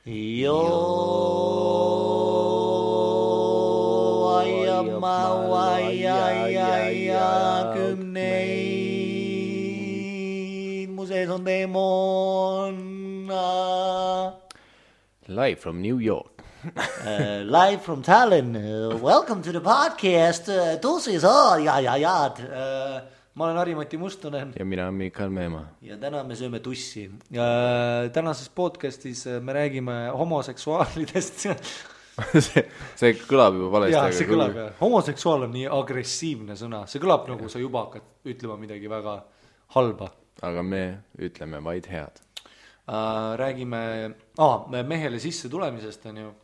Mu sees on teemon. Live from New York. Live from Tallinn. Welcome to the podcast. Tussis ma olen Harri-Mati Mustonen. Ja mina olen Mikael Meemaa. Ja täna me sööme tussi. Tänases podcastis me räägime homoseksuaalidest. see kõlab juba valesti. Jaa, see kõlab. Homoseksuaal on nii agressiivne sõna. See kõlab nagu sa juba hakkad ütlema midagi väga halba. Aga me ütleme vaid head. Räägime mehele sisse tulemisest on ju.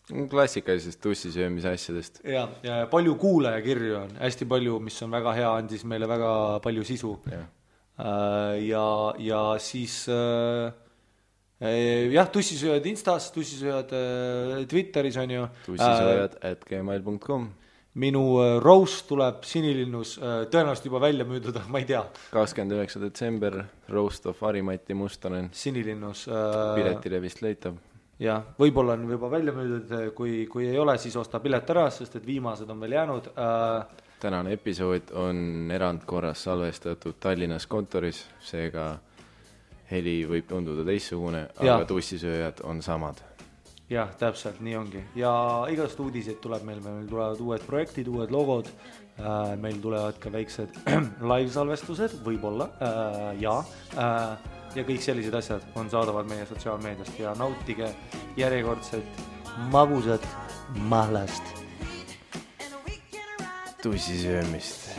Klassikalisest tussisöömise asjadest. Ja palju kuulajakirju on, hästi palju, mis on väga hea, andis meile väga palju sisu. Ja siis tussisööjad Instas, tussisööjad Twitteris on ju. Tussisööjad@gmail.com. Minu roast tuleb Sinilinnus, tõenäoliselt juba välja müüdud, ma ei tea. 29. detsember, roast of Harri-Mati Mustonen. Sinilinnus. Piletile vist leitab. Ja, võib-olla on juba välja müüdud, kui ei ole, siis osta pilet ära, sest et viimased on veel jäänud. Tänane episood on erandkorras salvestatud Tallinnas kontoris, seega heli võib tunduda teissugune, aga tussisööjad on samad. Jah, täpselt, nii ongi. Ja igast uudiseid tuleb meil tulevad uued projektid, uued logod, meil tulevad ka väiksed live-salvestused, võib-olla, ja kõik sellised asjad on saadavad meie sotsiaalmeediast ja nautige järjekordset magusat mahlast. Tussisöömist.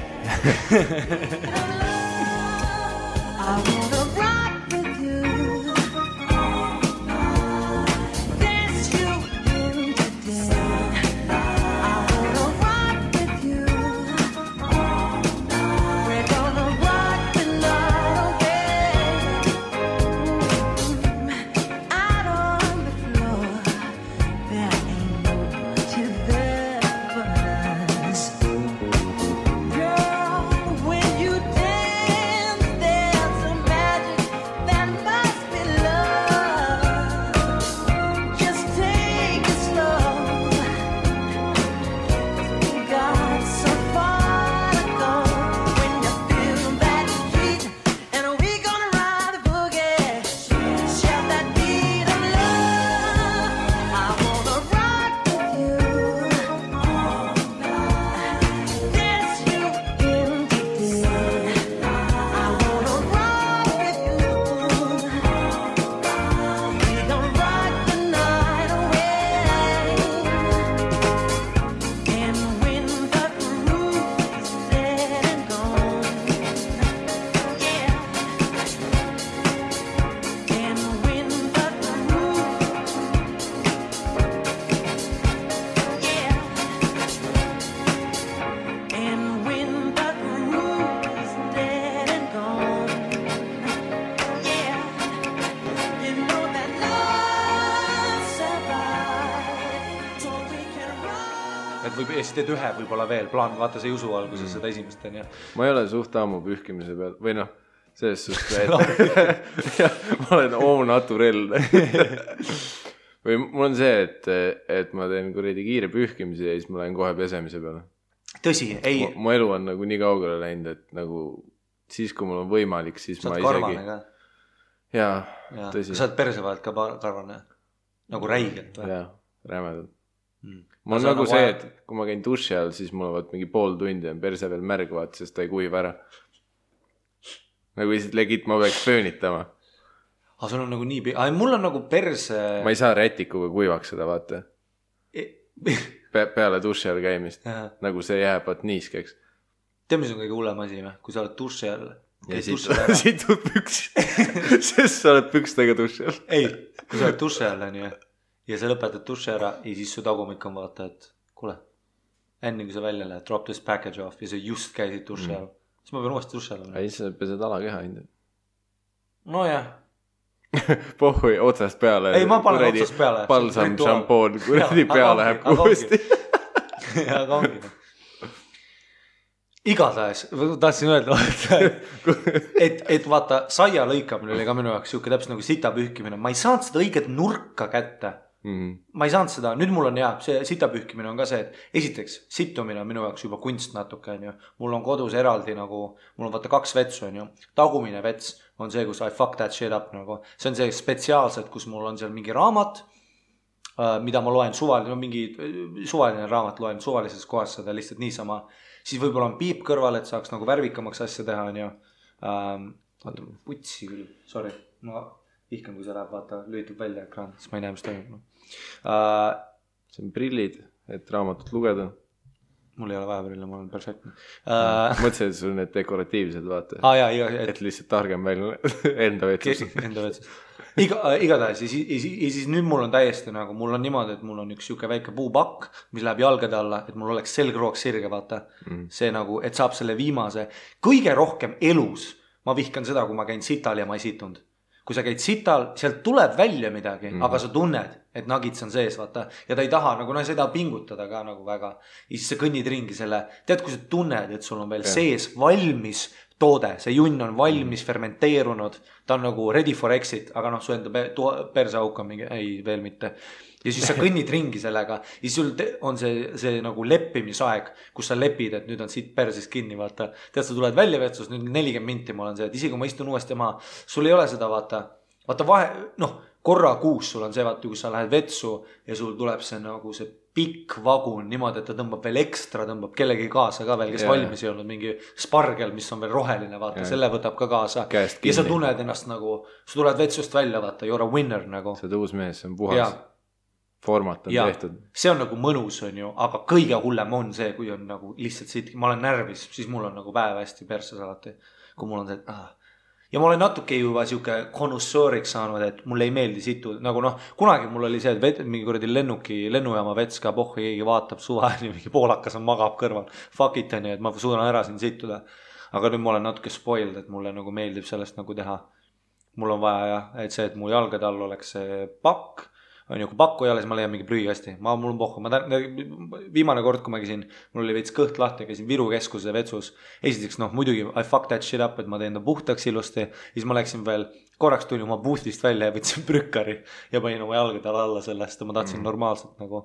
Teed ühe võib-olla veel, plaan, vaata see jusu alguses seda esimest on ja. Ma ei ole suht ammu pühkimise peal, või noh, selles suhtes, ma olen au naturel. Või mul on see, et ma teen kuradi kiire pühkimise ja siis ma lähen kohe pesemise peale. Tõsi, ei. Mu elu on nagu nii kaugele läinud, et nagu siis, kui mul on võimalik, siis ma isegi. Sa oled karvane ka? Jaa, tõsi. Sa oled perse vahelt ka karvane? Nagu räigelt või? Jaa, rämedalt. Ma on nagu see, et kui ma käin duši all, siis mul on mingi pool tundi on perse veel märg, sest ta ei kuiv ära. Nagu lihtsalt legit ma peaks pöönitama. Aga sul on nagu nii... mul on nagu perse... Ma ei saa rätikuga kuivaks seda, vaata. Peale duši all käimist. Nagu see jääb niiskeks. Tead, mis on kõige hullem asi või? Kui sa oled duši all... Ja siit tuleb püks. Sest sa oled pükstega duši all. Ei, kui sa oled duši all, on ju. Ja sa lõpetad duši ära ja siis su tagumik on vaata, et kuule, enne kui sa välja lähed, drop this package off ja sa just käisid duši all. Siis ma pean uuesti duši all. Ei, sa pesed alakeha hindu. No jah. Pohhui otsast peale. Ei, ma panen otsast peale. Balsam, šampoon, kuradi pea läheb uuesti. Aga ongi. igatahes, tahtsin öelda, et vaata, saia lõikamine oli ka minu jaoks siuke täpselt nagu sita pühkimine. Ma ei saanud seda õiget nurka kätte. Ma ei saanud seda, nüüd mul on see sita pühkimine on ka see, et esiteks sittumine on minu jaoks juba kunst natuke, on ju. Mul on kodus eraldi nagu, mul on vaata 2 vetsu, on ju. Tagumine vets on see, kus I fuck that shit up nagu. See on see spetsiaalselt, kus mul on seal mingi raamat, mida ma loen suvaline raamat loen suvalises kohas seda lihtsalt niisama. Siis võib-olla on piip kõrval, et saaks nagu värvikamaks asja teha, on ju. Vaata, putsi küll, sorry. Ma vihkan, kui see läheb, vaata, lülitub välja ekraan, siis ma ei näe, mis toimub. See on prillid, et raamatut lugeda. Mul ei ole vaja prille, ma olen perfektne. Mõtlesin, et sul need dekoratiivsed, vaata. Et lihtsalt targem välja enda vetsus. Enda vetsus. Igatahes, ja siis nüüd mul on täiesti nagu, mul on niimoodi, et mul on üks siuke väike puupakk, mis läheb jalgade alla, et mul oleks selgroog sirge, vaata. See nagu, et saab selle viimase, kõige rohkem elus, ma vihkan seda, kui ma käin sital ja ma ei situnud. Kui sa käid sital, sealt tuleb välja midagi, aga sa tunned, et nagits on sees, vaata. Ja ta ei taha, nagu sa ei taha pingutada ka nagu väga. Ja siis sa kõnnid ringi selle, tead, kui sa tunned, et sul on veel sees valmis toode, see junn on valmis fermenteerunud, ta on nagu ready for exit, aga su enda perseauk on mingi, ei, veel mitte. Ja siis sa kõnnid ringi sellega ja sul on see nagu leppimisaeg, kus sa lepid, et nüüd on siit perses kinni, vaata. Tead, sa tuled välja vetsus, nüüd 40 minti ma olen see, et isegi kui ma istun uuesti maha, sul ei ole seda, vaata vahe, korra kuus sul on see, vaata, kui sa lähed vetsu ja sul tuleb see nagu see pikk vagun niimoodi, et ta tõmbab veel ekstra, tõmbab kellegi kaasa ka veel, kes valmis ei olnud, mingi spargel, mis on veel roheline, vaata, selle võtab ka kaasa. Ja sa tunned ennast nagu, sa tuled vetsust välja, vaata, you're a winner nagu. See uus mees, see on puhas. Format on tehtud. See on nagu mõnus, on ju, aga kõige hullem on see, kui on nagu lihtsalt siit, ma olen närvis, siis mul on nagu päev hästi perses alati, kui mul on see, ja ma olen natuke juba siuke konussooriks saanud, et mulle ei meeldi situ, nagu kunagi mul oli see, et mingi kuradi lennujaama vets ka pohhu, keegi vaatab suva, mingi poolakas on magab kõrval, fuck it on ju, et ma suudan ära siin situda, aga nüüd ma olen natuke spoiled, et mulle nagu meeldib sellest nagu teha. Mul on vaja et see, et mu jalgade all oleks see pakk, on ju, kui pakku ei ole, siis ma leian mingi prügikasti. Mul on pohhu. Viimane kord, kui ma käisin, mul oli veits kõht lahti, käisin Viru keskuse vetsus. Esiteks, muidugi, I fuck that shit up, et ma teen ta puhtaks ilusti. Siis ma läksin veel, korraks tuli oma boostist välja ja võtsin prükkari ja panin oma jalgadele alla sellest ja ma tahtsin normaalselt nagu.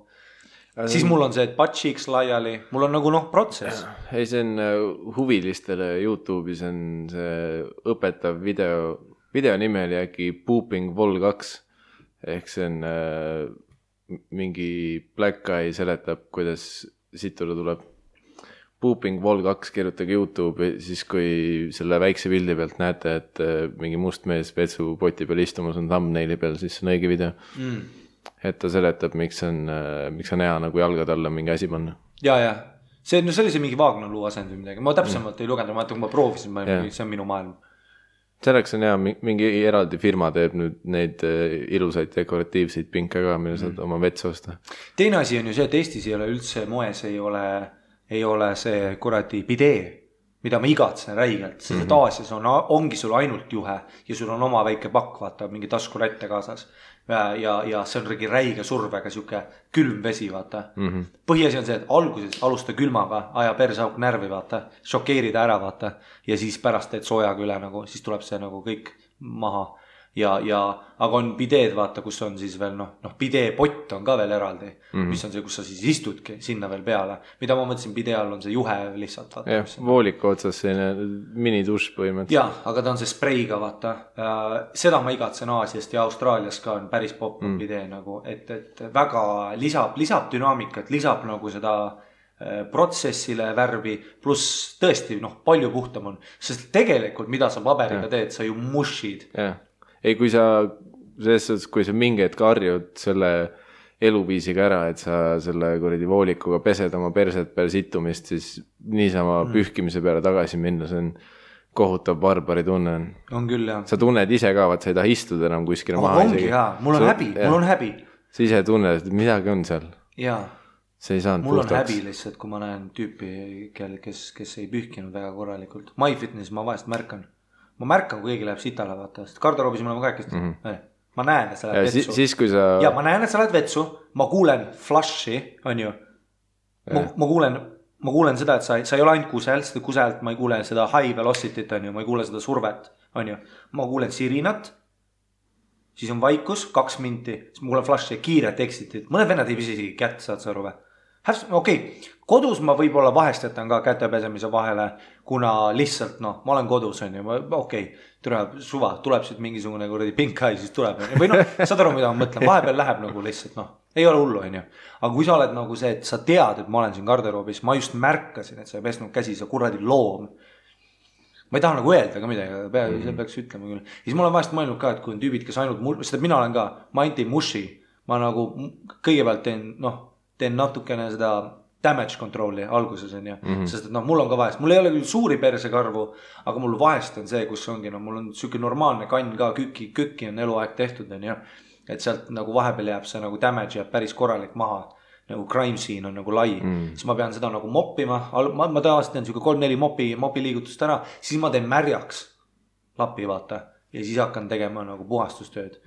Siis mul on see, et butt cheeks laiali, mul on nagu protsess. Ei, see on huvilistele YouTube'is on see õpetav video nimi oli äkki Pooping Vol 2. Ehk see on mingi black guy seletab, kuidas situda tuleb. Pooping Vol 2 kirjutage YouTube, siis kui selle väikse pildi pealt näete, et mingi must mees vetsu poti peal istumas on thumbnaili peal, siis on õige video. Et ta seletab, miks on hea nagu jalgad alla mingi asi panna. Ja. See oli see mingi Vaagnaluu asend või midagi. Ma täpsemalt ei lugenud, ma kui ma proovisin, see on minu maailm. Selleks on hea, mingi eraldi firma teeb nüüd neid ilusaid dekoratiivseid pinke ka, mille saad oma vetsu osta. Teine asi on ju see, et Eestis ei ole üldse moes, ei ole see kuradi bidee, mida ma igatsen räigelt, sest Aasias ongi sul ainult juhe ja sul on oma väike pakk, vaata, mingi taskurätte kaasas. Ja see on räige survega siuke külm vesi, vaata. Põhiasi on see, et alguses alusta külmaga, aja persauk närvi, vaata, šokeerida ära, vaata, ja siis pärast teed soojaga üle, nagu, siis tuleb see nagu kõik maha. Aga on bideed, vaata, kus on siis veel, bidee pott on ka veel eraldi, mis on see, kus sa siis istudki sinna veel peale. Mida ma mõtlesin, bidee all on see juhe lihtsalt, vaata. Vooliku otsas selline mini-duš põhimõtteliselt. Ja, aga ta on see spreiga, vaata. Seda ma igatsen Aasiast ja Austraalias ka on päris pop bidee nagu, et väga lisab dünaamikat, lisab nagu seda protsessile värvi, pluss tõesti, palju puhtam on. Sest tegelikult, mida sa paberiga teed, sa ju mushid. Ei, kui sa mingi hetk harjud selle eluviisiga ära, et sa selle kuradi voolikuga pesed oma perset peale situmist, siis niisama pühkimise peale tagasi minna, see on kohutav barbari tunne. On küll, jah. Sa tunned ise ka, et sa ei taha istuda enam kuskile maha. Ongi, jaa. Mul on häbi. Sa ise tunned, et midagi on seal. Jaa. See ei saanud mul puhtaks. On häbi lihtsalt, kui ma näen tüüpi, kes ei pühkinud väga korralikult. MyFitness ma vahest märkan. Ma märkan, kui keegi läheb sitale, vaata. Garderoobis me oleme kaikist. Ma näen, et sa lähed vetsu. Siis, kui sa... Ja ma näen, et sa lähed vetsu. Ma kuulen flushi, on ju. Ma kuulen ma kuulen seda, et sa ei ole ainult kusel, seda kuselt ma ei kuule seda high velocity't, on ju, ma ei kuule seda survet, on ju. Ma kuulen sirinat, siis on vaikus, 2 minti, siis ma kuulen flash'i, kiiret exitit. Mõned vennad ei pisi isegi kätt, saad sa aru või? Okei, kodus ma võib-olla vahest jätan ka kätepesemise vahele, kuna lihtsalt noh, ma olen kodus, on ju, okei, suva, tuleb siit mingisugune kuradi pink eye, siis tuleb, või noh, saad aru, mida ma mõtlen, vahepeal läheb nagu lihtsalt noh, ei ole hullu, on ju. Aga kui sa oled nagu see, et sa tead, et ma olen siin garderoobis, ma just märkasin, et sa ei pesnud käsi, sa kuradi loom. Ma ei taha nagu öelda ka midagi, see peaks ütlema küll. Ja siis ma olen vahest mõelnud ka, et kui on tüübid, kes ainult sest mina olen ka, ma ainult ei mushi, ma nagu kõigepealt teen natukene seda damage control'i alguses on ju, sest et noh, mul on ka vahest, mul ei ole küll suuri persekarvu, aga mul vahest on see, kus ongi, no mul on siuke normaalne kann ka, kükki on eluaeg tehtud on ju, et sealt nagu vahepeal jääb see nagu damage jääb päris korralik maha, nagu crime scene on nagu lai, siis ma pean seda nagu moppima, ma tavaliselt teen siuke 3-4 mopi liigutust ära, siis ma teen märjaks lapi vaata ja siis hakkan tegema nagu puhastustööd.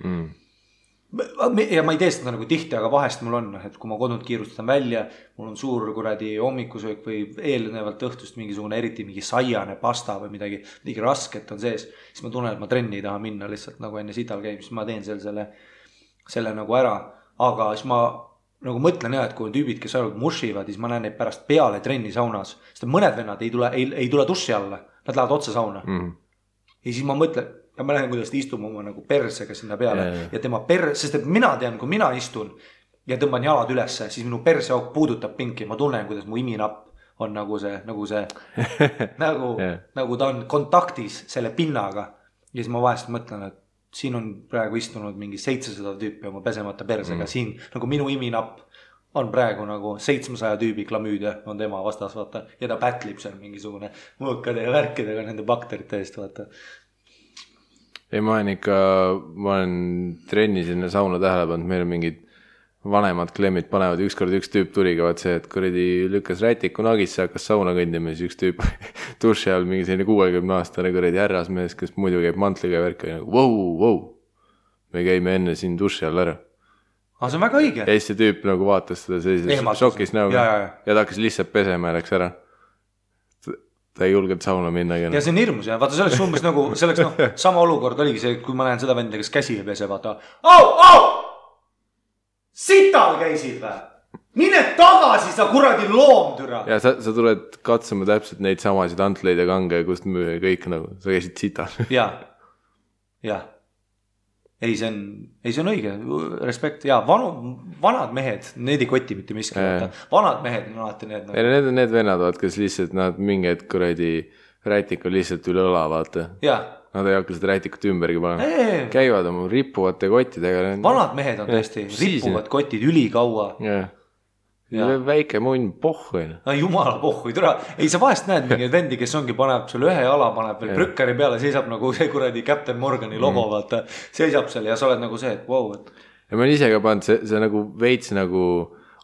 Ja ma ei tee seda nagu tihti, aga vahest mul on, et kui ma kodunt kiirustan välja, mul on suur kuradi hommikusöök või eelnevalt õhtust mingisugune eriti mingi saiane pasta või midagi rasket on sees, siis ma tunnen, et ma trenni ei taha minna lihtsalt nagu enne sital käib, siis ma teen selle nagu ära, aga siis ma nagu mõtlen jah, et kui on tüübid, kes ainult mushivad, siis ma näen neid pärast peale trenni saunas, sest mõned vennad ei tule dussi alla, nad lähevad otse sauna ja siis ma mõtlen ja ma lähen, kuidas ta istuma oma nagu persega sinna peale ja tema sest et mina tean, kui mina istun ja tõmban jalad ülesse, siis minu perseauk puudutab pinki, ma tunnen, kuidas mu iminapp on nagu see nagu ta on kontaktis selle pinnaga ja siis ma vahest mõtlen, et siin on praegu istunud mingi 700 tüüpi oma pesemata persega, siin nagu minu iminapp on praegu nagu 700 tüübi klamüüdia on tema vastas, vaata, ja ta pätlib seal mingisugune mõõkade ja värkidega nende bakterite eest, vaata. Ei, ma olen trenni sinna sauna tähele pannud, meil on mingid vanemad klemmid panevad, ükskord üks tüüp tuliga, vaat see, et kuradi lükkas rätiku nagisse, hakkas sauna kõndima, siis üks tüüp duši all mingi selline 60-aastane kuradi härrasmees, kes muidu käib mantliga ja värk, nagu wow, me käime enne siin duši all ära. See on väga õige. Ja siis see tüüp nagu vaatas seda sellises šokis näoga ja ta hakkas lihtsalt pesema ja läks ära. Ta ei julgenud sauna minna. Ja see on hirmus ja vaata selleks umbes nagu, selleks sama olukord oligi see, kui ma näen seda venda, kes käsi ei pese, vaata. Sital käisid või? Mine tagasi, sa kuradi loomtüra. Ja sa tuled katsuma täpselt neid samasid antleid ja kange, kust müüa kõik nagu, sa käisid sital. Ja. Ei, see on õige, respekt. Ja vanad mehed, need ei koti mitte miski. Vanad mehed on alati need. Need on need vennad, kes lihtsalt nad mingid kuradi rätik on lihtsalt üle õla, vaata. Nad ei hakka seda rätikut ümbergi panema. Käivad oma rippuvate kottidega. Vanad mehed on tõesti, rippuvad kotid ülikaua. Väike munn pohhu. Jumala pohhu, ei sa vahest näed mingi vendi, kes ongi paneb seal ühe jala, paneb veel prükkari peale, seisab nagu see kuradi Captain Morgani logo, vaata, seisab seal ja sa oled nagu see, et wow. Ja ma olen ise ka pannud, see nagu veits nagu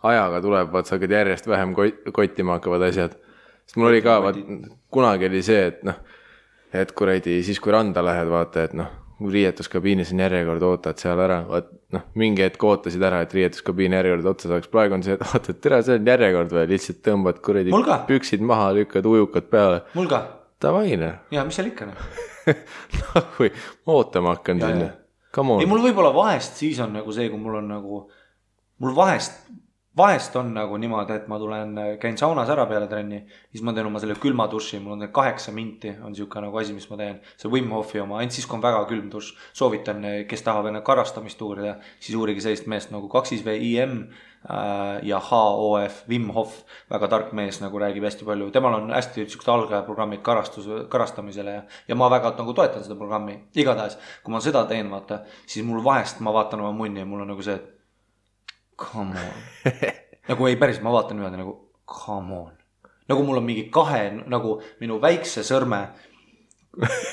ajaga tuleb, vaat sa hakkad järjest vähem kottima hakkavad asjad. Sest mul oli ka, kunagi oli see, et kuradi, siis kui randa lähed, vaata, et riietuskabiinis on järjekord, ootad seal ära, mingi hetk ootasid ära, et riietuskabiini järjekord otsa saaks. Praegu on see, et ootad, tere, see on järjekord või lihtsalt tõmbad kuradi püksid maha, lükkad ujukad peale. Mul ka. Tavaine. Ja, mis seal ikka? Kui ma ootama hakkan sinna. Ei, mul võib-olla vahest siis on nagu see, kui mul on nagu, mul vahest on nagu niimoodi, et ma käin saunas ära peale trenni, siis ma teen oma selle külma duši, mul on 8 minti, on siuke nagu asi, mis ma teen, see Wim Hofi oma, ainult siis, kui on väga külm duš, soovitan, kes tahab enne karastamist uurida, siis uurigi sellist meest nagu 2VIM ja HOF, Wim Hof, väga tark mees, nagu räägib hästi palju, temal on hästi siuksed algajaprogrammid karastamisele ja ma väga nagu toetan seda programmi, igatahes, kui ma seda teen, vaata, siis mul vahest ma vaatan oma munni ja mul on nagu see, et come on. Nagu ei päris, ma vaatan niimoodi nagu come on. Nagu mul on mingi 2, nagu minu väikse sõrme,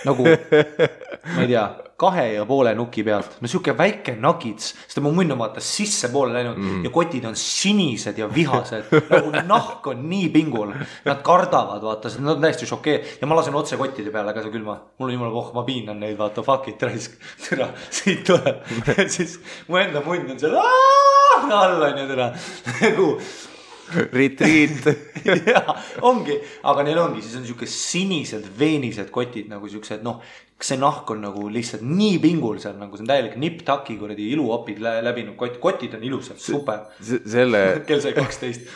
nagu, ma ei tea, 2,5 nuki pealt. No siuke väike nagits, sest mu munn on vaata sisse poole läinud ja kotid on sinised ja vihased. Nagu nahk on nii pingul. Nad kardavad, vaata, nad on täiesti šokee. Ja ma lasen otse kottide peale ka see külma. Mul on jumala ma piinan neid, vaata, fuck it, raisk. Türa, siit tuleb. Ja siis mu enda munn on seal all on ju teda. Retreat. Jaa, ongi, aga neil ongi, siis on siuke sinised veenised kotid nagu siuksed, noh, see nahk on nagu lihtsalt nii pingul seal, nagu see on täielik nipp-taki kuradi iluopid läbinud kott, kotid on ilusad, super. Selle kell sai 12,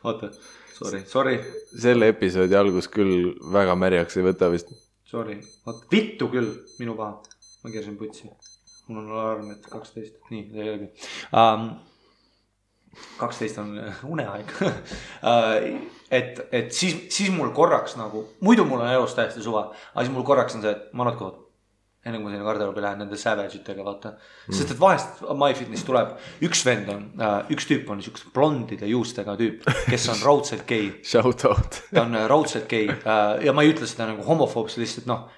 oota, sorry. Selle episoodi algus küll väga märjaks ei võta vist. Sorry, vittu küll, minu paha, ma keersin putsi, mul on alarm, et 12, nii, see ei olegi. 12 on uneaeg. et siis mul korraks nagu, muidu mul on elus täiesti suva, aga siis mul korraks on see, et ma natkood, enne kui ma sinna garderoobi lähen nende savage'itega, vaata. Sest et vahest MyFitness tuleb, üks vend on, üks tüüp on niisugust blondide juustega tüüp, kes on raudselt gei. Shout out. Ta on raudselt gei ja ma ei ütle seda nagu homofoobs, lihtsalt noh,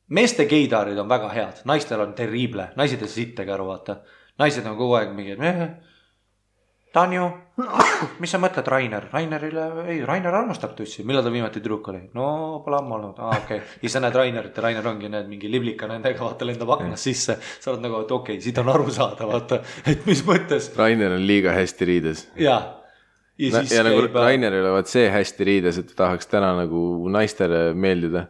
meeste geidaarid on väga head, naistel on terrible, naised ei sittagi aru, vaata. Naised on kogu aeg mingi, Tanju, mis sa mõtled Rainer? Rainer armastab tussi. Millal ta viimati tüdruk oli? No, pole ammu olnud. Okay. Ja sa näed Rainerit ja Rainer ongi need mingi liblika nendega, vaata lendab aknas sisse. Sa oled nagu, et okei, siit on aru saada, vaata, et mis mõttes. Rainer on liiga hästi riides. Ja siis ja nagu Rainer ei ole vaat see hästi riides, et tahaks täna nagu naistele meeldida.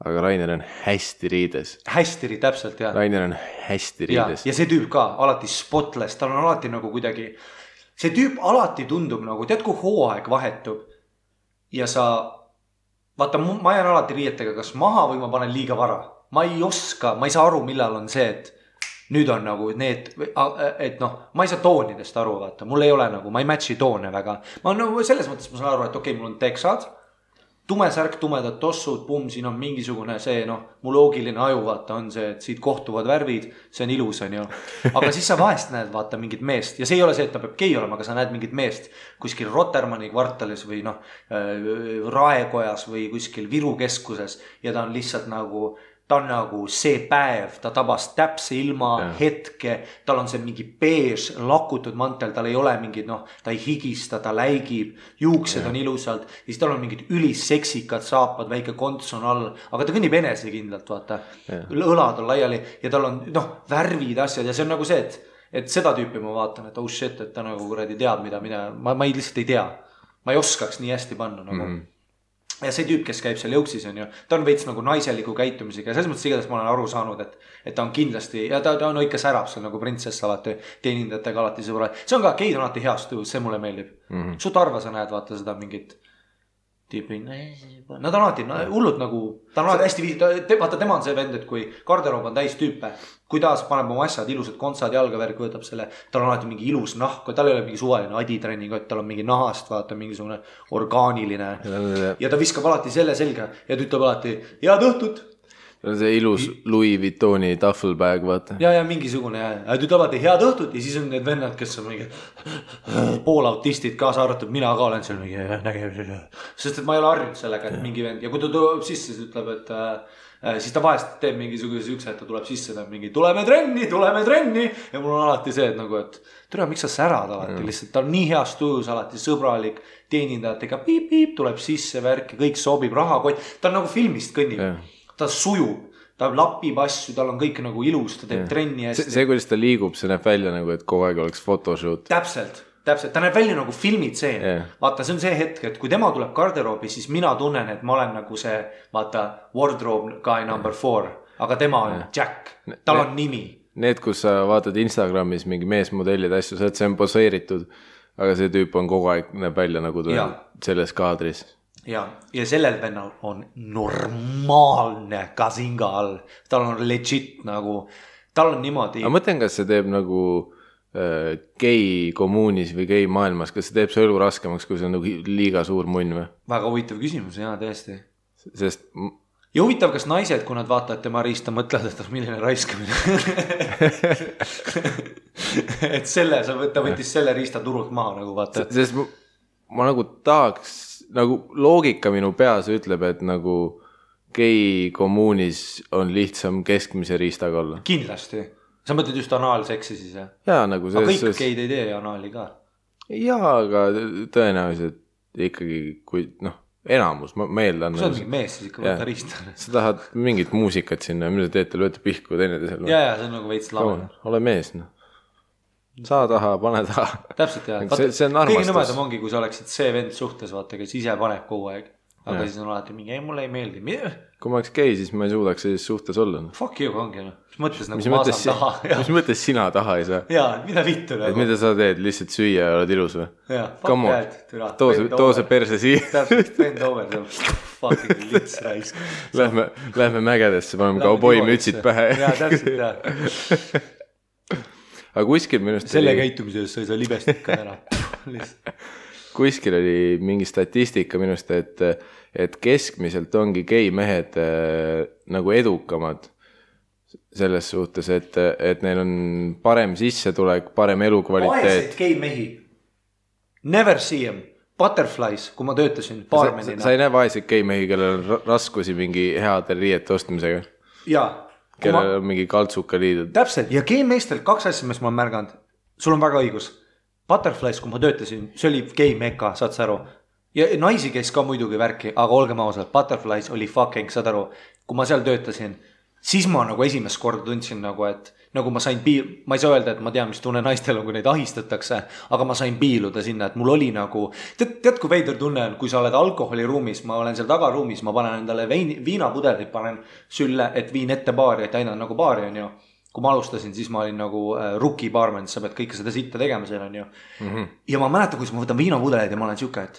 Aga Rainer on hästi riides. Hästi riides, täpselt, jah. Rainer on hästi riides. Ja see tüüp ka, alati spotless, tal on alati nagu kuidagi... See tüüp alati tundub nagu, tead kui hooaeg vahetub ja sa, vaata ma jään alati riietega kas maha või ma panen liiga vara. Ma ei oska, ma ei saa aru, millal on see, et nüüd on nagu need, et noh, ma ei saa toonidest aru, vaata, mul ei ole nagu, ma ei matchi toone väga. Ma nagu selles mõttes ma saan aru, et okei, mul on teksad, tumesärk, tumedad tossud, siin on mingisugune see, noh, mu loogiline aju, vaata, on see, et siit kohtuvad värvid, see on ilus, on ju. Aga siis sa vahest näed, vaata, mingit meest ja see ei ole see, et ta peab gei olema, aga sa näed mingit meest kuskil Rotermanni kvartalis või noh, Raekojas või kuskil Viru keskuses ja ta on lihtsalt nagu, ta on nagu see päev, ta tabas täpse ilma hetke, tal on see mingi beež lakutud mantel, tal ei ole mingid, noh, ta ei higista, ta läigib, juuksed on ilusalt ja siis tal on mingid ülisseksikad saapad, väike konts on all, aga ta kõnnib enesekindlalt, vaata, õlad on laiali ja tal on, noh, värvid, asjad ja see on nagu see, et seda tüüpi ma vaatan, et oh shit, et ta nagu kuradi teab, mida ma lihtsalt ei tea, ma ei oskaks nii hästi panna nagu ja see tüüp, kes käib seal jõuksis on ju, ta on veits nagu naiseliku käitumisega ja selles mõttes igatahes ma olen aru saanud, et ta on kindlasti ja ta on ikka särab seal nagu printsess alati teenindajatega alati sõbra. See on ka, geid on alati heast tujus, see mulle meeldib. Sut arva sa näed, vaata seda mingit tüüpi, nad on alati hullud nagu, ta on alati hästi vaata tema on see vend, et kui garderoob on täis tüüpe, kui ta paneb oma asjad, ilusad kontsad, jalgavärk võtab selle, tal on alati mingi ilus nahk, tal ei ole mingi suvaline aditrenning, tal on mingi nahast, vaata mingisugune orgaaniline ja ta viskab alati selle selga ja ta ütleb alati, head õhtut. See ilus Louis Vuittoni taffelbag, vaata. Ja mingisugune, ta ütleb alati head õhtut ja siis on need vennad, kes on mingi poolautistid kaasa arvatud, mina ka olen seal mingi nägemise. Sest et ma ei ole harjunud sellega, et mingi vend ja kui ta tuleb sisse, siis ütleb, et siis ta vahest teeb mingisuguse ükse, et ta tuleb sisse, ta mingi tuleme trenni ja mul on alati see, et nagu, et tere, miks sa särad alati lihtsalt, ta on nii heast tujus alati sõbralik, teenindajatega piip, tuleb sisse värk ja kõik sobib, rahakott, ta on nagu filmist kõnnib, ta sujub, ta lapib asju, tal on kõik nagu ilus, ta teeb trenni hästi. See, kuidas ta liigub, see näeb välja nagu, et kogu aeg oleks photoshoot. Täpselt, ta näeb välja nagu filmitseen. Vaata, see on see hetk, et kui tema tuleb garderoobi, siis mina tunnen, et ma olen nagu see, vaata, wardrobe guy number 4, aga tema on Jack, tal on nimi. Need, kus sa vaatad Instagramis mingi meesmodellid asju, see on poseeritud, aga see tüüp on kogu aeg näeb välja nagu selles kaadris. Ja sellel vennal on normaalne kasinga all, tal on legit nagu, tal on niimoodi. Aga mõtlen, kas see teeb nagu gei kommuunis või gei maailmas, kas see teeb see elu raskemaks, kui see on nagu liiga suur munn või? Väga huvitav küsimus, jaa, tõesti. Sest... Ja huvitav, kas naised, kui nad vaatavad tema riista, mõtlevad, et milline raiskamine. Et selle, ta võttis selle riista turult maha nagu vaata. Sest ma nagu tahaks, nagu loogika minu peas ütleb, et nagu gei kommuunis on lihtsam keskmise riistaga olla. Kindlasti. Sa mõtled just anaalseksi siis, jah? Jaa, nagu see... Aga kõik geid ei tee anaali ka. Jaa, aga tõenäoliselt ikkagi, kui, noh, enamus, ma eeldan... Kui sa oled mingi mees, siis ikka võtta riista. Sa tahad mingit muusikat sinna, mida teete, lööte pihku teineteisel. Jaa, see on nagu veits lame. Ole mees, noh. saa taha, pane taha. Täpselt jah. See on armastus. Kõige nõmedam ongi, kui sa oleksid see vend suhtes, vaata, kes ise paneb kogu aeg. Aga siis on alati mingi, ei mulle ei meeldi. Kui ma oleks gei, siis ma ei suudaks siis suhtes olla. Fuck you ongi. Mis mõttes nagu ma saan taha? Mis mõttes sina taha ei saa? Jaa, mida vittu nagu. Et mida sa teed? Lihtsalt süüa ja oled ilus või? Jaa, fuck that. Too see perse siia. Täpselt, bend over. Fucking lits raisk. Lähme mägedesse, paneme kauboi mütsid pähe. Jaa, täpselt jah. Aga kuskil minust selle käitumise eest sa ei saa libestit ka ära. Kuskil oli mingi statistika minust, et keskmiselt ongi gei mehed nagu edukamad selles suhtes, et neil on parem sissetulek, parem elukvaliteet. Vaeseid gei mehi. Never see them. Butterflies, kui ma töötasin baarmenina. Sa ei näe vaeseid gei mehi, kellel on raskusi mingi heade riiete ostmisega? Jaa. Kellel on mingi kaltsuka liidud. Täpselt, ja gei meestel 2 asja, mis ma olen märganud. Sul on väga õigus. Butterflies, kui ma töötasin, see oli gei meka, saad sa aru. Ja naisi käis ka muidugi värki, aga olgem ausalt, Butterflies oli fucking, saad aru. Kui ma seal töötasin, siis ma nagu esimest korda tundsin nagu, et nagu ma sain ma ei saa öelda, et ma tean, mis tunne naistel on, kui neid ahistatakse, aga ma sain piiluda sinna, et mul oli nagu, tead kui veider tunne on, kui sa oled alkoholiruumis, ma olen seal tagaruumis, ma panen endale viinapudelit, panen sülle, et viin ette baari, et aina nagu baari on ju. Kui ma alustasin, siis ma olin nagu rookie barman, sa pead kõike seda sitta tegema seal on ju. Ja ma mäletan, kui ma võtan viinapudelid ja ma olen siuke, et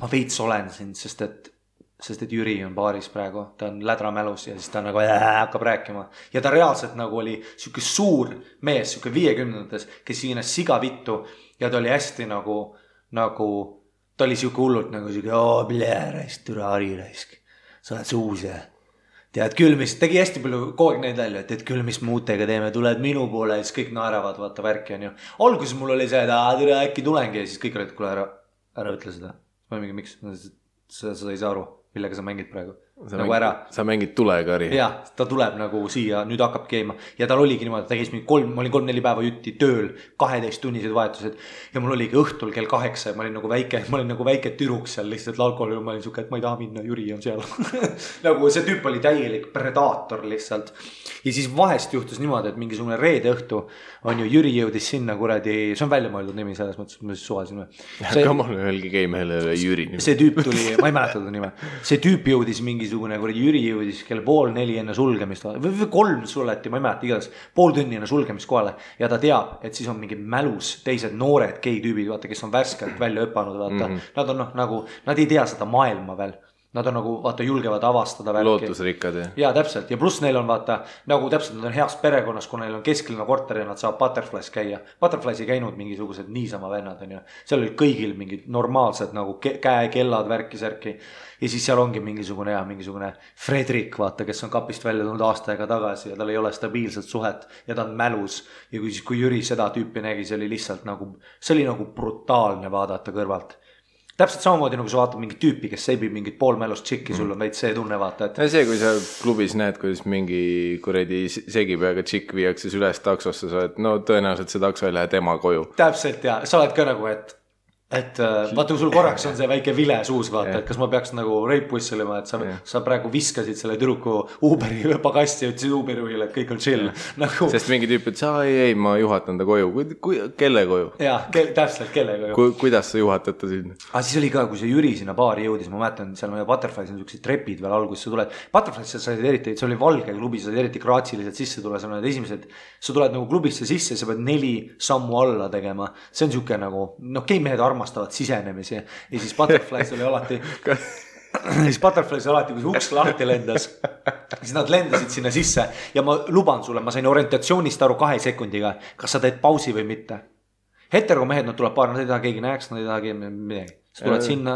ma veits olen siin, sest et Jüri on baaris praegu, ta on lädramälus ja siis ta nagu hakkab rääkima. Ja ta reaalselt nagu oli siuke suur mees, siuke 50-ndates, kes siinas siga vittu ja ta oli hästi nagu ta oli siuke hullult nagu siuke, raisk, türa Ari raisk, sa oled suus ja tead küll, mis tegi hästi palju kogu aeg neid välja, et küll, mis muutega teeme, tuled minu poole ja siis kõik naeravad, vaata värki on ju. Alguses mul oli see, et äkki tulengi ja siis kõik olid, kuule ära ütle seda. Ma mingi, miks? Sa ei saa aru, millega sa mängid praegu. Nagu ära. Sa mängid tulega, Ari. Jaa, ta tuleb nagu siia, nüüd hakkab keema. Ja tal oligi niimoodi, ta käis mingi ma olin 3-4 päeva jutti tööl, 12 tunnised vahetused. Ja mul oligi õhtul kell 8, ma olin nagu väike türuks seal lihtsalt alkoholil, ma olin suke, et ma ei taha minna, Jüri on seal. Nagu see tüüp oli täielik predaator lihtsalt. Ja siis vahest juhtus niimoodi, et mingisugune reede õhtu on ju Jüri jõudis sinna kuradi, see on välja mõeldud nimi selles mõttes, ma siis suvasin. Kamal öelgi keimehele Jüri nimi. See tüüp tuli, ma ei mäleta ta nime. See tüüp jõudis mingisugune kuradi Jüri jõudis kell 3:30 enne sulgemist või 3 suleti, ma ei mäleta igatahes pool tunni enne sulgemist kohale ja ta teab, et siis on mingi mälus teised noored gei tüübid, vaata, kes on värskelt välja õppanud, vaata. Nad on nagu, nad ei tea seda maailma veel. Nad on nagu, vaata, julgevad avastada värki. Lootusrikkad, jah. Jaa, täpselt. Ja pluss neil on, vaata, nagu täpselt nad on heas perekonnas, kui neil on kesklinna korter ja nad saab Butterflies käia. Butterflies ei käinud mingisugused niisama vennad, on ju. Seal oli kõigil mingid normaalsed nagu käekellad, värki-särki. Ja siis seal ongi mingisugune Fredrik, vaata, kes on kapist välja tulnud aasta aega tagasi ja tal ei ole stabiilset suhet ja ta on mälus. Ja kui Jüri seda tüüpi nägi, see oli lihtsalt nagu, see oli nagu brutaalne vaadata kõrvalt. Täpselt samamoodi nagu sa vaatad mingit tüüpi, kes seibib mingit poolmälust tšikki, sul on veits see tunne vaata, et... Ja see, kui sa klubis näed, kuidas mingi kuredi segipeaga tšikk viiakse üles taksosse, sa oled, no tõenäoliselt see takso ei lähe tema koju. Täpselt ja sa oled ka nagu, et vaata, kui sul korraks on see väike vile suus, vaata, et kas ma peaks nagu reipusselima, et sa praegu viskasid selle türuku Uberi pagasti ja ütlesid Uberijuhile, et kõik on chill. Nagu... Sest mingi tüüp, et ei, ma juhatan ta koju. Kelle koju? Jaa, täpselt, kelle koju. Kuidas sa juhatad ta sinna? Aga siis oli ka, kui see Jüri sinna baari jõudis, ma mäletan, seal meie Butterflies on sellised trepid veel alguses, sa tuled. Butterflies sa said eriti, see oli valge klubi, sa said eriti graatsiliselt sisse tule, sa oled esimesed, sa tuled nagu klubisse sisse, sa pead 4 sammu alla tegema. See on siuke nagu, geimehed armastavad sisenemisi ja siis Butterflies oli alati kui see uks lahti lendas, siis nad lendasid sinna sisse ja ma luban sulle, ma sain orientatsioonist aru 2 sekundiga, kas sa teed pausi või mitte. Heteromehed, nad tuleb paar, nad ei taha keegi näeks, nad ei taha keegi midagi. Sa tuled sinna.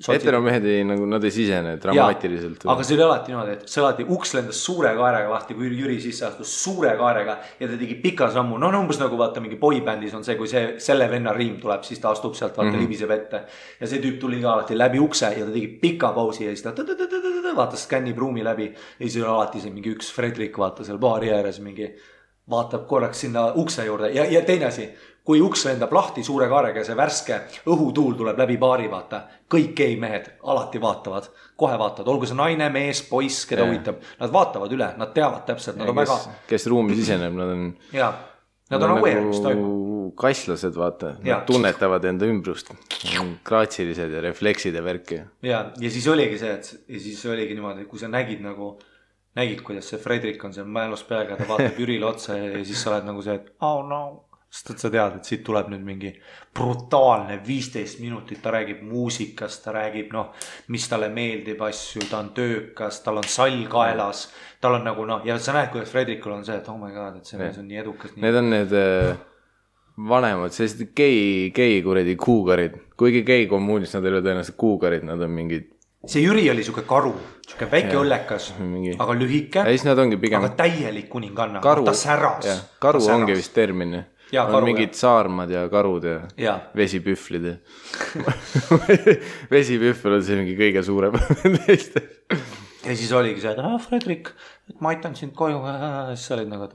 Heteromehed nagu, nad ei sisene dramaatiliselt. Ja, aga see oli alati niimoodi, et see alati uks lendas suure kaarega lahti, kui Jüri sisse astus suure kaarega ja ta tegi pika sammu. No umbes nagu vaata mingi boybändis on see, kui selle venna riim tuleb, siis ta astub sealt vaata libiseb ette. Ja see tüüp tuli ka alati läbi ukse ja ta tegi pika pausi ja siis ta vaatas skännib ruumi läbi ja siis oli alati see mingi üks Fredrik vaata seal baari ääres mingi vaatab korraks sinna ukse juurde ja teine asi. Kui uks lendab lahti suure kaarega ja see värske õhutuul tuleb läbi baari, vaata. Kõik geimehed alati vaatavad, kohe vaatavad. Olgu see naine, mees, poiss, keda huvitab. Nad vaatavad üle, nad teavad täpselt. Nad on väga... Kes ruumi siseneb, nad on... Jaa, nad on aware, mis toimub. nagu kasslased, vaata. Nad tunnetavad enda ümbrust. Kraatsilised ja refleksid ja värki. Ja siis oligi see, ja siis oligi niimoodi, kui sa nägid, kuidas see Fredrik on seal mälus peaga, ta vaatab Jürile otsa ja siis sa oled nagu see, et oh no. Sest sa tead, et siit tuleb nüüd mingi brutaalne 15 minutit, ta räägib muusikast, ta räägib, mis talle meeldib asju, ta on töökas, tal on sall kaelas, tal on nagu ja sa näed, kuidas Fredrikul on see, et oh my god, et see mees on nii edukas. Need on need vanemad, sellised gei kuredi kuugarid, kuigi gei kommuunis nad ei ole tõenäoliselt kuugarid, nad on mingid. See Jüri oli siuke karu, siuke väike õllekas, aga lühike, aga täielik kuninganna, ta säras. Karu ongi vist termin. On mingid saarmad ja karud ja vesipühvlid. Vesipühvl on see mingi kõige suurem. Ja siis oligi see, et Fredrik, ma aitan sind koju. Siis sa olid nagu, et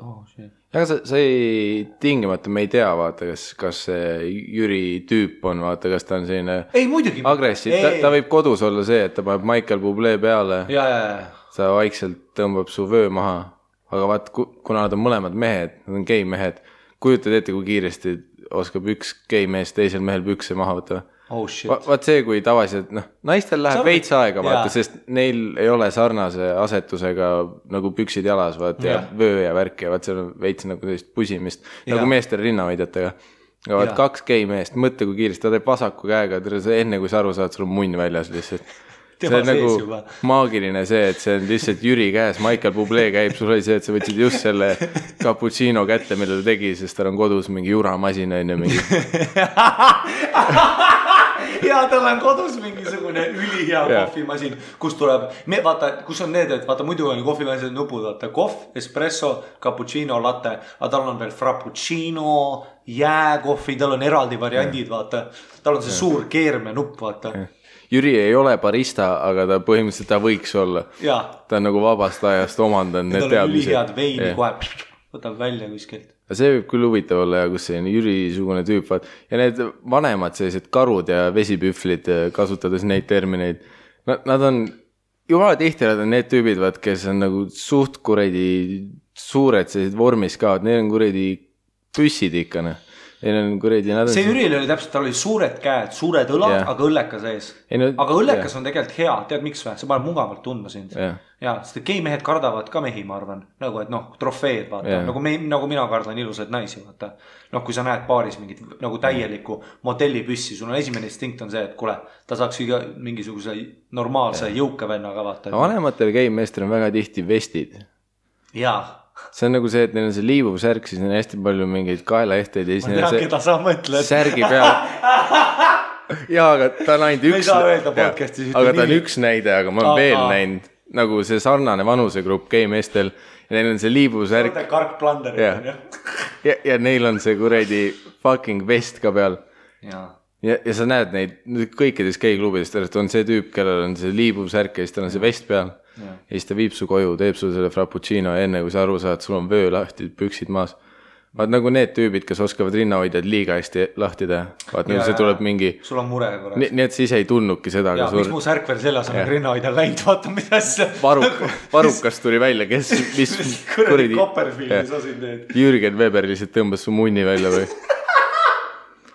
Aga sa ei tingimata, me ei tea, vaata, kas see Jüri tüüp on, vaata, kas ta on selline agressiiv. Ta võib kodus olla see, et ta paneb Michael Bublé peale. Ta vaikselt tõmbab su vöö maha. Aga vaat, kuna nad on mõlemad mehed, nad on gei mehed, kujutad ette, kui kiiresti oskab üks gei mees teisel mehel pükse maha võtta. Oh shit. Vaat see, kui tavaliselt, naistel läheb veits aega, vaata, sest neil ei ole sarnase asetusega nagu püksid jalas, vaat, ja vöö ja värk ja vaat seal on veits nagu sellist pusimist, nagu meestel rinnahoidjatega. Ja vaat 2 gei meest, mõtle, kui kiiresti, ta teeb vasaku käega, enne kui sa aru saad, sul on munn väljas lihtsalt. See on nagu maagiline see, et see on lihtsalt Jüri käes, Michael Bublé käib, sul oli see, et sa võtsid just selle cappuccino kätte, mille ta tegi, sest tal on kodus mingi juramasin enne mingi. Ja tal on kodus mingisugune ülihea kohvimasin, kus tuleb, vaata, kus on need, et vaata muidu on kohvimasin nupud, vaata kohv, espresso, cappuccino, latte, aga tal on veel frappuccino, jääkohvi, tal on eraldi variandid, vaata, tal on see suur keerme nupp, vaata. Jüri ei ole barista, aga ta põhimõtteliselt ta võiks olla. Ta on nagu vabast ajast omandanud need teadmised. Ülihead veini kohe võtab välja kuskilt. See võib küll huvitav olla ja kus see Jüri-sugune tüüp. Ja need vanemad sellised karud ja vesipühvlid, kasutades neid termineid, nad on, jumala tihti nad on need tüübid, kes on nagu suht kuredi suured sellised vormis ka, neil on kuredi püssid ikkane. See Jüril oli täpselt, tal oli suured käed, suured õlad, aga õllekas ees. Aga õllekas on tegelikult hea, tead miks või? See paneb mugavalt tundma sind. Ja, sest gei mehed kardavad ka mehi, ma arvan. Nagu, et trofeed, vaata. Nagu mina kardan ilusaid naisi, vaata. Kui sa näed paaris mingit nagu täielikku modellipüssi, sul on esimene instinkt on see, et kuule, ta saaks mingisuguse normaalse jõuka vennaga, vaata. Vanematel gei meestel on väga tihti vestid. Jaa. See on nagu see, et neil on see liivuv särk, siis neil on hästi palju mingeid kaelaehteid. Ma tean, keda sa mõtled. Särgi peal. Jaa, aga ta on ainult üks. Aga ta on üks näide, aga ma olen veel näinud nagu see sarnane vanusegrupp gei meestel. Ja neil on see liivuv särk. Kark Plander. Ja neil on see kuredi fucking vest ka peal. Ja sa näed neid kõikides gei klubidest, on see tüüp, kellel on see liivuv särk ja siis tal on see vest peal. Ja siis ta viib su koju, teeb sul selle frappuccino ja enne kui sa aru saad, sul on vöö lahti, püksid maas. Vaat nagu need tüübid, kes oskavad rinnahoidjad liiga hästi lahti teha. Vaat nagu see tuleb mingi... Sul on mure korras. Nii et siis ei tunnudki seda. Ja, miks mu särk veel selles on rinnahoidjal läinud, vaata mis asja. Varukas tuli välja, kes... Kuradi Copperfieldis osin teed. Jürgen Weber lihtsalt tõmbas su munni välja või...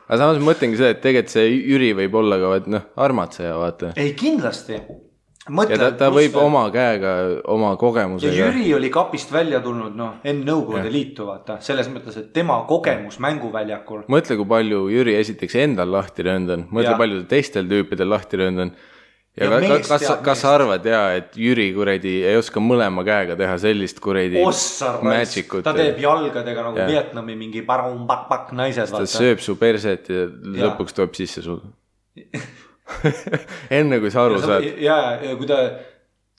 Aga samas mõtlengi see, et tegelikult see Jüri võib olla ka armatseja, vaata. Ei, kindlasti. Ja ta võib oma käega, oma kogemusega. Ja Jüri oli kapist välja tulnud, enne Nõukogude Liitu, vaata. Selles mõttes, et tema kogemus mänguväljakul. Mõtle, kui palju Jüri esiteks endal lahti röndan. Mõtle, palju teistel tüüpidel lahti röndan. Ja kas sa arvad, et Jüri kuredi ei oska mõlema käega teha sellist kuredi magicut? Ta teeb jalgadega nagu Vietnami mingi pak naised. Ta sööb su perset ja lõpuks tuleb sisse sul. Enne kui sa aru saad. Ja kui ta...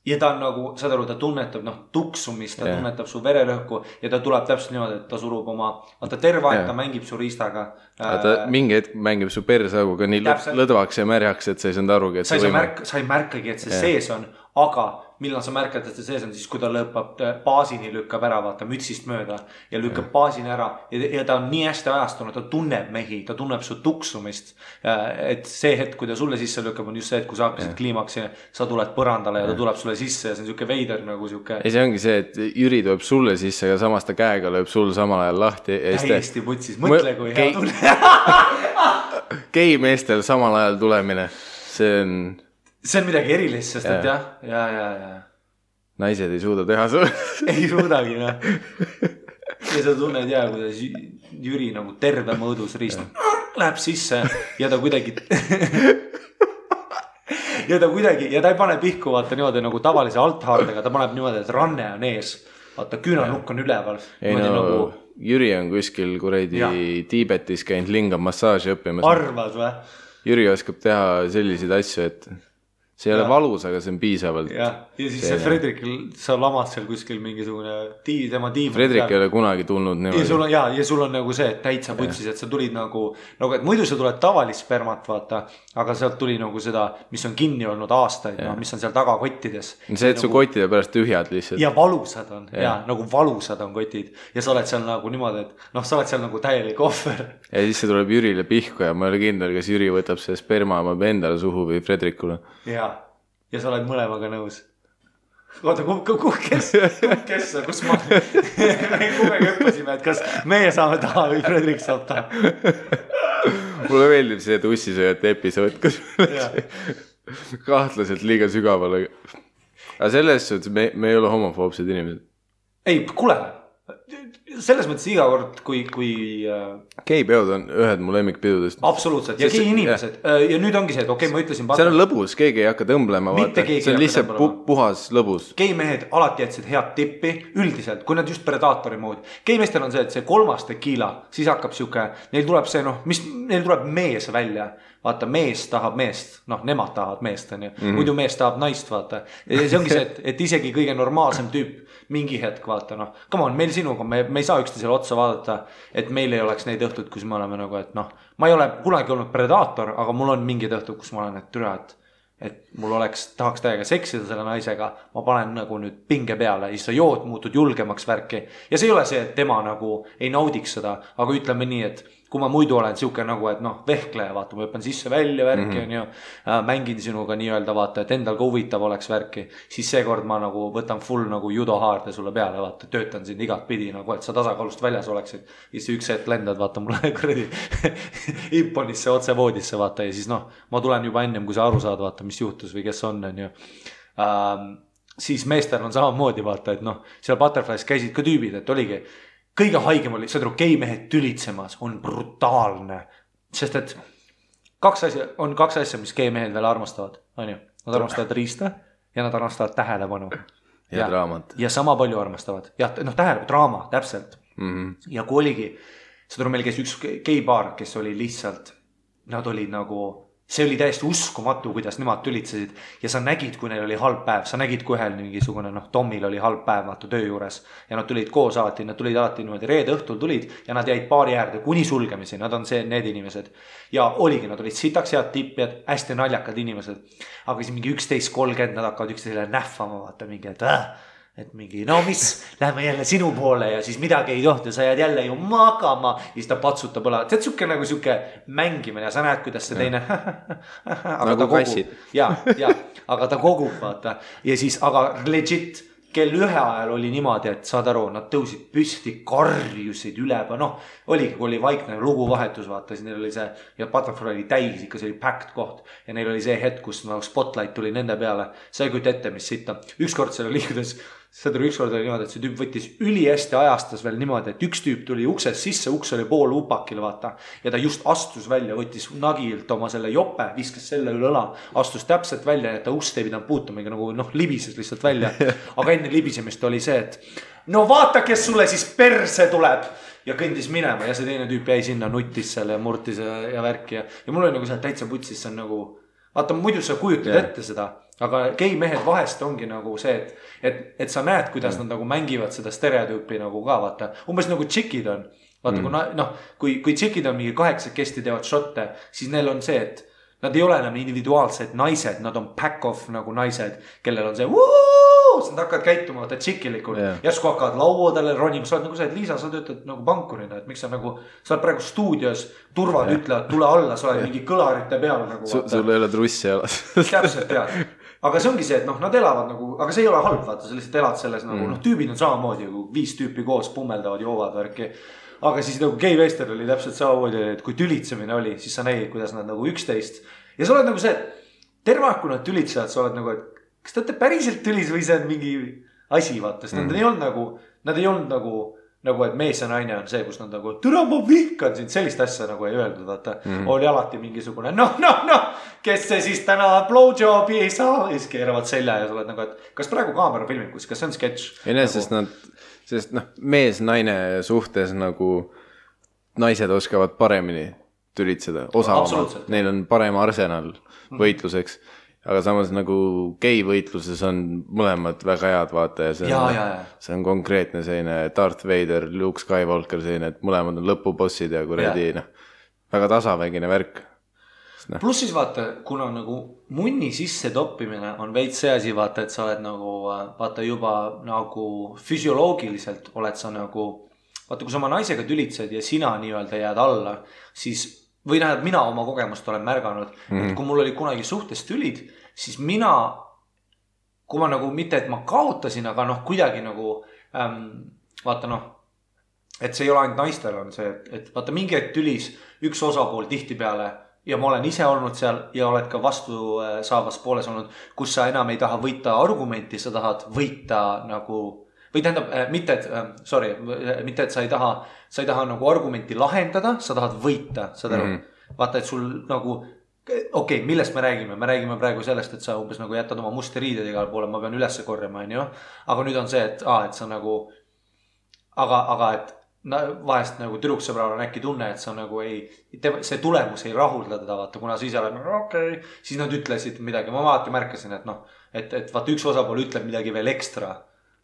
Ja ta on nagu, saad aru, ta tunnetab tuksumist, ta tunnetab su vererõhku ja ta tuleb täpselt niimoodi, et ta surub oma, ta terve aeg, ta mängib su riistaga. Ta mingi hetk mängib su persauguga nii lõdvaks ja märjaks, et sa ei saanud arugi, et sa ei märkagi, et see sees on, aga millal sa märkad, et see sees on siis, kui ta lõpab baasini, lükkab ära, vaata mütsist mööda ja lükkab baasini ära ja ta on nii hästi ajastunud, ta tunneb mehi, ta tunneb su tuksumist. Et see hetk, kui ta sulle sisse lükkab, on just see, et kui sa hakkasid kliimaksi, sa tuled põrandale ja ta tuleb sulle sisse ja see on siuke veider nagu siuke. Ja see ongi see, et Jüri tuleb sulle sisse ja samas ta käega lööb sul samal ajal lahti. Täiesti putsis, mõtle kui hea tunne. Gei meestel samal ajal tulemine, see on midagi erilist, sest et ja. Naised ei suuda teha su. Ei suudagi, noh. Ja sa tunned kuidas Jüri nagu terve mõõdus riist läheb sisse ja ta kuidagi ja ta ei pane pihku, vaata niimoodi nagu tavalise althaardega, ta paneb niimoodi, et ranne on ees. Vaata, küünanukk on üleval. Ei nagu Jüri on kuskil kuredi Tiibetis käinud lingam massaaži õppimas. Arvad või? Jüri oskab teha selliseid asju, et see ei ole valus, aga see on piisavalt. Ja siis see Fredrikil, sa lamad seal kuskil mingisugune tema tiim. Fredrik ei ole kunagi tulnud niimoodi. Ja sul on nagu see, et täitsa putsis, et sa tulid nagu, et muidu sa tuled tavalist spermat, vaata, aga sealt tuli nagu seda, mis on kinni olnud aastaid, mis on seal taga kottides. See, et su kottide pärast tühjad lihtsalt. Ja valusad on, nagu valusad on kotid. Ja sa oled seal nagu niimoodi, et sa oled seal nagu täielik ohver. Ja siis see tuleb Jürile pihku ja ma ei ole kindel, kas Jüri võtab see sperma endale suhu või Fredrikule. Ja sa oled mõlemaga nõus. Oota, kes sa, kus ma kumega õppasime, et kas meie saame taha või Fredrik saab taha. Mulle meeldib see tussisööjate episood, kus kahtlaselt liiga sügavale. Aga selles suhtes me ei ole homofoobsed inimesed. Ei, kuule, selles mõttes iga kord, kui Geipeod on ühed mu lemmikpidudest. Absoluutselt, ja gei inimesed. Ja nüüd ongi see, et okei, ma ütlesin see on lõbus, keegi ei hakka tõmblema, vaata. See on lihtsalt puhas lõbus. Geimehed alati jätsid head tippi üldiselt, kui nad just predaatori moodi. Geimeestel on see, et see 3. tekiila, siis hakkab siuke, neil tuleb see, neil tuleb mees välja. Vaata, mees tahab meest, nemad tahavad meest, muidu mees tahab naist, vaata. Ja see ongi see, et isegi kõige normaalsem tüüp mingi hetk, vaata, come on, meil sinuga, me ei saa üksteisele otsa vaadata, et meil ei oleks neid õhtud, kus me oleme nagu, et ma ei ole kunagi olnud predaator, aga mul on mingid õhtud, kus ma olen, et türa, et mul tahaks täiega seksida selle naisega, ma panen nagu nüüd pinge peale, siis sa jood, muutud julgemaks värki. Ja see ei ole see, et tema nagu ei naudiks seda, aga ütleme nii, et kui ma muidu olen siuke nagu, et vehkleja, vaata, ma õppan sisse välja värki, mängin sinuga nii-öelda, vaata, et endal ka huvitav oleks värki, siis seekord ma nagu võtan full nagu judohaarde sulle peale, vaata, töötan sind igat pidi, nagu, et sa tasakaalust väljas oleksid. Ja siis üks hetk lendad, vaata, mulle kuradi imponisse otse voodisse, vaata, ja siis ma tulen juba ennem, kui sa aru saad, vaata, mis juhtus või kes on ju. Siis meestel on samamoodi, vaata, et seal Butterflies käisid ka tüübid, et oligi kõige haigem oli, see geimehed tülitsemas on brutaalne, sest et on kaks asja, mis geimehed veel armastavad, on ju, nad armastavad riista ja nad armastavad tähelepanu ja draamat ja sama palju armastavad, draama, täpselt ja kui oligi, meil käis üks geipaar, kes oli lihtsalt, nad olid nagu see oli täiesti uskumatu, kuidas nemad tülitsesid ja sa nägid, kui neil oli halb päev, sa nägid, kui ühel mingisugune, Tomil oli halb päev, vaata töö juures ja nad tulid koos alati, nad tulid alati niimoodi reede õhtul tulid ja nad jäid baari äärde kuni sulgemisi, nad on need inimesed ja oligi, nad olid sitaks head tippjad, hästi naljakad inimesed, aga siis mingi 11.30 nad hakkavad üksteisele nähvama, vaata mingi, et mingi, mis, lähme jälle sinu poole ja siis midagi ei tohti, sa jääd jälle ju magama ja siis ta patsutab õla, see on nagu siuke mängimine ja sa näed, kuidas see teine nagu kassid ja, aga ta kogub, vaata ja siis, aga legit kell 1 ajal oli niimoodi, et saad aru, nad tõusid püsti, karjusid üleba, oligi, kui oli vaikne luguvahetus, vaata, siis neil oli see ja Butterfly oli täis, ikka see oli packed koht ja neil oli see hetk, kus spotlight tuli nende peale, sa ei kujuta ette, mis sitta ükskord seal oli, kuidas ükskord oli niimoodi, et see tüüp võttis ülihästi ajastas veel niimoodi, et üks tüüp tuli uksest sisse, uks oli pool upakil, vaata ja ta just astus välja, võttis nagilt oma selle jope, viskas selle üle õla, astus täpselt välja, et ta ust ei pidanud puutuma, nagu libises lihtsalt välja aga enne libisemist oli see, et vaata, kes sulle siis perse tuleb ja kõndis minema ja see teine tüüp jäi sinna, nuttis selle ja murtis ja värki ja mul oli nagu see täitsa putsis, see on nagu vaata, muidu sa kujutad ette seda, aga geimehed vahest ongi nagu see, et sa näed, kuidas nad nagu mängivad seda stereotüüpi nagu ka, vaata, umbes nagu tšikid on, vaata, kui tšikid on mingi 8 teevad šotte, siis neil on see, et nad ei ole enam individuaalsed naised, nad on pack of nagu naised, kellel on see siis nad hakkavad käituma, vaata tšikilikult järsku hakkavad lauadele ronima, sa oled nagu see, et Liisa, sa töötad nagu pankurina, et miks sa nagu, sa oled praegu stuudios, turvad ütlevad, tule alla, sa oled mingi kõlarite peal nagu. Sul ei ole trussi jalas. Täpselt, jah. Aga see ongi see, et noh, nad elavad nagu, aga see ei ole halb, vaata, sa lihtsalt elad selles nagu, noh, tüübid on samamoodi, kui 5 tüüpi koos pummeldavad, joovad värki. Aga siis nagu Gay Wester oli täpselt samamoodi, et kui tülitsemine oli, siis sa nägid, kuidas nad nagu 11. Ja sa oled nagu see, et terve aeg, kui nad tülitsevad, sa oled nagu, et kas te olete päriselt tülis või see on mingi asi, vaata. Sest nad ei olnud nagu, et mees ja naine on see, kus nad nagu, türa ma vihkan sind, sellist asja nagu ei öeldud, vaata. Oli alati mingisugune, noh, kes see siis täna blowjobi ei saa, siis keeravad selja ja sa oled nagu, et kas praegu kaamera filmib, kas see on sketš? Ei näe, sest mees-naine suhtes nagu naised oskavad paremini tülitseda, osavamalt. Neil on parem arsenal võitluseks. Aga samas nagu gei võitluses on mõlemad väga head, vaata, ja see on konkreetne selline Darth Vader, Luke Skywalker selline, et mõlemad on lõpubossid ja kuradi, väga tasavägine värk. Plus siis vaata, kuna nagu munni sisse toppimine on veits see asi, vaata, et sa oled nagu, vaata juba nagu füsioloogiliselt oled sa nagu, vaata, kui sa oma naisega tülitsed ja sina nii-öelda jääd alla, siis või näed, mina oma kogemust olen märganud, et kui mul oli kunagi suhtes tülid, siis mina, kui ma nagu mitte, et ma kaotasin, aga noh, kuidagi nagu, vaata noh, et see ei ole ainult naistel on see, et vaata mingi hetk tülis üks osapool tihti peale ja ma olen ise olnud seal ja oled ka vastu saavas pooles olnud, kus sa enam ei taha võita argumenti, sa tahad võita nagu, või tähendab, mitte, et sa ei taha nagu argumenti lahendada, sa tahad võita, saad aru? Vaata, et sul nagu, okei, millest me räägime praegu sellest, et sa umbes nagu jätad oma musti riided igale poole, ma pean ülesse korjama, aga nüüd on see, et sa nagu, aga et vahest nagu tüdruksõbral on äkki tunne, et sa nagu see tulemus ei rahulda teda, vaata, kuna sa ise oled nagu okei, siis nad ütlesid midagi, ma alati märkasin, et noh, et vaata üks osapool ütleb midagi veel ekstra,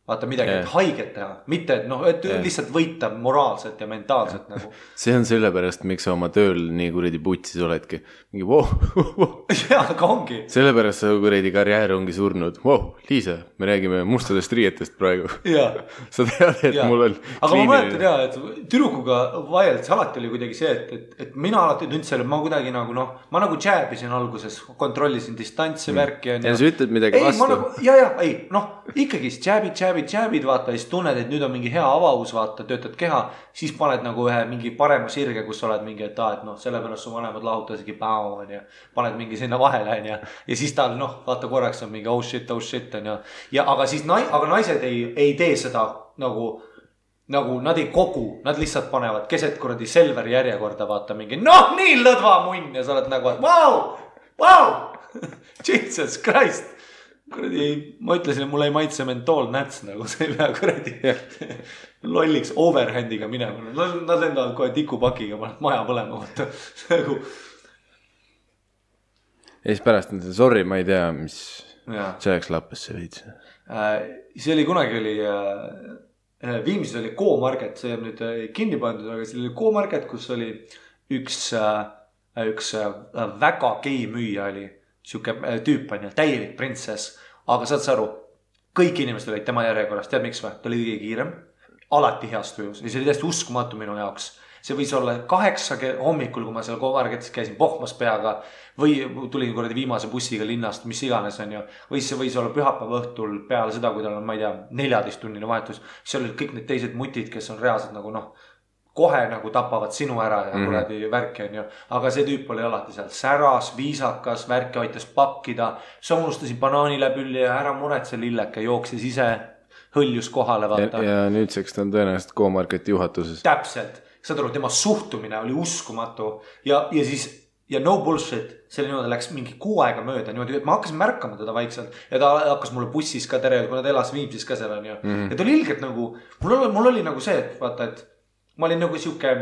vaata midagi, et haiget teha, mitte, et noh, et lihtsalt võita moraalselt ja mentaalselt nagu. See on sellepärast, miks sa oma tööl nii kuradi putsis oledki. Mingi Jaa, aga ongi. Sellepärast sa kuradi karjäär ongi surnud. Liisa, me räägime mustadest riietest praegu. Sa tead, et mul on aga ma mäletan jah, et tüdrukuga vaieldes alati oli kuidagi see, et mina alati tundsin, et ma kuidagi nagu noh, ma nagu jääbisin alguses, kontrollisin distantsi värki. Ja sa ütled midagi vastu. Jääbid, vaata, siis tunned, et nüüd on mingi hea avavus, vaata, töötad keha, siis paned nagu ühe mingi parema sirge, kus oled mingi, et noh, sellepärast su vanemad lahutasigi paned mingi sinna vahele, ja siis tal, noh, vaata korraks on mingi oh shit, ja aga siis aga naised ei tee seda nagu nad ei kogu, nad lihtsalt panevad keset kuradi Selveri järjekorda, vaata mingi, noh, nii lõdva munn ja sa oled nagu, wow, Jesus Christ. Kuradi, ma ütlesin, et mulle ei maitse mentool näts, nagu see ei pea kuradi lolliks overhandiga minema. Nad lendavad kohe tikupakiga, paned maja põlema. Ja siis pärast on see, sorry, ma ei tea, mis see oleks lappesse veits. See oli kunagi Viimsis oli K-Market, see on nüüd kinni pandud, aga see oli K-Market, kus oli üks väga gei müüja oli. Siuke tüüp on ja täielik printsess, aga saad sa aru, kõik inimesed olid tema järjekorras, tead miks või? Ta oli kõige kiirem, alati heas tujus ja see oli täiesti uskumatu minu jaoks. See võis olla 8 hommikul, kui ma seal K-Marketis käisin pohmas peaga või tulin kuradi viimase bussiga linnast, mis iganes on ju. Või see võis olla pühapäeva õhtul peale seda, kui tal on, ma ei tea, 14-tunnine vahetus. Seal olid kõik need teised mutid, kes on reaalselt nagu noh, kohe nagu tapavad sinu ära ja kuradi värki on ju. Aga see tüüp oli alati seal säras, viisakas, värki aitas pakkida. Sa unustasid banaani läbi ja ära muretse lilleke, jooksis ise, hõljus kohale, vaata. Ja nüüdseks ta on tõenäoliselt K-Marketi juhatuses. Täpselt. Saad aru, tema suhtumine oli uskumatu ja siis ja no bullshit, selle niimoodi läks mingi 6 aega mööda niimoodi, et ma hakkasin märkama teda vaikselt ja ta hakkas mulle bussis ka tere, kui nad elas Viimsis ka seal on ju. Ja ta oli ilgelt nagu, mul oli nagu see, et vaata, et ma olin nagu siuke,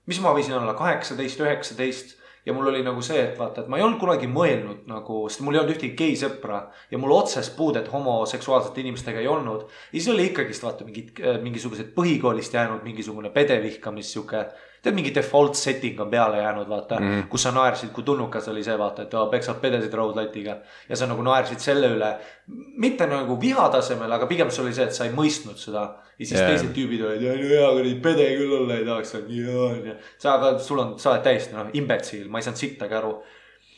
mis ma võisin olla 18, 19 ja mul oli nagu see, et vaata, et ma ei olnud kunagi mõelnud nagu, sest mul ei olnud ühtegi gei sõpra ja mul otsest puudet homoseksuaalsete inimestega ei olnud. Ja siis oli ikkagist vaata mingisugused põhikoolist jäänud mingisugune pedevihkamis siuke, tead mingi default setting on peale jäänud, vaata, kus sa naersid, kui tulnukas oli see, vaata, et peksad pedesid raudlatiga ja sa nagu naersid selle üle, mitte nagu vihatasemel, aga pigem see oli see, et sa ei mõistnud seda ja siis teised tüübid olid, hea, kui neid pede küll olla ei tahaks, sa oled täiesti imbetsiil, ma ei saanud sittagi aru.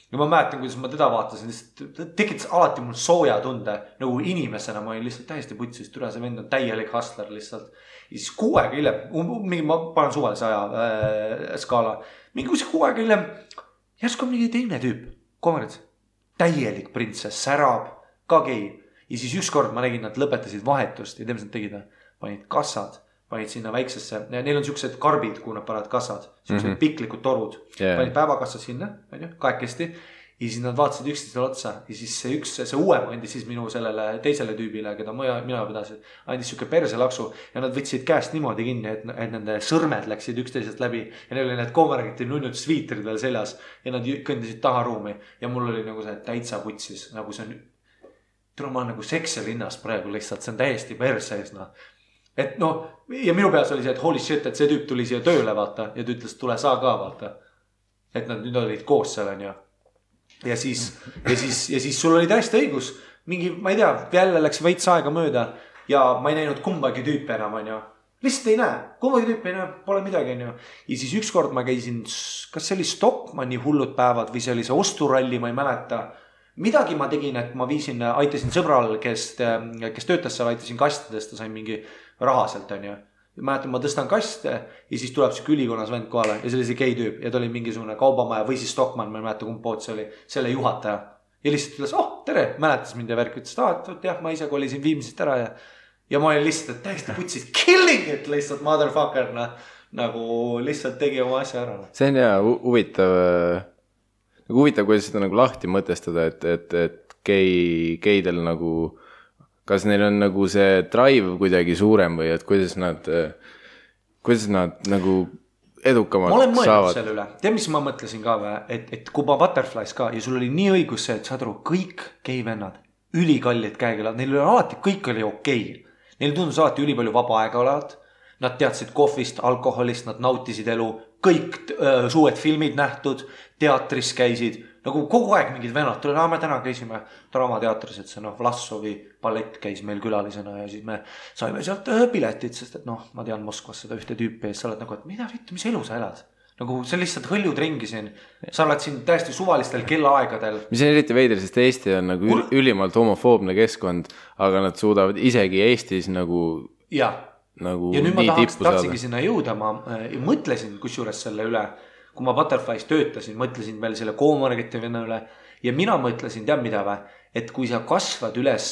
Ja ma mäletan, kuidas ma teda vaatasin, tekitas alati mul sooja tunde, nagu inimesena ma olin lihtsalt täiesti putsis, türa see vend on täielik hustler lihtsalt. Ja siis 6 aega hiljem, ma panen suvalise aja skaala, mingi 6 aega hiljem, järsku on mingi teine tüüp, kommerits, täielik printsess, särab, ka gei. Ja siis ükskord ma nägin, nad lõpetasid vahetust ja teeme nad tegid, panid kassad, panid sinna väiksesse, neil on siuksed karbid, kuhu nad panevad kassad, siuksed piklikud torud, panid päevakassa sinna, kahekesti, ja siis nad vaatasid üksteisele otsa ja siis see uuem andis siis minu sellele teisele tüübile, keda mina pidasin, andis siuke perselaksu ja nad võtsid käest niimoodi kinni, et nende sõrmed läksid üksteisest läbi ja neil oli need koomergiti nunnud sviitrid veel seljas ja nad kõndisid taha ruumi ja mul oli nagu see täitsa putsis, nagu see on, ma olen nagu seksilinnas praegu lihtsalt, see on täiesti persees, et ja minu peas oli see, et holy shit, et see tüüp tuli siia tööle, vaata, ja ta ütles, tule sa ka, vaata. Et nad nüüd olid koos seal, on ju. Ja siis sul oli täiesti õigus. Mingi, ma ei tea, jälle läks veits aega mööda ja ma ei näinud kumbagi tüüpi enam, on ju. Lihtsalt ei näe, kumbagi tüüpi ei näe, pole midagi, on ju. Ja siis ükskord ma käisin, kas see oli Stockmanni hullud päevad või see oli see osturalli, ma ei mäleta. Midagi ma tegin, et ma aitasin sõbral, kes töötas seal, aitasin kastidest, ta sai mingi raha sealt, on ju. Mäletan, ma tõstan kaste ja siis tuleb see ülikonnas vend kohale ja see oli see gei tüüp ja ta oli mingisugune kaubamaja või siis Stockmann, ma ei mäleta kumb pood see oli, selle juhataja. Ja lihtsalt ütles, tere, mäletas mind ja värk, ütles, et jah, ma ise kolisin Viimsist ära ja ma olin lihtsalt täiesti putsis killing it lihtsalt motherfucker, nagu lihtsalt tegi oma asja ära. See on hea, huvitav, kuidas seda nagu lahti mõtestada, et geidel nagu kas neil on nagu see drive kuidagi suurem või et kuidas nad nagu edukamalt saavad? Ma olen mõelnud selle üle. Tead, mis ma mõtlesin ka või? Et kui ma Butterflies ka ja sul oli nii õigus see, et saad aru, kõik geivennad, ülikallid käekelad, neil oli alati, kõik oli okei. Neil tundus alati ülipalju vaba aega olevat. Nad teadsid kohvist, alkoholist, nad nautisid elu, kõik suured filmid nähtud, teatris käisid. Nagu kogu aeg mingid vennad, me täna käisime Draamateatris, et see Vlassovi ballett käis meil külalisena ja siis me saime sealt piletid, sest et ma tean Moskvas seda ühte tüüpi ja sa oled nagu, et mida vittu, mis elu sa elad? Nagu see lihtsalt hõljud ringi siin, sa oled siin täiesti suvalistel kellaaegadel. Mis on eriti veider, sest Eesti on nagu ülimalt homofoobne keskkond, aga nad suudavad isegi Eestis nagu ja nüüd ma tahtsingi sinna jõuda, ma mõtlesin kusjuures selle üle, kui ma Butterflies töötasin, mõtlesin veel selle koomargeti venna üle ja mina mõtlesin, tead mida või, et kui sa kasvad üles,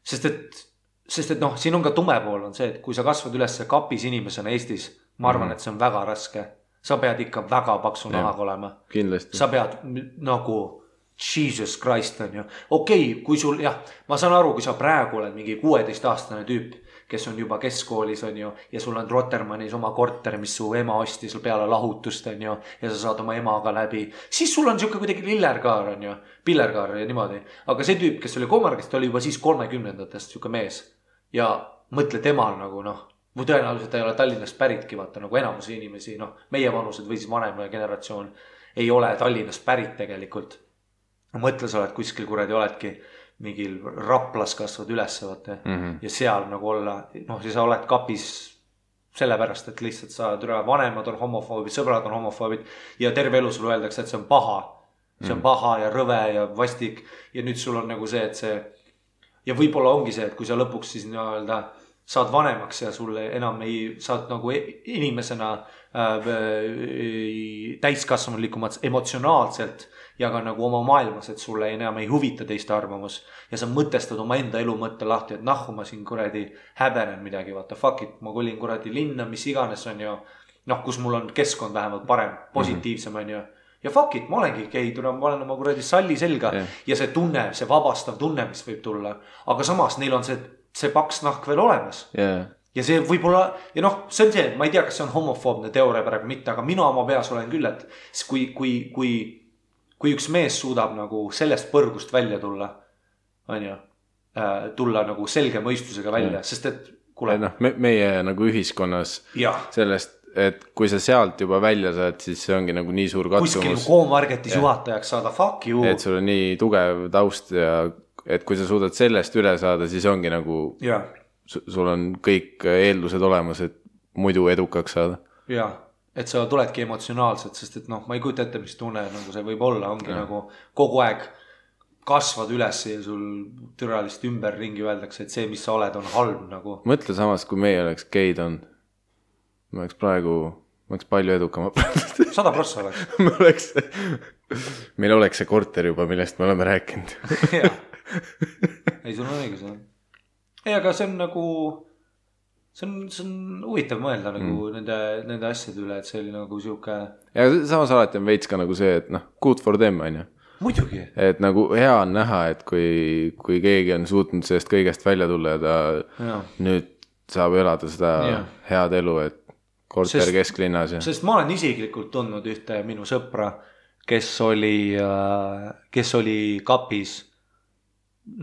sest et siin on ka tume pool on see, et kui sa kasvad üles kapis inimesena Eestis, ma arvan, et see on väga raske. Sa pead ikka väga paksu nahaga olema. Kindlasti. Sa pead nagu Jesus Christ on ju. Okei, kui sul, ma saan aru, kui sa praegu oled mingi 16-aastane tüüp, kes on juba keskkoolis on ju, ja sul on Rotermannis oma korter, mis su ema ostis peale lahutust on ju, ja sa saad oma emaga läbi, siis sul on siuke kuidagi lillerkaar on ju, pillerkaar ja niimoodi. Aga see tüüp, kes oli koomargist, oli juba siis 30-ndatest siuke mees ja mõtle temal nagu või tõenäoliselt ei ole Tallinnast päritki, vaata nagu enamus inimesi, meie vanused või siis vanem generatsioon ei ole Tallinnast pärit tegelikult. Mõtle, sa oled kuskil kuradi oledki mingil Raplas kasvad üles vaata ja seal nagu olla, siis sa oled kapis sellepärast, et lihtsalt sa vanemad on homofoobid, sõbrad on homofoobid ja terve elu sulle öeldakse, et see on paha. See on paha ja rõve ja vastik ja nüüd sul on nagu see, et see ja võib-olla ongi see, et kui sa lõpuks siis saad vanemaks ja sulle enam saad nagu inimesena täiskasvanulikumad emotsionaalselt ja ka nagu oma maailmas, et sulle enam ei huvita teiste arvamus ja sa mõtestad oma enda elu mõtte lahti, et ma siin kuradi häbenen midagi, vaata fuck it, ma kolin kuradi linna, mis iganes on ju, kus mul on keskkond vähemalt parem, positiivsem on ju ja fuck it, ma olengi gei, ma olen oma kuradi salli selga ja see tunne, see vabastav tunne, mis võib tulla, aga samas neil on see paks nahk veel olemas ja see võib-olla, ja see on see, ma ei tea, kas see on homofoobne teooria praegu mitte, aga mina oma peas olen küll, et kui üks mees suudab nagu sellest põrgust välja tulla, on ju, tulla nagu selge mõistusega välja, sest et kuule. Meie nagu ühiskonnas et kui sa sealt juba välja saad, siis see ongi nagu nii suur katsumus. Kuskil Comarketis juhatajaks saada, fuck you. Et sul on nii tugev taust ja et kui sa suudad sellest üle saada, siis ongi nagu, sul on kõik eeldused olemas, et muidu edukaks saada. Jaa, et sa tuledki emotsionaalselt, sest et noh, ma ei kujuta ette, mis tunne nagu see võib olla, ongi nagu kogu aeg kasvad üles ja sul türalist ümber ringi öeldakse, et see, mis sa oled, on halb nagu. Mõtle samas, kui meie oleks geid on. Ma oleks palju edukam. 100% oleks. Meil oleks see korter juba, millest me oleme rääkinud. Jaa. Ei, sul on õigus. Ei, aga see on nagu, see on huvitav mõelda nagu nende asjade üle, et see oli nagu siuke. Ja samas alati on veits ka nagu see, et noh, good for them, on ju. Muidugi. Et nagu hea on näha, et kui keegi on suutnud sellest kõigest välja tulla ja ta nüüd saab elada seda head elu, et korter kesklinnas. Sest ma olen isiklikult tundnud ühte minu sõpra, kes oli kapis,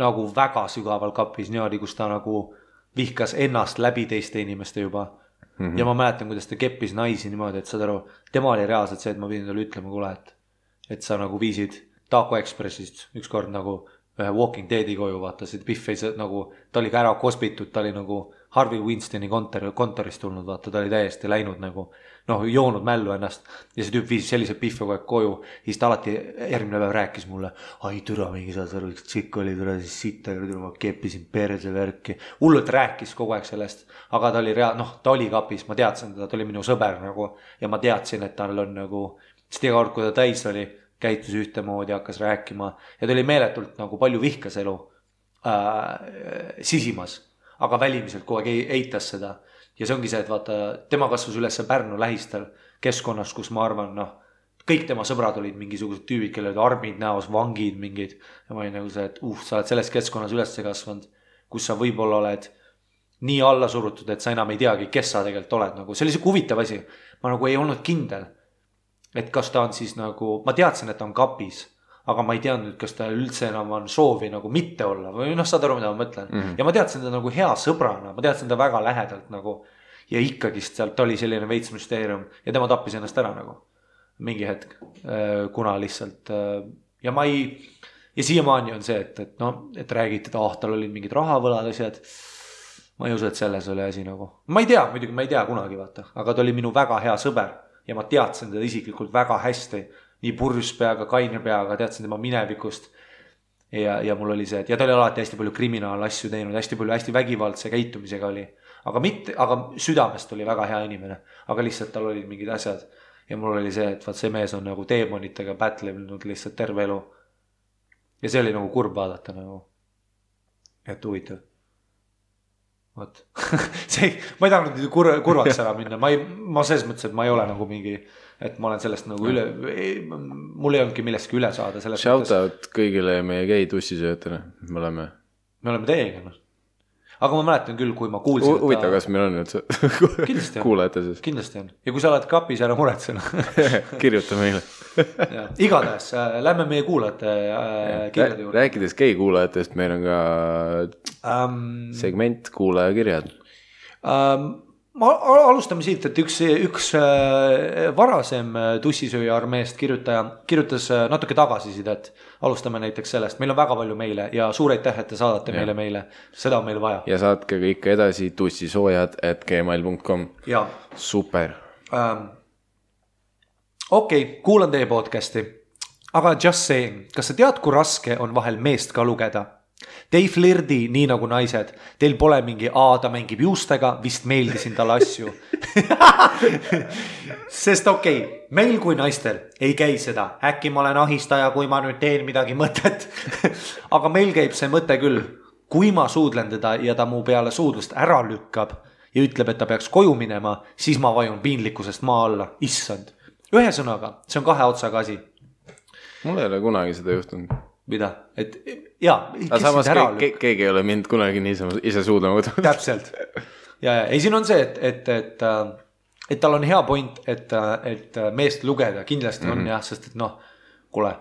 nagu väga sügaval kapis, niimoodi, kus ta nagu vihkas ennast läbi teiste inimeste juba. Ja ma mäletan, kuidas ta keppis naisi niimoodi, et saad aru, tema oli reaalselt see, et ma pidin talle ütlema, kuule, et sa nagu viisid Taco Expressist ükskord nagu ühe Walking Deadi koju, vaata, see Biff ei nagu, ta oli ka ära kospitud, ta oli nagu Harvey Winstoni kontorist tulnud, vaata, ta oli täiesti läinud nagu, noh, joonud mällu ennast ja see tüüp viis sellise Biffi kogu aeg koju, siis ta alati järgmine päev rääkis mulle, ai türa mingi saad aru, tšikk oli türa siis sitta, ma keppisin perse värki, hullult rääkis kogu aeg sellest, aga ta oli ta oli kapis, ma teadsin teda, ta oli minu sõber nagu ja ma teadsin, et tal on nagu, sest iga kord, kui ta täis oli, käitus ühtemoodi, hakkas rääkima ja ta oli meeletult nagu palju vihkas elu sisimas, aga välimiselt kogu aeg eitas seda ja see ongi see, et vaata, tema kasvas üles Pärnu lähistel keskkonnas, kus ma arvan, kõik tema sõbrad olid mingisugused tüübid, kellel olid armid näos, vangid mingid ja ma olin nagu see, et sa oled selles keskkonnas üles kasvanud, kus sa võib-olla oled nii alla surutud, et sa enam ei teagi, kes sa tegelikult oled nagu, see oli siuke huvitav asi, ma nagu ei olnud kindel, et kas ta on siis nagu, ma teadsin, et ta on kapis, aga ma ei teadnud, kas ta üldse enam on soovi nagu mitte olla või saad aru, mida ma mõtlen. Ja ma teadsin ta nagu hea sõbrana, ma teadsin ta väga lähedalt nagu ja ikkagist sealt oli selline veits müsteerium ja tema tappis ennast ära nagu mingi hetk, kuna lihtsalt ja siiamaani on see, et räägiti, et tal olid mingid rahavõlad asjad, ma ei usu, et selles oli asi nagu, ma ei tea, muidugi ma ei tea kunagi vaata, aga ta oli minu väga hea sõber ja ma teadsin teda isiklikult väga hästi, nii purjus peaga, kaine peaga, teadsin tema minevikust ja mul oli see, et ja ta oli alati hästi palju kriminaalasju teinud, hästi palju hästi vägivaldse käitumisega oli, aga südamest oli väga hea inimene, aga lihtsalt tal olid mingid asjad ja mul oli see, et vaat see mees on nagu teemonitega pätlenud lihtsalt terve elu ja see oli nagu kurb vaadata nagu, et huvitav. Võt. Ma ei tahtnud kurvaks ära minna, ma selles mõttes, et ma ei ole nagu mingi, et ma olen sellest nagu mul ei olnudki millestki üle saada. Shout out kõigile meie gei tussisöötele, me oleme teiega. Aga ma mäletan küll, kui ma kuulsin huvitav, kas meil on nüüd kuulajate siis? Kindlasti on. Ja kui sa oled kapis, ära muretsena kirjuta meile igatahes, lähme meie kuulajate kirjade juurde. Rääkides gei kuulajatest, meil on ka segment kuulajakirjad. Ma alustame siit, et üks varasem tussisööja armeest kirjutas natuke tagasisidet. Alustame näiteks sellest, meil on väga palju meile ja suur aitäh, et te saadate meile, seda on meil vaja. Ja saatke ikka edasi tussisoojad@gmail.com. Super. Okei, kuulan teie podcasti, aga just saying, kas sa tead, kui raske on vahel meest ka lugeda? Te ei flirdi nii nagu naised, teil pole mingi ta mängib juustega, vist meeldisin talle asju. Sest meil kui naistel ei käi seda, äkki ma olen ahistaja, kui ma nüüd teen midagi mõtet. Aga meil käib see mõte küll, kui ma suudlen teda ja ta mu peale suudlust ära lükkab ja ütleb, et ta peaks koju minema, siis ma vajun piinlikkusest maa alla, issand. Ühe sõnaga, see on 2 otsaga asi. Mul ei ole kunagi seda juhtunud. Mida? Et aga samas keegi ei ole mind kunagi niisama ise suudlema võtnud. Täpselt. Ei, siin on see, et tal on hea point, et meest lugeda kindlasti on jah, sest et kuule.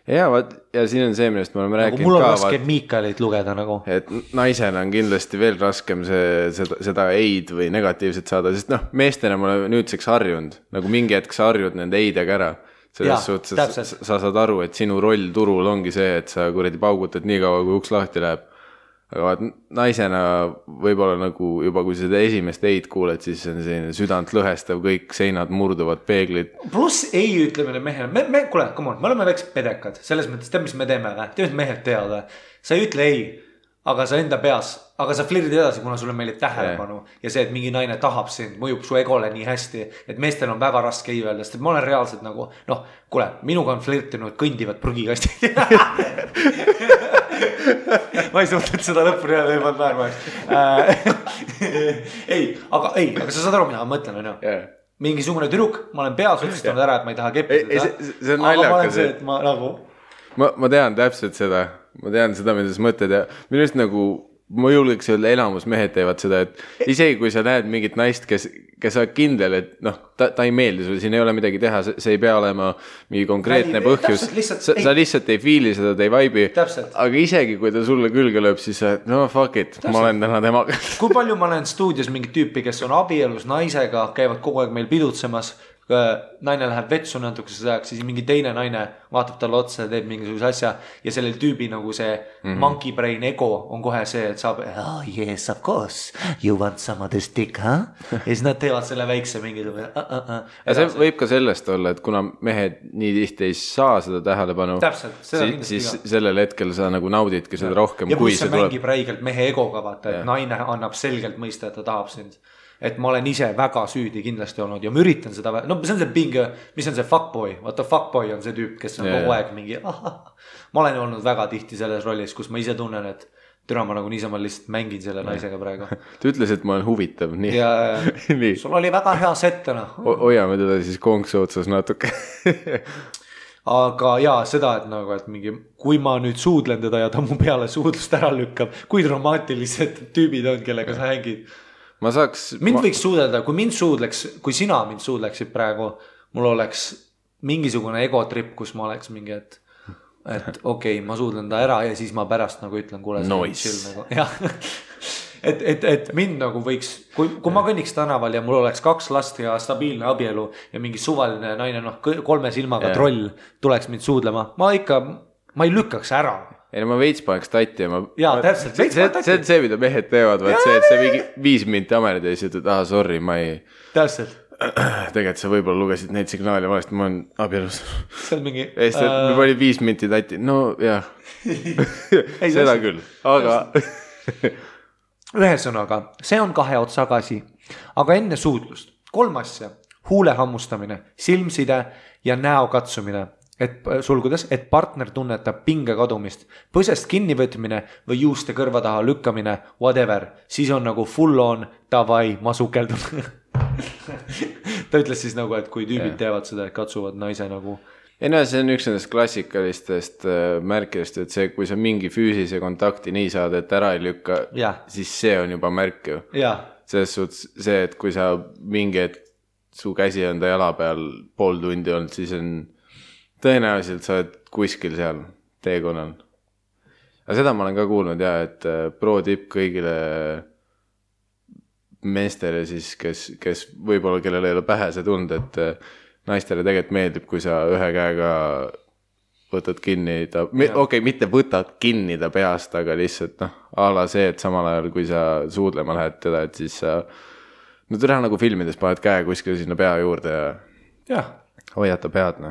ja vaat, ja siin on see, millest me oleme rääkinud mul on raske Miikalit lugeda nagu. Et naisena on kindlasti veel raskem seda eid või negatiivset saada, sest noh, meestena ma olen nüüdseks harjunud, nagu mingi hetk sa harjud nende eidega ära. Selles suhtes sa saad aru, et sinu roll turul ongi see, et sa kuradi paugutad nii kaua, kui uks lahti läheb. Aga vaat naisena võib-olla nagu juba kui seda esimest eid kuuled, siis on selline südant lõhestav, kõik seinad murduvad, peeglid. Pluss ei ütlemine mehele, kuule, come on, me oleme väiksed pedekad, selles mõttes tead, mis me teeme, tead, mehed teavad, sa ei ütle ei, aga sa enda peas, aga sa flirdid edasi, kuna sulle meelib tähelepanu ja see, et mingi naine tahab sind, mõjub su egole nii hästi, et meestel on väga raske ei öelda, sest et ma olen reaalselt nagu, noh, kuule, minuga on flirtinud kõndivad prügikastid. Ma ei suhtet seda lõppu nii ei pannud naermaks. Aga sa saad aru, mida ma mõtlen, on ju? Mingisugune tüdruk, ma olen peas otsistanud ära, et ma ei taha keppida. See on naljakas. Ma tean täpselt seda. Ma tean seda, mida sa mõtled ja minu arust nagu ma julgeks öelda, elamus mehed teevad seda, et isegi kui sa näed mingit naist, kes on kindel, et noh, ta ei meeldi sulle, siin ei ole midagi teha, see ei pea olema mingi konkreetne põhjus, sa lihtsalt ei fiili seda, ta ei vaibi, aga isegi kui ta sulle külge lööb, siis sa, no fuck it, ma olen täna temaga. Kui palju ma olen stuudios mingit tüüpi, kes on abielus naisega, käivad kogu aeg meil pidutsemas, naine läheb vetsu natukese ajaks, siis mingi teine naine vaatab talle otsa ja teeb mingisuguse asja ja sellel tüübi nagu see monkey brain ego on kohe see, et saab yes of course, you want some of this dick, huh? Ja siis nad teevad selle väikse mingisugune ja see võib ka sellest olla, et kuna mehed nii tihti ei saa seda tähelepanu, siis sellel hetkel sa nagu naudidki seda rohkem, ja kui see mängib räigelt mehe egoga, vaata, et naine annab selgelt mõista, et ta tahab sind. Et ma olen ise väga süüdi kindlasti olnud ja ma üritan seda, no see on see pinge, mis on see fuckboy, vaata fuckboy on see tüüp, kes on kogu aeg mingi, ma olen olnud väga tihti selles rollis, kus ma ise tunnen, et türa ma nagu niisama lihtsalt mängin selle naisega praegu. Ta ütles, et ma olen huvitav, nii. Ja sul oli väga hea settena. Hoiame teda siis konksu otsas natuke. Aga jaa, seda, et nagu, et mingi, kui ma nüüd suudlen teda ja ta mu peale suudlust ära lükkab, kui dramaatilised tüübid on, kellega sa hängid. Mind võiks suudelda, kui sina mind suudleksid praegu, mul oleks mingisugune egotrip, kus ma oleks mingi, et okei, ma suudlen ta ära ja siis ma pärast nagu ütlen, kuule, nice. Nagu, et mind nagu võiks, kui ma kõnniks tänaval ja mul oleks 2 last ja stabiilne abielu ja mingi suvaline naine, 3 silmaga troll tuleks mind suudlema, ma ei lükkaks ära. Ei, no ma veits paneks tatti ja täpselt, see on see, mida mehed teevad, see, et see mingi 5 minti amerid ja siis ütled, sorry, ma ei... Täpselt. Tegelikult sa võib-olla lugesid neid signaale valesti, ma olen abielus. See on mingi... Me oli 5 minti tatti, no jah. Seda küll, aga... Ühesõnaga, see on 2 otsaga asi, aga enne suudlust 3 asja, huule hammustamine, silmside ja näo katsumine. Et partner tunnetab pinge kadumist, põsest kinnivõtmine või juuste kõrva taha lükkamine, whatever, siis on nagu full on, davai, ma sukeldun. Ta ütles siis nagu, et kui tüübid teevad seda, et katsuvad naise nagu... Ei no, see on üks nendest klassikalistest märkidest, et see, kui sa mingi füüsilise kontakti nii saad, et ära ei lükka, siis see on juba märk ju. Selles suhtes see, et kui sa mingi, et su käsi on ta jala peal pool tundi olnud, siis on... Tõenäoliselt sa oled kuskil seal teekonnal. Aga seda ma olen ka kuulnud et pro tipp kõigile meestele siis, kes võib-olla kellel ei ole pähe see tund, et naistele tegelikult meeldib, kui sa ühe käega võtad kinni ta, mitte võtad kinni ta peast, aga lihtsalt ala see, et samal ajal kui sa suudlema lähed teda, et siis sa teha nagu filmides paned käe kuskil sinna pea juurde ja hoiad ta pead,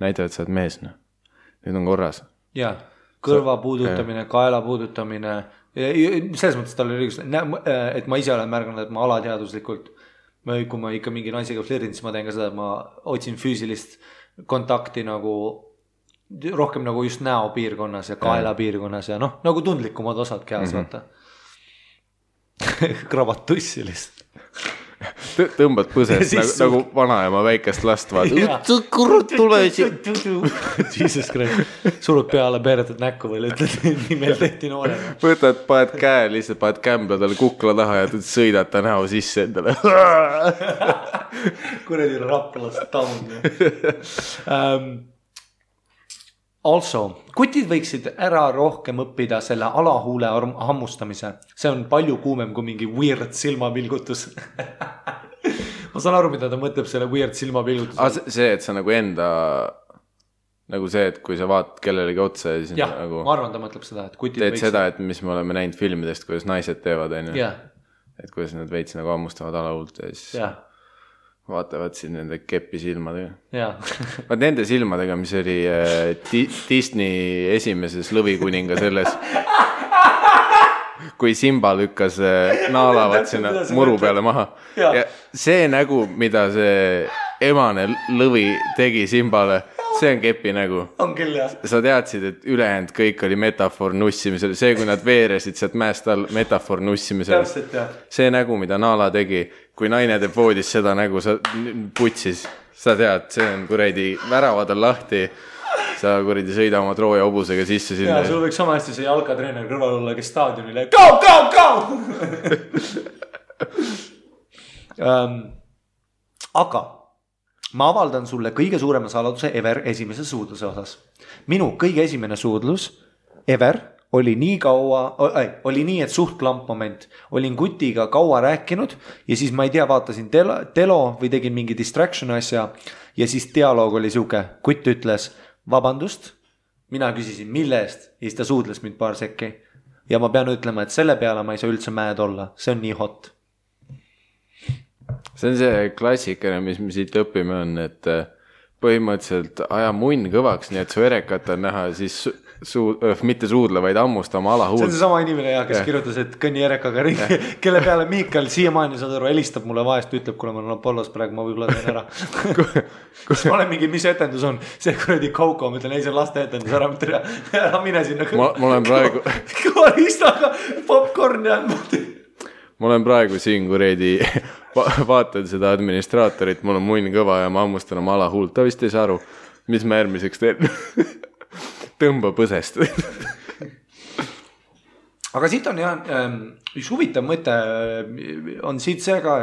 näita, et sa oled mees, nüüd on korras. Jaa, kõrva puudutamine, kaela puudutamine, selles mõttes tal oli õigus, et ma ise olen märganud, et ma alateaduslikult, kui ma ikka mingi naisega flirdin, siis ma teen ka seda, et ma otsin füüsilist kontakti nagu rohkem nagu just näo piirkonnas ja kaela piirkonnas ja nagu tundlikumad osad kehas, vaata. Krabad tussi lihtsalt. Tõmbad põsest nagu vanaema väikest last vaata. Kurut tule siin. Jesus Christ. Surud peale peeretad näkku või ütled, nii meil tehti noorega. Võtad, paned käe, lihtsalt paned kämbla talle kukla taha ja sõidad ta näo sisse endale. Kuredi raplast taun. Also, kutid võiksid ära rohkem õppida selle alahuule hammustamise. See on palju kuumem kui mingi weird silmapilgutus. Ma saan aru, mida ta mõtleb selle weird silmapilgutus. See, et sa nagu enda, nagu see, et kui sa vaatad kellelegi otsa ja siis jah, nagu ma arvan, ta mõtleb seda, et kutid teed seda, et mis me oleme näinud filmidest, kuidas naised teevad, on ju. Yeah. Et kuidas nad veits nagu hammustavad alahuult ja siis vaatavad siin nende kepi silmadega. Vaat nende silmadega, mis oli Disney esimeses Lõvikuninga selles, kui Simba lükkas naalavat sinna muru peale maha. Ja see nägu, mida see emane lõvi tegi Simbale, see on kepi nägu. On küll, jah. Sa teadsid, et ülejäänud kõik oli metafoor nussimisel. See, kui nad veeresid sealt mäest all, metafoor nussimisel. Täpselt, jah. See nägu, mida Naala tegi, kui naine teeb voodis seda nägu, sa putsis. Sa tead, see on kuradi väravad on lahti. Sa kuradi sõida oma Trooja hobusega sisse sinna. Ja, sul võiks sama hästi see jalkatreener kõrval olla, kes staadionile go! Aga ma avaldan sulle kõige suurema saladuse ever esimese suudluse osas. Minu kõige esimene suudlus ever oli nii kaua, oli nii, et suht klamp moment. Olin kutiga kaua rääkinud ja siis ma ei tea, vaatasin telo või tegin mingi distraction asja ja siis dialoog oli siuke. Kutt ütles, vabandust, mina küsisin mille eest ja siis ta suudles mind paar sekki. Ja ma pean ütlema, et selle peale ma ei saa üldse mäed olla. See on nii hot. See on see klassikene, mis me siit õpime on, et põhimõtteliselt aja munn kõvaks, nii et su erekat on näha siis mitte suudle, vaid hammustama alahuult. See on see sama inimene, kes kirjutas, et kõnni erekaga ringi, kelle peale Miikal siiamaani saad aru, helistab mulle vahest, ütleb, kuna ma olen Apollos praegu, ma võib-olla teen ära. Ma olen mingi, mis etendus on? See kuradi Kauko, ma ütlen, ei see on laste etendus, ära mine sinna. Ma olen praegu kõvalistaga popcorn ja ma olen praegu siin kuredi vaatan seda administraatorit, mul on munn kõva ja ma hammustan oma alahuult. Ta vist ei saa aru, mis ma järgmiseks teen. Tõmba põsest. Aga siit on jah, üks huvitav mõte on siit see ka,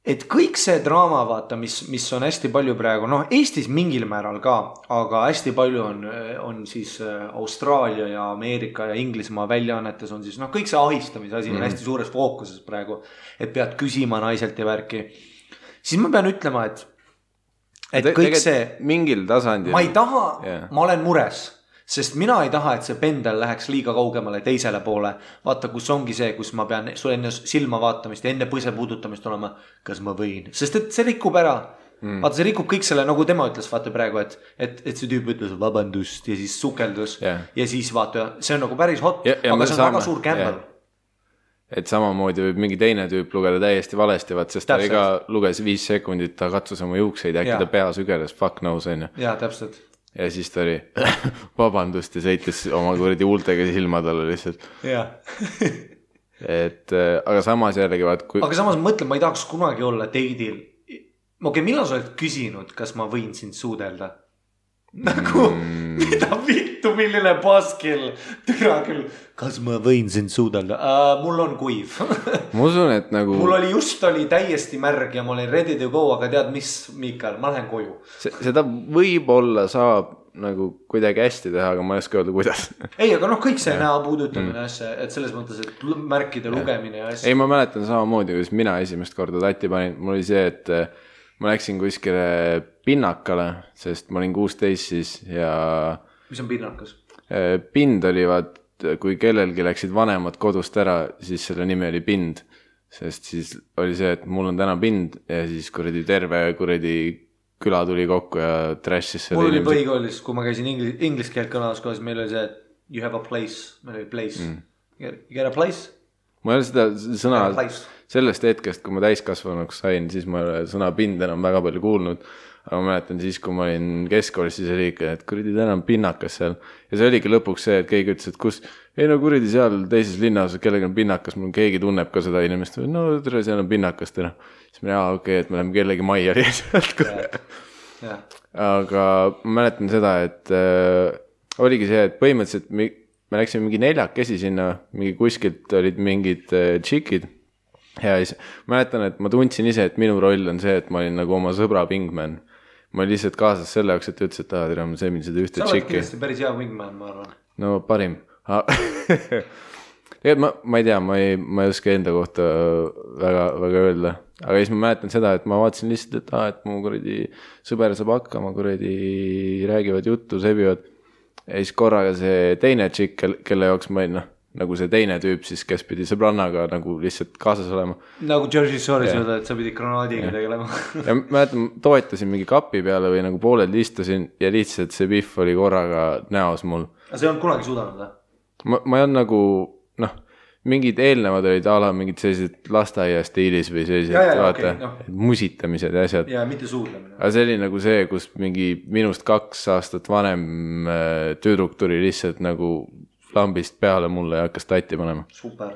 et kõik see draama vaata, mis on hästi palju praegu, Eestis mingil määral ka, aga hästi palju on siis Austraalia ja Ameerika ja Inglismaa väljaannetes on siis, kõik see ahistamise asi on hästi suures fookuses praegu, et pead küsima naiselt ja värki. Siis ma pean ütlema, et kõik see mingil tasandil ma ei taha, ma olen mures. Sest mina ei taha, et see pendel läheks liiga kaugemale teisele poole. Vaata, kus ongi see, kus ma pean sul enne silma vaatamist ja enne põse puudutamist olema, kas ma võin. Sest et see rikub ära. Vaata, see rikub kõik selle, nagu tema ütles, vaata praegu, et see tüüp ütles vabandust ja siis sukeldus. Ja siis vaata, see on nagu päris hot, aga see on väga suur kämbel. Et samamoodi võib mingi teine tüüp lugeda täiesti valesti, sest ta iga luges 5 sekundit, ta katsus oma juukseid, äkki ta pea sügeles, fuck knows, on ju. Jaa, täpselt. Ja siis ta oli vabandust ja sõitis oma kuradi huultega silma talle lihtsalt. Jah. Aga samas jällegi Aga samas mõtlen, ma ei tahaks kunagi olla teidil. Millal sa oled küsinud, kas ma võin sind suudelda? Nagu, mida vittu, milline paskil? Türa küll, kas ma võin sind suudelda? Mul on kuiv. Ma usun, et nagu mul oli täiesti märg ja ma olin ready to go, aga tead mis, Miikal, ma lähen koju. Seda võib-olla saab nagu kuidagi hästi teha, aga ma ei oska öelda, kuidas. Ei, aga kõik see näo puudutamine asja, et selles mõttes, et märkide lugemine ja asja. Ei, ma mäletan samamoodi, kus mina esimest korda tatti panin. Mul oli see, et ma läksin kuskile pinnakale, sest ma olin 16 siis ja mis on pinnakas? Pind oli kui kellelgi läksid vanemad kodust ära, siis selle nimi oli pind, sest siis oli see, et mul on täna pind ja siis terve küla tuli kokku ja trashis selle inimesed. Mul oli põhikoolis, kui ma käisin inglis keelt kõnelas kohas, meil oli see, et you have a place, meil oli place. You get a place? Ma ei ole seda sõna sellest hetkest, kui ma täiskasvanuks sain, siis ma ei ole sõna pind enam väga palju kuulnud. Aga ma mäletan siis, kui ma olin keskkoolis, siis oli ikka, et kuradi täna on pinnakas seal. Ja see oligi lõpuks see, et keegi ütles, et kus, ei kuradi seal teises linnas, kellega on pinnakas, mul keegi tunneb ka seda inimest. No tere, seal on pinnakas täna. Siis ma okei, et me läheme kellegi majja lihtsalt. Aga ma mäletan seda, et oligi see, et põhimõtteliselt me läksime mingi 4 sinna, mingi kuskilt olid mingid tšikid. Ja siis mäletan, et ma tundsin ise, et minu roll on see, et ma olin nagu oma sõbra pingman. ma olin lihtsalt kaasas selle jaoks, et ütles, et tere, ma sõimin seda ühte tšikki. Sa oled kindlasti päris hea wingman, ma arvan. No parim. Tegelikult ma ei tea, ma ei oska enda kohta väga öelda. Aga siis ma mäletan seda, et ma vaatasin lihtsalt, et mu kuradi sõber saab hakkama, kuradi räägivad juttu, sebivad. Ja siis korraga see teine tšikk, kelle jaoks ma olin, nagu see teine tüüp siis, kes pidi sõbrannaga nagu lihtsalt kaasas olema. Nagu Jersey Shore'is öelda, et sa pidi granaadiga tegelema. Ja mäletan, toetasin mingi kapi peale või nagu pooled istusin ja lihtsalt see pihv oli korraga näos mul. Aga see on kunagi suudanud, või? Ma ei olnud nagu, mingid eelnevad olid ala mingid sellised lasteaia stiilis või sellised vaata, musitamised ja asjad. Ja mitte suudlemine. Aga see oli nagu see, kus mingi minust 2 aastat vanem tüdruk tuli lihtsalt nagu lambist peale mulle ja hakkas tatti panema. Super.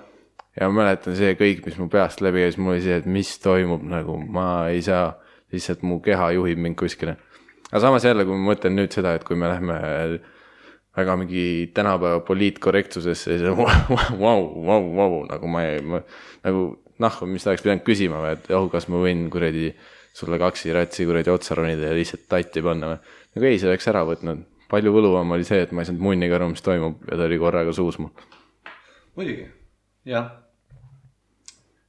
Ja ma mäletan see kõik, mis mu peast läbi ja siis mul oli see, et mis toimub, nagu ma ei saa, lihtsalt mu keha juhib mind kuskile. Aga samas jälle, kui ma mõtlen nüüd seda, et kui me lähme väga mingi tänapäeva poliitkorrektsusesse, siis wow, nagu ma nagu mis ta oleks pidanud küsima või, et kas ma võin kuradi sulle 2 ratsi kuradi otsa ronida ja lihtsalt tatti panna või. Nagu ei, see oleks ära võtnud. Palju võluvam oli see, et ma ei saanud munniga aru, mis toimub ja ta oli korraga suus mul. Muidugi, jah.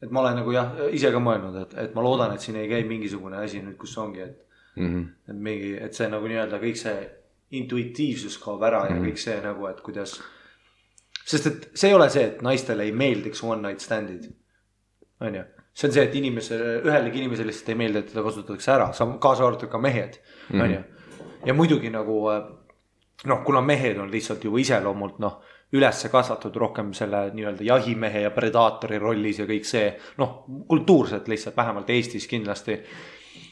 Et ma olen nagu ise ka mõelnud, et ma loodan, et siin ei käi mingisugune asi nüüd, kus ongi, et see nagu nii-öelda kõik see intuitiivsus kaob ära ja kõik see nagu, et kuidas, sest et see ei ole see, et naistele ei meeldiks one night standid. On ju? See on see, et ühelegi inimesele lihtsalt ei meeldi, et teda kasutatakse ära, kaasa arvatud ka mehed. On ju? Ja muidugi nagu kuna mehed on lihtsalt juba iseloomult üles kasvatud rohkem selle nii-öelda jahimehe ja predaatori rollis ja kõik see, kultuurselt lihtsalt, vähemalt Eestis kindlasti,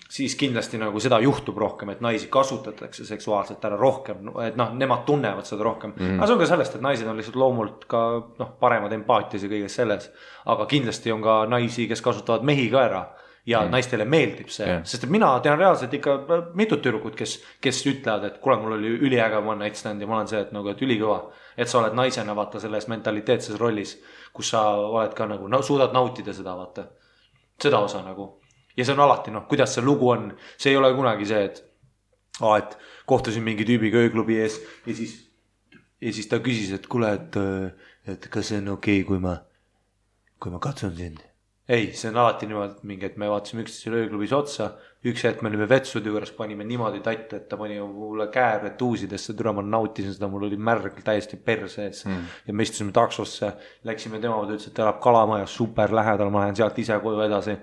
siis kindlasti nagu seda juhtub rohkem, et naisi kasutatakse seksuaalselt ära rohkem, et nemad tunnevad seda rohkem. Aga see on ka sellest, et naised on lihtsalt loomult ka paremad empaatias ja kõiges selles, aga kindlasti on ka naisi, kes kasutavad mehi ka ära. Ja naistele meeldib see, sest et mina tean reaalselt ikka mitut tüdrukut, kes ütlevad, et kuule, mul oli üliäge one night stand ja ma olen see, et ülikõva, et sa oled naisena vaata selles mentaliteetses rollis, kus sa oled ka nagu, suudad nautida seda vaata, seda osa nagu. Ja see on alati, kuidas see lugu on, see ei ole kunagi see, et kohtusin mingi tüübiga ööklubi ees ja siis ta küsis, et kuule, et kas see on okei, kui ma katsun sind. Ei, see on alati niimoodi mingi, et me vaatasime üksteisele ööklubis otsa, üks hetk me olime vetsude juures, panime niimoodi tatt, et ta pani mulle käe tuusidesse, türa ma nautisin seda, mul oli märg täiesti perse ees ja me istusime taksosse, läksime tema poole, ütles, et elab Kalamajas super lähedal, ma lähen sealt ise koju edasi ja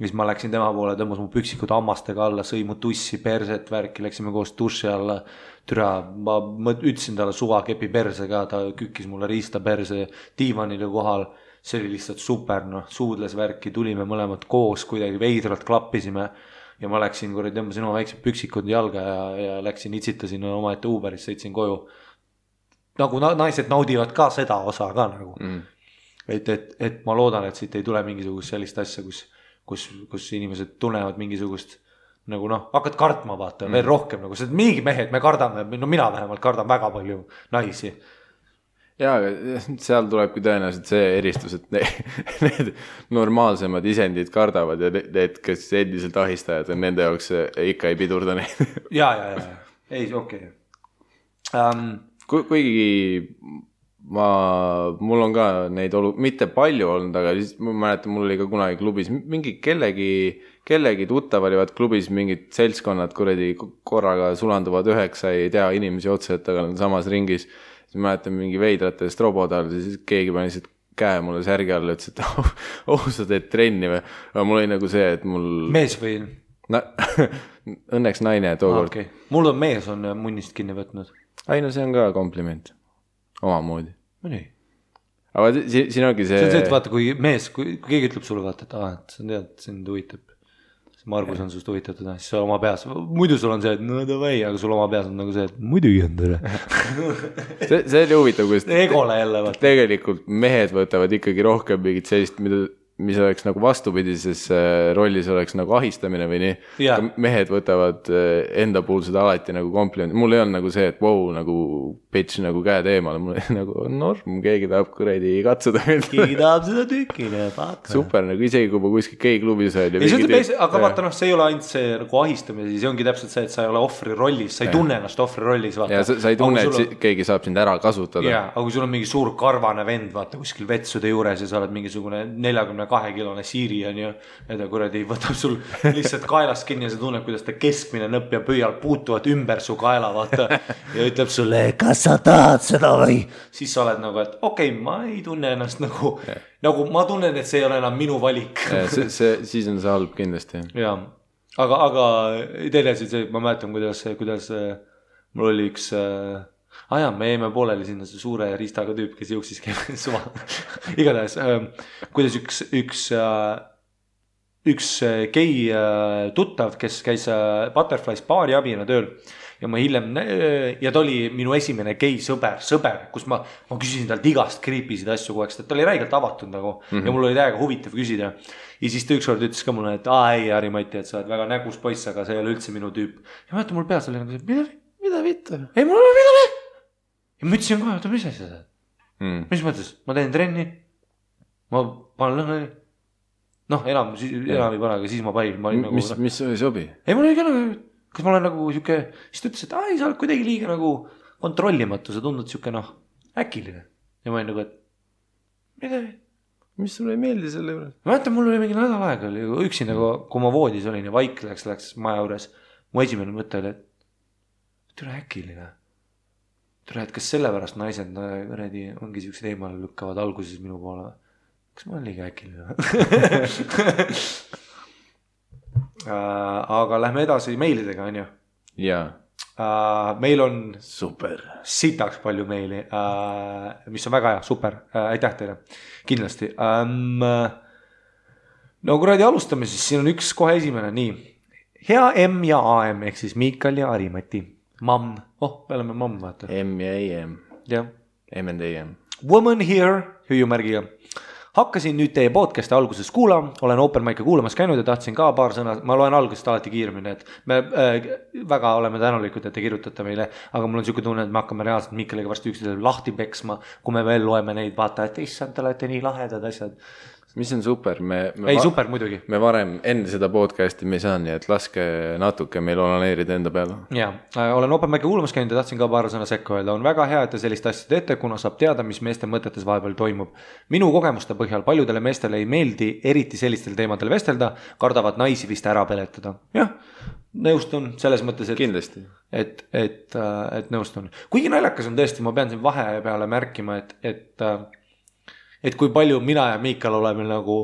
siis ma läksin tema poole, tõmbas mu püksikud hammastega alla, sõi mu tussi perset värki, läksime koos duši alla, türa, ma ütlesin talle suvakepi perse ka, ta kükkis mulle riista perse diivanile kohal. See oli lihtsalt super, suudles värki, tulime mõlemad koos, kuidagi veidralt klappisime ja ma läksin, tõmbasin oma väiksed püksikud jalga ja läksin, itsitasin oma ette Uberis, sõitsin koju. Nagu naised naudivad ka seda osa ka nagu. Et ma loodan, et siit ei tule mingisugust sellist asja, kus inimesed tunnevad mingisugust nagu hakkad kartma vaata veel rohkem, nagu see mingi mehed, me kardame, mina vähemalt kardan väga palju naisi. Jaa, aga seal tulebki tõenäoliselt see eristus, et need normaalsemad isendid kardavad ja need, kes endiselt ahistajad on, nende jaoks ikka ei pidurda neid. Jaa. Ei, okei. Kuigi mul on ka neid mitte palju olnud, aga siis ma mäletan, mul oli ka kunagi klubis mingi kellegi tuttav olivad klubis mingid seltskonnad kuradi korraga sulanduvad 9, ei tea inimesi otse, et aga on samas ringis. Siis mäletan mingi veidratest robodal, siis keegi pani lihtsalt käe mulle särgi alla, ütles, et sa teed trenni või? Aga mul oli nagu see, et mul... Mees või? Õnneks naine tookord. Okay. Mul on mees on munnist kinni võtnud. Ai, no see on ka kompliment. Omamoodi. No nii. Aga siin ongi see... See on see, et vaata, kui keegi ütleb sulle, vaata, et sa tead, sind huvitab. Margus on sust huvitatud, siis sa oma peas, muidu sul on see, et davai, aga sul oma peas on nagu see, et muidugi on tere. see oli huvitav, kus Egole jälle, vaata. Tegelikult mehed võtavad ikkagi rohkem mingit sellist, mida mis oleks nagu vastupidises rollis oleks nagu ahistamine või nii mehed võtavad enda puhul seda alati nagu kompliment, mul ei olnud nagu see, et wow, nagu bitch nagu käed eemale, mul ei nagu norm, keegi tahab kuradi katsuda keegi tahab seda tükile super, nagu isegi kui ma kuskil keikklubis aga vaata see ei ole ainult see nagu ahistamine, see ongi täpselt see, et sa ei ole ohvri rollis, sa ei tunne ennast ohvri rollis ja sa ei tunne, et keegi saab sind ära kasutada aga kui sul on mingi suur karvane vend vaata kuskil vetsude juures ja sa oled mingisugune 42-kilone siiri on ju, ja ta kuradi võtab sul lihtsalt kaelast kinni ja sa tunned, kuidas ta keskmine nõpp ja pöial puutuvad ümber su kaela vaata ja ütleb sulle, kas sa tahad seda või? Siis sa oled nagu, et okei, ma ei tunne ennast nagu ma tunnen, et see ei ole enam minu valik siis on see halb kindlasti aga teine see, ma mäletan, kuidas mul oli üks me jäime pooleli sinna see suure riistaga tüüp, kes jooksis suva igatahes, kuidas üks gei tuttav, kes käis Butterflies baari abina tööl ja ma hiljem, ja ta oli minu esimene gei sõber, kus ma küsisin talt igast creepy'sid asju kogu aeg, ta oli räigelt avatud nagu ja mul oli täiega huvitav küsida ja siis ta ükskord ütles ka mulle, et ei Harri-Mati, et sa oled väga nägus poiss, aga see ei ole üldse minu tüüp ja ma ütlen, mul peas oli nagu see, mida vittu? Ei, mul oli midagi ja ma ütlesin kohe, mis asja seda? Mis mõttes? Ma teen trenni, ma panen lõhnali. Enam ei pane, aga siis ma panin. Mis oli sobi? Ei, mul oli ka nagu, kas ma olen nagu siuke, siis ta ütles, et sa oled kuidagi liiga nagu kontrollimatu, sa tundud siuke äkiline. Ja ma olin nagu, et midagi. Mis sulle ei meeldi selle juures? Ma mäletan, mul oli mingi nädal aega, oli üksi nagu, kui ma voodis olin ja vaik läks maja juures, mu esimene mõte oli, et tule äkiline. Tule, et kas sellepärast naised ongi siuksed eemale lükkavad alguses minu poole? Kas ma olen liiga äkiline? Aga lähme edasi meilidega, on ju? Jaa. Meil on super sitaks palju meili, mis on väga hea, super, aitäh teile, kindlasti. No kuradi alustame siis, siin on üks kohe esimene, nii. Hea M ja AM, ehk siis Miikal ja Harri-Mati. Mamm, me oleme mamm, vaata. M ja AM. Jah. M and AM. Woman here, hüüumärgiga. Hakkasin nüüd teie podcasti alguses kuulama, olen open mic'e kuulamas käinud ja tahtsin ka paar sõna, ma loen algusest alati kiiremini, et me väga oleme tänulikud, et te kirjutate meile, aga mul on siuke tunne, et me hakkame reaalselt Miikaliga varsti üksteisele lahti peksma, kui me veel loeme neid, vaata, et issand, te olete nii lahedad asjad. Mis on super, super muidugi. Me varem enne seda podcasti me ei saa, nii et laske natuke meil onaneerida enda peale. Jaa, olen open mic'e kuulamas käinud ja tahtsin ka paar sõna sekka öelda. On väga hea, et te sellist asja teete, kuna saab teada, mis meeste mõtetes vahepeal toimub. Minu kogemuste põhjal paljudele meestele ei meeldi eriti sellistel teemadel vestelda, kardavad naisi vist ära peletada. Jah, nõustun selles mõttes, et kindlasti. Et nõustun. Kuigi naljakas on tõesti, ma pean siin vahe peale märkima, et kui palju mina ja Miikal oleme nagu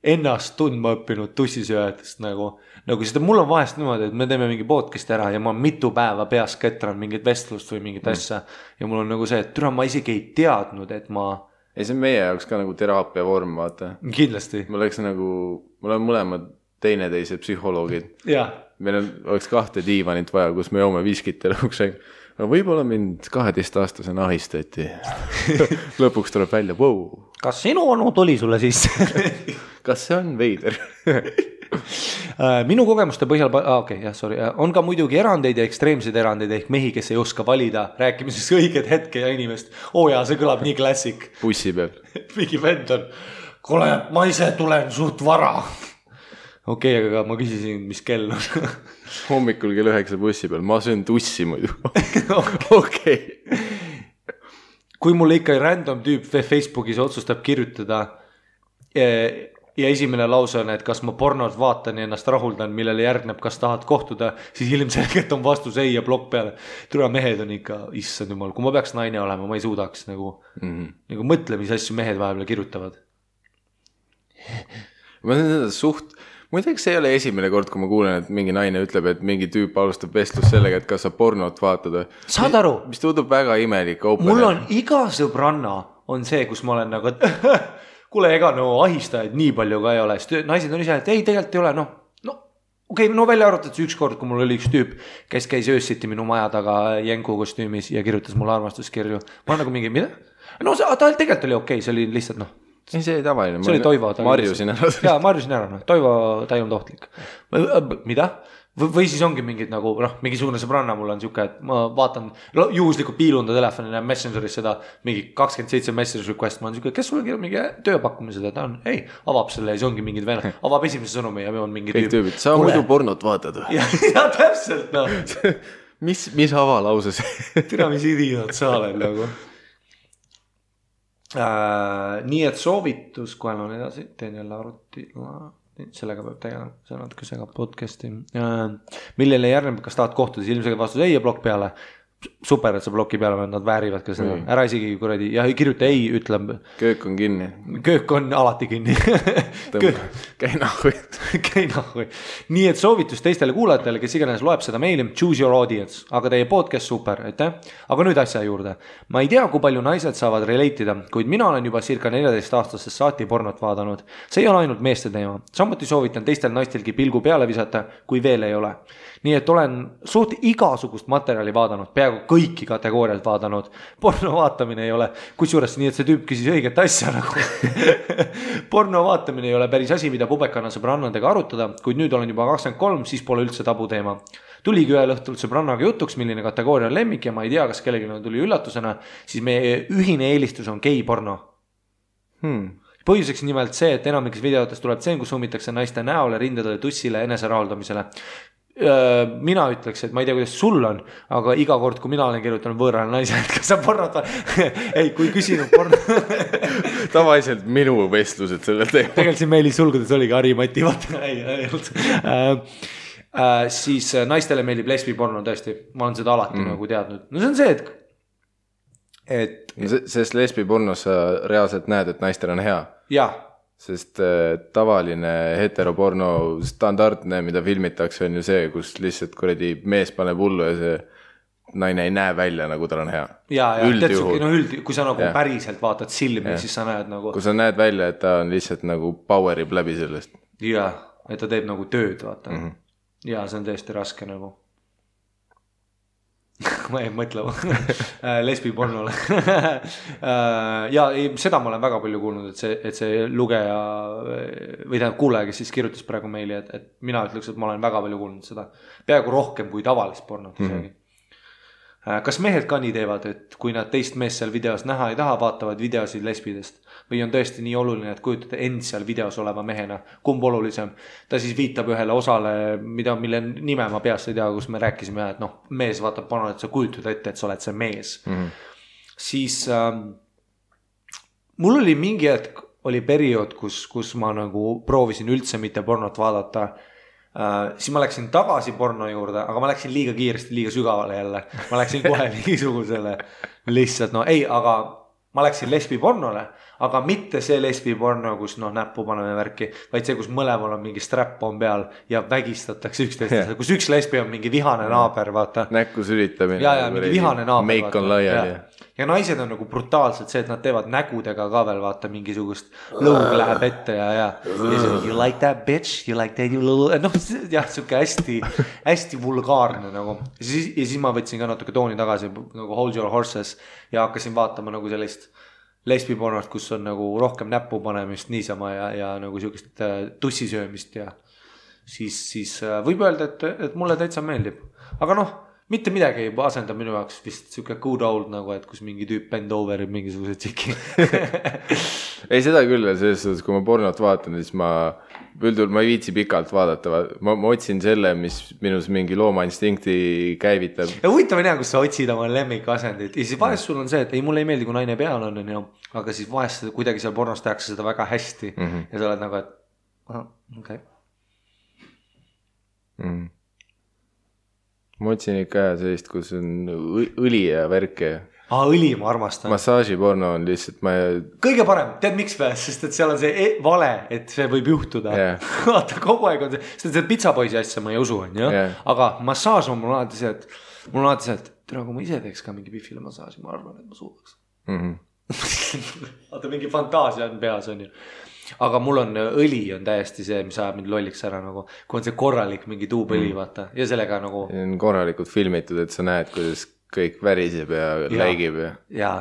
ennast tundma õppinud tussisööjatest nagu seda mul on vahest niimoodi, et me teeme mingi podcast'i ära ja ma mitu päeva peas ketran mingit vestlust või mingit asja ja mul on nagu see, et ma isegi ei teadnud, et ei, see on meie jaoks ka nagu teraapia vorm, vaata. Kindlasti. Me oleme mõlemad teineteise psühholoogid. Meil oleks 2 diivanit vaja, kus me joome viskit ja lõpuks aga võib-olla mind 12-aastasena ahistati. Lõpuks tuleb välja, wow. Kas sinu onu tuli sulle sisse? Kas see on veider? Minu kogemuste põhjal, on ka muidugi erandeid ja ekstreemseid erandeid ehk mehi, kes ei oska valida rääkimises õiged hetke ja inimest. See kõlab nii klassik. Bussi peal. Mingi vend on, kuule, ma ise tulen suht vara. Okei, aga ma küsisin, mis kell on. Hommikul kell 9 bussi peal, ma söön tussi muidu. Okei. Kui mulle ikka random tüüp Facebookis otsustab kirjutada ja esimene lause on, et kas ma pornot vaatan ja ennast rahuldan, millele järgneb, kas tahad kohtuda, siis ilmselgelt on vastus ei ja plokk peale. Tule mehed on ikka, issand jumal, kui ma peaks naine olema, ma ei suudaks nagu mõtle, mis asju mehed vahepeal kirjutavad. Ma olen seda muideks see ei ole esimene kord, kui ma kuulen, et mingi naine ütleb, et mingi tüüp alustab vestlus sellega, et kas sa pornot vaatad. Saad aru? Mis tundub väga imelik. Mul on iga sõbranna on see, kus ma olen nagu, et kuule, ega ahistajaid nii palju ka ei ole. Naised on ise, et ei, tegelikult ei ole. Välja arvatud see üks kord, kui mul oli üks tüüp, kes käis öössiti minu maja taga jänku kostüümis ja kirjutas mulle armastuskirju. Ma olen nagu mingi, mida? Ta tegelikult oli okei, see oli lihtsalt ei, see oli tavaline. See oli Toivo. Marjusin ära. Jaa, marjusin ära. Toivo, ta ei olnud ohtlik. Mida? Või siis ongi mingid nagu, mingisugune sõbranna mul on siuke, et ma vaatan, juhuslikult piilun ta telefoni ja Messengeris seda mingi 27 message request, ma olen siuke, kes sulle kirjab mingi tööpakkumised, et ta on, ei, avab selle ja see ongi mingid venna, avab esimese sõnumi ja on mingi tüüp. Sa muidu pornot vaatad või? Ja täpselt, no. mis avalause see? Tina, mis idioot sa oled nagu. Nii et soovitus, kohe on edasi, teen jälle arvuti, sellega peab tegema, see on natuke segab podcasti. Millele järgneb, kas tahad kohtuda, siis ilmselgelt vastus ei ja blokk peale. Super, et sa bloki peale, nad väärivad ka seda. Ära isegi kuradi, ja kirjuta ei, ütleb. Köök on kinni. Köök on alati kinni. Käi nahhui. Käi nahhui. Nii et soovitus teistele kuulajatele, kes iganes loeb seda meili, choose your audience, aga teie podcast super, aitäh. Aga nüüd asja juurde. Ma ei tea, kui palju naised saavad relate'ida, kuid mina olen juba circa 14 aastasest saati pornot vaadanud. See ei ole ainult meeste teema. Samuti soovitan teistel naistelgi pilgu peale visata, kui veel ei ole. Nii et olen suht igasugust materjali vaadanud, peaaegu kõiki kategooriaid vaadanud. Porno vaatamine ei ole, kusjuures nii, et see tüüp küsis õiget asja nagu. Porno vaatamine ei ole päris asi, mida pubekana sõbrannadega arutada, kuid nüüd olen juba 23, siis pole üldse tabu teema. Tuligi ühel õhtul sõbrannaga jutuks, milline kategooria on lemmik ja ma ei tea, kas kellelgi tuli üllatusena, siis meie ühine eelistus on gei-porno. Põhjuseks nimelt see, et enamikes videotes tuleb tseen, kus summitakse naiste näole, rindadele, tussile, enese raaldamisele. Mina ütleks, et ma ei tea, kuidas sul on, aga iga kord, kui mina olen kirjutanud võõrale naise, et kas sa pornot ei, kui küsinud porno tavaliselt minu vestlused sellel teemal. Tegelikult siin meilis sulgudes oligi Harimati, siis naistele meeldib lesbiporno tõesti, ma olen seda alati nagu teadnud. No see on see, et sest lesbipornos sa reaalselt näed, et naistel on hea. Jah. Sest tavaline heteroporno standardne, mida filmitakse, on ju see, kus lihtsalt kuradi mees paneb hullu ja see naine ei näe välja, nagu tal on hea. Ja kui sa nagu päriselt vaatad silmi, siis sa näed nagu... Kui sa näed välja, et ta on lihtsalt nagu powerib läbi sellest. Ja, et ta teeb nagu tööd, vaata. Ja see on tõesti raske nagu. Ma ei mõtle lesbipornole. Ja seda ma olen väga palju kuulnud, et see lugeja või tähendab kuulaja, kes siis kirjutas praegu meili, et mina ütleks, et ma olen väga palju kuulnud seda. Peaaegu rohkem kui tavalist pornot isegi. Kas mehed ka nii teevad, et kui nad teist meest seal videos näha ei taha, vaatavad videosid lesbidest või on tõesti nii oluline, et kujutate end seal videos oleva mehena, kumb olulisem? Ta siis viitab ühele osale, mille nime ma peast ei tea, kus me rääkisime, et mees vaatab pornot, et sa kujutad ette, et sa oled see mees. Siis mul oli mingi hetk, oli periood, kus ma nagu proovisin üldse mitte pornot vaadata. Siis ma läksin tagasi porno juurde, aga ma läksin liiga kiiresti, liiga sügavale jälle. Ma läksin kohe mingisugusele lihtsalt, aga ma läksin lesbipornole, aga mitte see lesbiporno, kus näppu paneme värki, vaid see, kus mõlemal on mingi strap on peal ja vägistatakse üksteist, kus üks lesbi on mingi vihane naaber, vaata. Näkku sülitamine. Ja mingi vihane naaber. Meik on laiali. Ja naised on nagu brutaalselt see, et nad teevad nägudega ka veel, vaata, mingisugust lõug läheb ette ja you like that bitch, you like that, you little, jah, siuke hästi vulgaarne nagu. Ja siis ma võtsin ka natuke tooni tagasi nagu Hold Your Horses ja hakkasin vaatama nagu sellist lesbipornot, kus on nagu rohkem näppu panemist niisama ja nagu siukest tussisöömist ja siis võib öelda, et mulle täitsa meeldib. Aga mitte midagi ei asenda minu jaoks vist siuke good old nagu, et kus mingi tüüp bend overib mingisuguse tšiki. Ei, seda küll, selles suhtes, kui ma pornot vaatan, siis ma ei viitsi pikalt vaadata. Ma otsin selle, mis minus mingi loomainstinkti käivitab. Ja huvitav on hea, kus sa otsid oma lemmikasendit. Ja siis vahest sul on see, et ei, mulle ei meeldi, kui naine peal on, aga siis vahest kuidagi seal pornos tehakse seda väga hästi. Ja sa oled nagu, et okei. Ma otsin ikka sellist, kus on õli ja värke. Õli ma armastan. Massaažiporno on lihtsalt kõige parem, tead miks või? Sest et seal on see vale, et see võib juhtuda. Vaata, kogu aeg on see, sest see pitsapoisi asja ma ei usu, aga massaaž on mul alati see, et tere, kui ma ise teeks ka mingi pifile massaaži, ma arvan, et ma suudaks. Vaata, mingi fantaasia on peas, on ju. Aga mul on õli on täiesti see, mis ajab mind lolliks ära nagu, kui on see korralik mingi tuubõli, vaata, ja sellega nagu... On korralikult filmitud, et sa näed, kuidas kõik väriseb ja läigib. Ja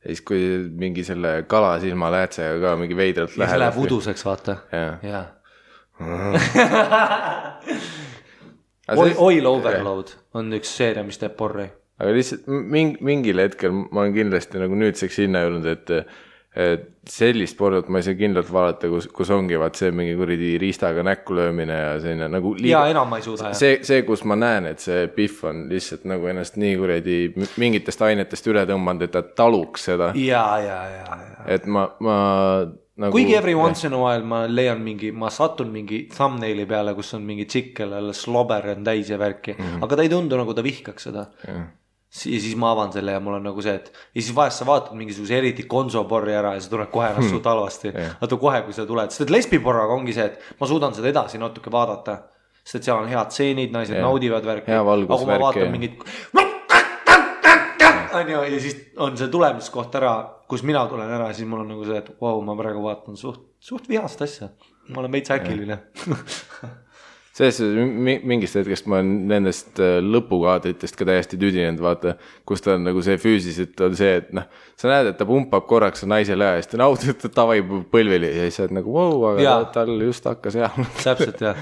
ja siis kui mingi selle kalasilma läätsega ka mingi veidralt läheb. Ja see läheb uduseks, vaata. Jaa. Oil Overload on üks seeria, mis teeb porri. Aga lihtsalt mingil hetkel ma olen kindlasti nagu nüüdseks hinna jõudnud, et sellist pornot ma ei saa kindlalt vaadata, kus ongi vaat see mingi kuridi riistaga näkku löömine ja selline nagu liiga... Ja enam ma ei suuda. See, kus ma näen, et see Pihv on lihtsalt nagu ennast nii kuridi mingitest ainetest üle tõmbanud, et ta taluks seda. Ja. Et ma nagu... Kuigi every once in a while ma leian ma satun mingi thumbnaili peale, kus on mingi tšikk, kellele slobber on täis ja värki, aga ta ei tundu nagu ta vihkaks seda. Ja siis ma avan selle ja mul on nagu see, et ja siis vahest sa vaatad mingisuguse eriti konsoporri ära ja see tuleb kohe ennast suht halvasti. Vaata kohe, kui sa tuled, sest et lesbiporraga ongi see, et ma suudan seda edasi natuke vaadata, sest et seal on head tseenid, naised naudivad värki. Aga kui ma vaatan mingit ja siis on see tulemiskoht ära, kus mina tulen ära, siis mul on nagu see, et wow, ma praegu vaatan suht vihast asja. Ma olen veits äkiline. Selles mingist hetkest ma olen nendest lõpukaadritest ka täiesti tüdinenud, vaata, kus ta on nagu see füüsiliselt on see, et noh, sa näed, et ta pumpab korraks naisele ja siis ta naudib, et ta tavai põlvili ja siis sa oled nagu wow, aga tal just hakkas hea. Täpselt, jah.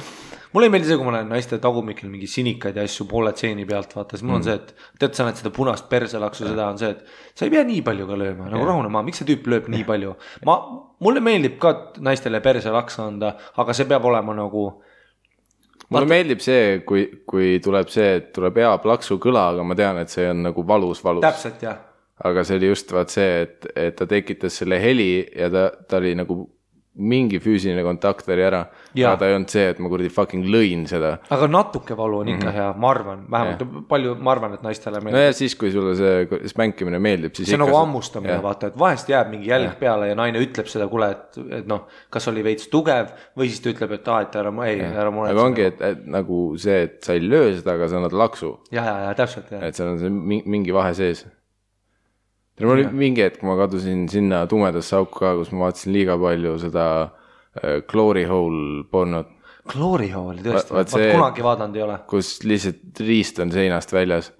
Mulle ei meeldi see, kui ma näen naiste tagumikil mingi sinikaid ja asju poole tseeni pealt, vaata, siis mul on see, et tead, sa näed seda punast perselaksu, seda on see, et sa ei pea nii palju ka lööma, nagu rahune maa, miks see tüüp lööb nii palju? Mulle meeldib ka naistele perselaksa anda, aga see peab olema nagu... Mulle meeldib see, kui tuleb see, et tuleb hea plaksu kõla, aga ma tean, et see on nagu valus. Täpselt, jah. Aga see oli just vaat see, et ta tekitas selle heli ja ta oli nagu mingi füüsiline kontakt oli ära. Aga ta ei olnud see, et ma kurdi fucking lõin seda. Aga natuke valu on ikka hea, ma arvan. Vähemalt palju ma arvan, et naistele meeldib. No ja siis, kui sulle see spänkimine meeldib, siis see on nagu ammustamine, vaata, et vahest jääb mingi jälg peale ja naine ütleb seda, kuule, et noh, kas oli veits tugev või siis ta ütleb, et ära muretse. Aga ongi, et nagu see, et sa ei löö seda, aga sa annad laksu. Ja, täpselt, jah. Et seal on see mingi vahe sees. Mul oli mingi hetk, ma kadusin sinna tumedasse auku ka, kus ma vaatasin liiga palju seda Glory Hole pornot. Glory Hole, tõesti, kunagi vaadanud ei ole. Kus lihtsalt riist on seinast väljas.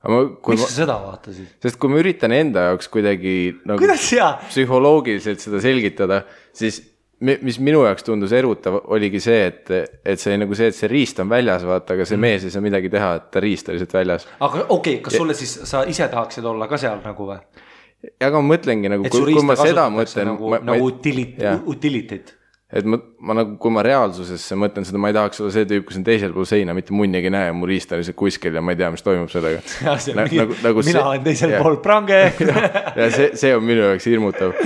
Miks sa seda vaatasid? Sest kui ma üritan enda jaoks kuidagi nagu psühholoogiliselt seda selgitada, siis mis minu jaoks tundus erutav oligi see, et see nagu see, et see riist on väljas, vaata, aga see mees ei saa midagi teha, et ta riist oli lihtsalt väljas. Aga okei, kas sulle siis sa ise tahaksid olla ka seal nagu või? Aga ma mõtlengi nagu, kui ma seda mõtlen... Nagu utilitit. Et ma nagu, kui ma reaalsusesse mõtlen seda, ma ei tahaks olla see tüüp, kus on teisel pool seina, mitte munnigi näe, mu riist on lihtsalt kuskil ja ma ei tea, mis toimub sellega. Mina olen teisel pool prange. Ja see on minu jaoks hirmutav.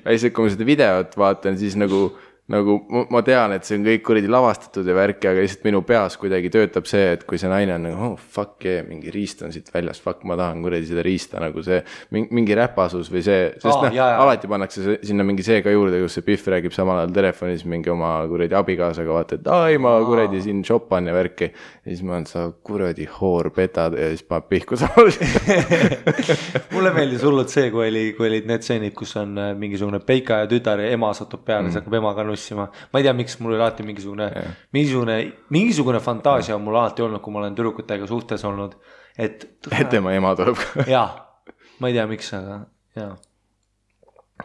Äised, kui ma seda videot vaatan, siis nagu ma tean, et see on kõik kuridi lavastatud ja värki, aga lihtsalt minu peas kuidagi töötab see, et kui see naine on nagu, fuck yeah, mingi riist on siit väljas, fuck, ma tahan kuridi seda riista nagu see, mingi räpasus või see, sest alati pannakse sinna mingi see ka juurde, kus see Pihv räägib samal ajal telefonis mingi oma kuridi abikaasaga, vaata, et ai, ma kuridi siin shopan ja värki. Ja siis ma olen, sa kuradi hoor petad ja siis ma pihku samal. Mulle meeldis hullult see, kui olid need seenid, kus on mingisugune peika ja tütar ja ema satub peale, see hakkab emaga nussima. Ma ei tea, miks mul oli alati mingisugune fantaasia on mul alati olnud, kui ma olen tüdrukutega suhtes olnud, et tema ema tuleb. Jaa, ma ei tea, miks, aga jaa.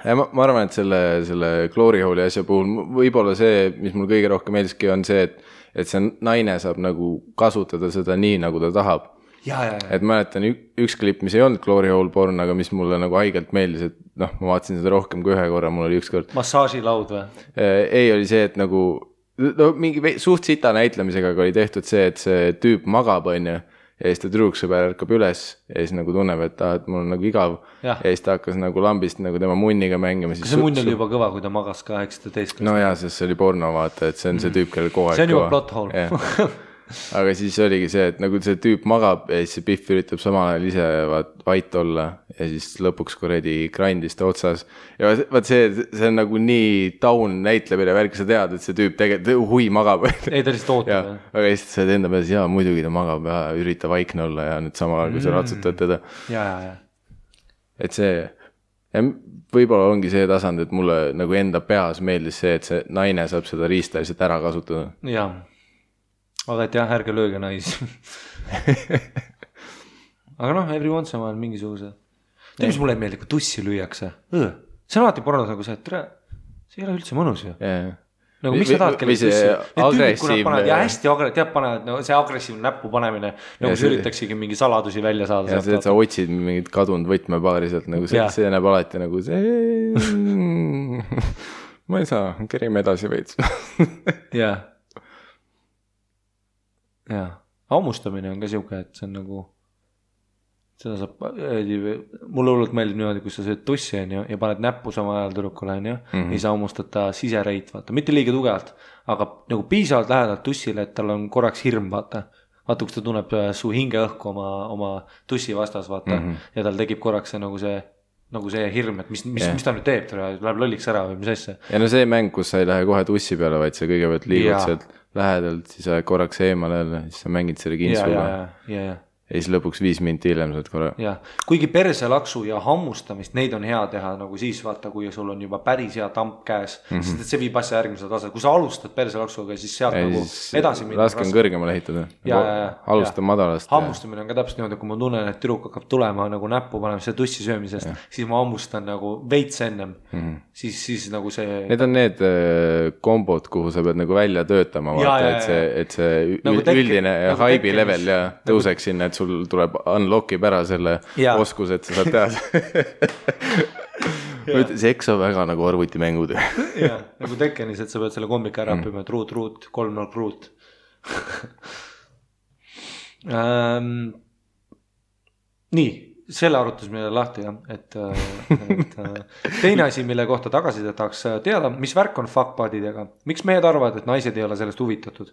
Ja ma arvan, et selle Glory Hole'i asja puhul võib-olla see, mis mul kõige rohkem meeldiski, on see, et see naine saab nagu kasutada seda nii, nagu ta tahab. Et mäletan üks klipp, mis ei olnud Glory Hole porn, aga mis mulle nagu haigelt meeldis, et noh, ma vaatasin seda rohkem kui ühe korra, mul oli üks kord. Massaažilaud või? Ei, oli see, et nagu mingi suht sita näitlemisega oli tehtud see, et see tüüp magab, on ju, ja siis ta tüdruksõber ärkab üles ja siis nagu tunneb, et mul on nagu igav ja siis ta hakkas nagu lambist nagu tema munniga mängima. Kas see munn oli juba kõva, kui ta magas 18? No jaa, sest see oli porno, vaata, et see on see tüüp, kellel kogu aeg see on juba plot hole. Aga siis oligi see, et nagu see tüüp magab ja siis see Pihv üritab samal ajal ise vait olla ja siis lõpuks kuredi grindis ta otsas. Ja vaat see on nagu nii taun näitlemine värk, sa tead, et see tüüp tegelikult hui magab. Ei, ta lihtsalt ootab. Aga siis sa enda peales, jaa, muidugi ta magab ja ürita vaikne olla ja nüüd samal ajal, kui sa ratsutad teda. Ja. Et see, ja võib-olla ongi see tasand, et mulle nagu enda peas meeldis see, et see naine saab seda riista lihtsalt ära kasutada. Jaa. Aga et jah, ärge lööge naisi. Aga noh, every once in a while mingisuguse. Tead, mis mulle ei meeldi, kui tussi lüüakse? See on alati pornos nagu see, et see ei ole üldse mõnus ju. Nagu miks sa tahad kellegi tussi? Agressiivne. Ja hästi panevad, no see agressiivne näppu panemine, nagu see üritaksigi mingi saladusi välja saada. Ja see, et sa otsid mingit kadunud võtmepaari sealt, nagu see näeb alati nagu see... Ma ei saa, kerime edasi veits. Jaa. Hammustamine on ka siuke, et see on nagu... Seda saab, mulle hullult meeldib niimoodi, kus sa sööd tussi ja paned näppu sama ajal tüdrukule ei saa hammustada sisereit, vaata, mitte liiga tugevalt, aga nagu piisavalt lähedalt tussile, et tal on korraks hirm, vaata, kus ta tunneb su hingeõhku oma tussi vastas, vaata, ja tal tekib korraks see nagu see hirm, et mis ta nüüd teeb, läheb lolliks ära või mis asja. Ja no see mäng, kus sa ei lähe kohe tussi peale, vaid sa kõigepealt liigud sealt lähedalt, siis sa korraks eemale jälle, siis sa mängid selle kintsuga. Ja siis lõpuks 5 minti hiljem saad korra. Ja, kuigi perselaksu ja hammustamist, neid on hea teha nagu siis vaata, kui sul on juba päris hea tamp käes, sest et see viib asja järgmise tase. Kui sa alustad perselaksuga, siis sealt nagu edasi minna. Raske on kõrgemale ehitada. Alusta madalast. Hammustamine on ka täpselt niimoodi, kui ma tunnen, et tüdruk hakkab tulema nagu näppu panemise tussi söömisest, siis ma hammustan nagu veits ennem. Siis nagu see... Need on need kombod, kuhu sa pead nagu välja töötama, vaata, et see üldine haibi level ja tõuseks sinna, sul tuleb unlockib ära selle oskus, et sa saad teha. See eks on väga nagu arvutimängud. Nagu Tekkenis, et sa pead selle kombika ära õppima, et ruut, 3-0 ruut. Nii, selle arutusime lahti, et teine asi, mille kohta tagasi tahaks teada, mis värk on fuckbudidega? Miks mehed arvavad, et naised ei ole sellest huvitatud?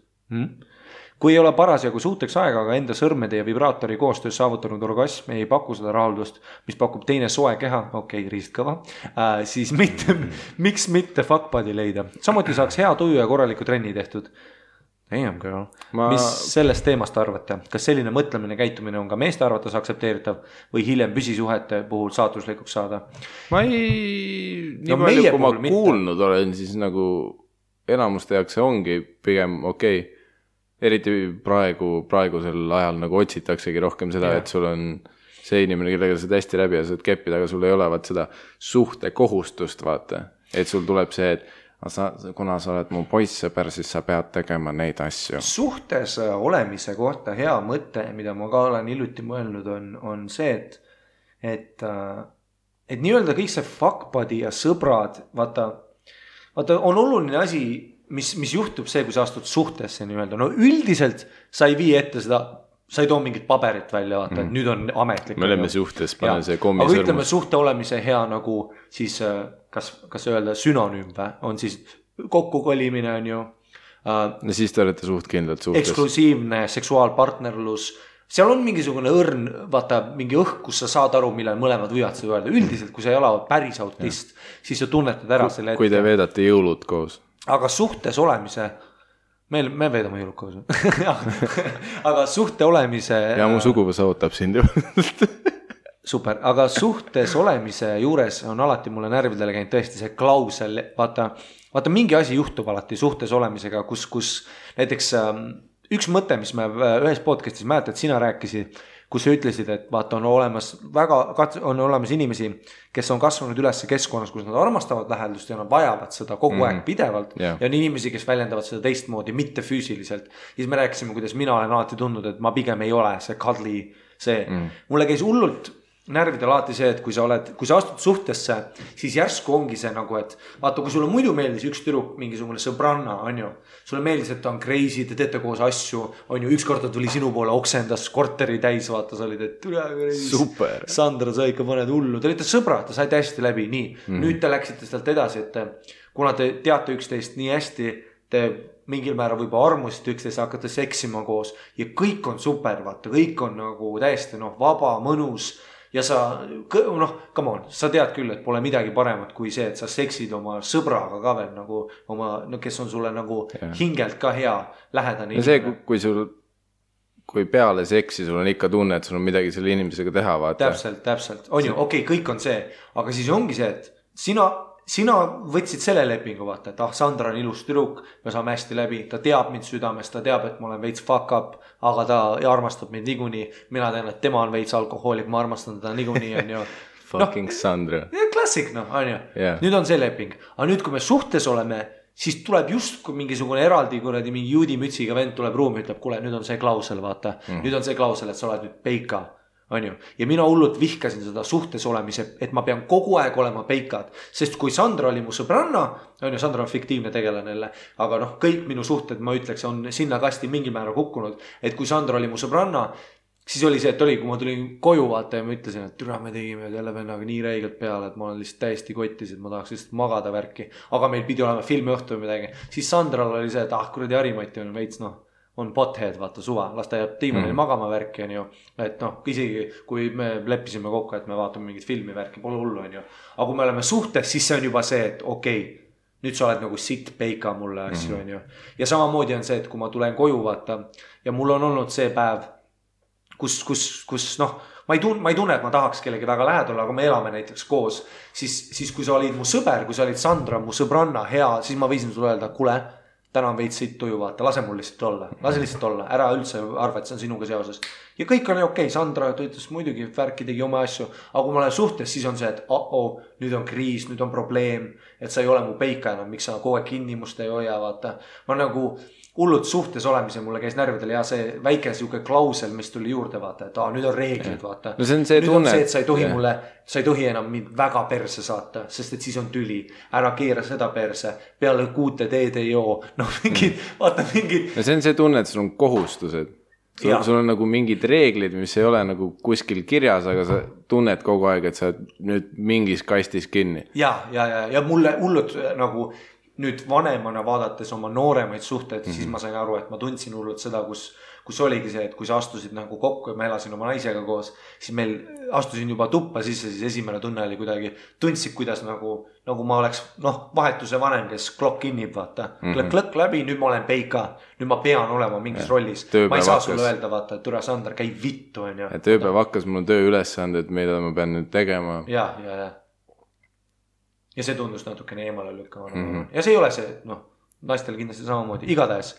Kui ei ole parasjagu suuteks aega, aga enda sõrmede ja vibraatori koostöös saavutanud orgasm ei paku seda rahuldust, mis pakub teine soe keha, riistkõva, siis miks mitte fuckbuddy leida? Samuti saaks hea tuju ja korraliku trenni tehtud. Damn girl. Mis sellest teemast arvate? Kas selline mõtlemine käitumine on ka meeste arvates aktsepteeritav või hiljem püsisuhete puhul saatuslikuks saada? Ma ei... Nii palju, kui ma kuulnud olen, siis nagu enamuste jaoks see ongi pigem okei. Eriti praegusel ajal nagu otsitaksegi rohkem seda, et sul on see inimene, kellega sa hästi läbi ja saad keppida, aga sul ei ole seda suhte kohustust, vaata. Et sul tuleb see, et kuna sa oled mu poissõber, siis sa pead tegema neid asju. Suhtes olemise kohta hea mõte, mida ma ka olen hiljuti mõelnud, on see, et nii-öelda kõik see fuckbuddy ja sõbrad, vaata, on oluline asi, mis juhtub see, kui sa astud suhtesse nii-öelda. No üldiselt sa ei vii ette seda, sa ei too mingit paberit välja, vaata, et nüüd on ametlik. Me oleme suhtes, pane see kommi sõrmus. Aga ütleme suhte olemise hea nagu siis, kas öelda sünonüüm või, on siis kokkukolimine on ju. No siis te olete suhtkindlad suhtes. Eksklusiivne seksuaalpartnerlus. Seal on mingisugune õrn, vaata, mingi õhk, kus sa saad aru, millal mõlemad võivad seda öelda. Üldiselt, kui sa ei ole päris autist, siis sa tunnetad ära selle ette. Kui te veedate jõulud koos. Aga suhtes olemise, me veedame jõulud koos. Aga suhte olemise... Ja mu suguvõs ootab sind ju. Super, aga suhtes olemise juures on alati mulle närvidele käinud tõesti see klausel, vaata mingi asi juhtub alati suhtes olemisega, kus näiteks üks mõte, mis me ühes podcastis mäletad, sina rääkisid, kus sa ütlesid, et vaata on olemas inimesi, kes on kasvanud üles keskkonnas, kus nad armastavad lähedust ja nad vajavad seda kogu aeg pidevalt ja on inimesi, kes väljendavad seda teistmoodi, mitte füüsiliselt. Siis me rääkisime, kuidas mina olen alati tundnud, et ma pigem ei ole see cuddly see. Mulle käis hullult närvidel alati see, et kui sa astud suhtesse, siis järsku ongi see nagu, et vaata, kui sulle muidu meeldis üks tüdruk, mingisugune sõbranna, on ju, sulle meeldis, et ta on crazy, te teete koos asju, on ju, üks kord ta tuli sinu poole, oksendas korteri täis, vaata, sa olid, et super. Sandra, sa ikka paned hullu, te olite sõbrad, te saite hästi läbi, nii, nüüd te läksite sealt edasi, et kuna te teate üksteist nii hästi, te mingil määral võib-olla armusite üksteist, hakkate seksima koos ja kõik on super, vaata, kõik on nagu täiesti vaba, mõnus. Ja sa, come on, sa tead küll, et pole midagi paremat kui see, et sa seksid oma sõbraga ka veel nagu kes on sulle nagu hingelt ka hea lähedane. Ja see, kui peale seksi sul on ikka tunne, et sul on midagi selle inimesega teha, vaata. Täpselt. On ju, okei, kõik on see, aga siis ongi see, et sina võtsid selle lepingu, vaata, et Sandra on ilus tüdruk, me saame hästi läbi, ta teab mind südames, ta teab, et ma olen veits fuck up, aga ta armastab mind niikuinii, mina tean, et tema on veits alkohoolik, ma armastan teda niikuinii, on ju. Fucking Sandra. Klassik, on ju. Yeah. Nüüd on see leping. Aga nüüd, kui me suhtes oleme, siis tuleb just kui mingisugune eraldi kuradi mingi juudimütsiga vend tuleb ruumi, ütleb, kuule, nüüd on see klausel, vaata. Nüüd on see klausel, et sa oled nüüd peika. On ju. Ja mina hullult vihkasin seda suhtes olemise, et ma pean kogu aeg olema peikad. Sest kui Sandra oli mu sõbranna, on ju, Sandra on fiktiivne tegelanelle, aga kõik minu suhted, ma ütleks, on sinna kasti mingi määra kukkunud. Et kui Sandra oli mu sõbranna, siis oli see, et oli, kui ma tulin koju vaata ja ma ütlesin, et türa me tegime jälle vennaga nii räigelt peale, et ma olen lihtsalt täiesti kottis, et ma tahaks lihtsalt magada värki. Aga meil pidi olema filmiõhtu või midagi. Siis Sandral oli see, et kuradi Harimati on veits, on pothead, vaata suva, las ta jääb diivanil magama värki, on ju. Et isegi kui me leppisime kokku, et me vaatame mingit filmi värki, pole hullu, on ju. Aga kui me oleme suhtes, siis see on juba see, et okei, nüüd sa oled nagu sitt peika mulle asju, on ju. Ja samamoodi on see, et kui ma tulen koju, vaata, ja mul on olnud see päev, kus ma ei tunne, et ma tahaks kellegi väga lähedal, aga me elame näiteks koos, siis kui sa olid mu sõber, kui sa olid Sandra, mu sõbranna, hea, siis ma võisin sulle öelda, kuule, täna on veits siit tuju, vaata, lase mul lihtsalt olla, ära üldse arva, et see on sinuga seoses. Ja kõik on okei, Sandra ütles muidugi, värki tegi oma asju, aga kui ma olen suhtes, siis on see, et nüüd on kriis, nüüd on probleem, et sa ei ole mu peika enam, miks sa kogu aeg kinni must ei hoia, vaata. Ma nagu hullult suhtes olemise mulle käis närvidel ja see väike siuke klausel, mis tuli juurde, vaata, et nüüd on reeglid, vaata. No see on see nüüd tunne. on see, et sa ei tohi enam mind väga perse saata, sest et siis on tüli. Ära keera seda perse, peale 6 teed ei joo. Vaata mingid. No see on see tunne, et sul on kohustused. Sul on nagu mingid reeglid, mis ei ole nagu kuskil kirjas, aga sa tunned kogu aeg, et sa nüüd mingis kastis kinni. Ja mulle hullult nagu nüüd vanemana vaadates oma nooremaid suhteid, siis ma sain aru, et ma tundsin hullult seda, kus oligi see, et kui sa astusid nagu kokku ja ma elasin oma naisega koos, siis meil astusin juba tuppa sisse, siis esimene tunne oli kuidagi, tundsid, kuidas nagu ma oleks, vahetuse vanem, kes klokk kinnib, vaata. Klõkk läbi, nüüd ma olen peika, nüüd ma pean olema mingis rollis. Ma ei saa sulle öelda, vaata, et türa Sandra, käi vittu, on ju. Tööpäev hakkas, mul on töö ülesanded, mida ma pean nüüd tegema. Ja see tundus natukene eemale lükkama. Ja see ei ole see, naistel kindlasti samamoodi. Igatahes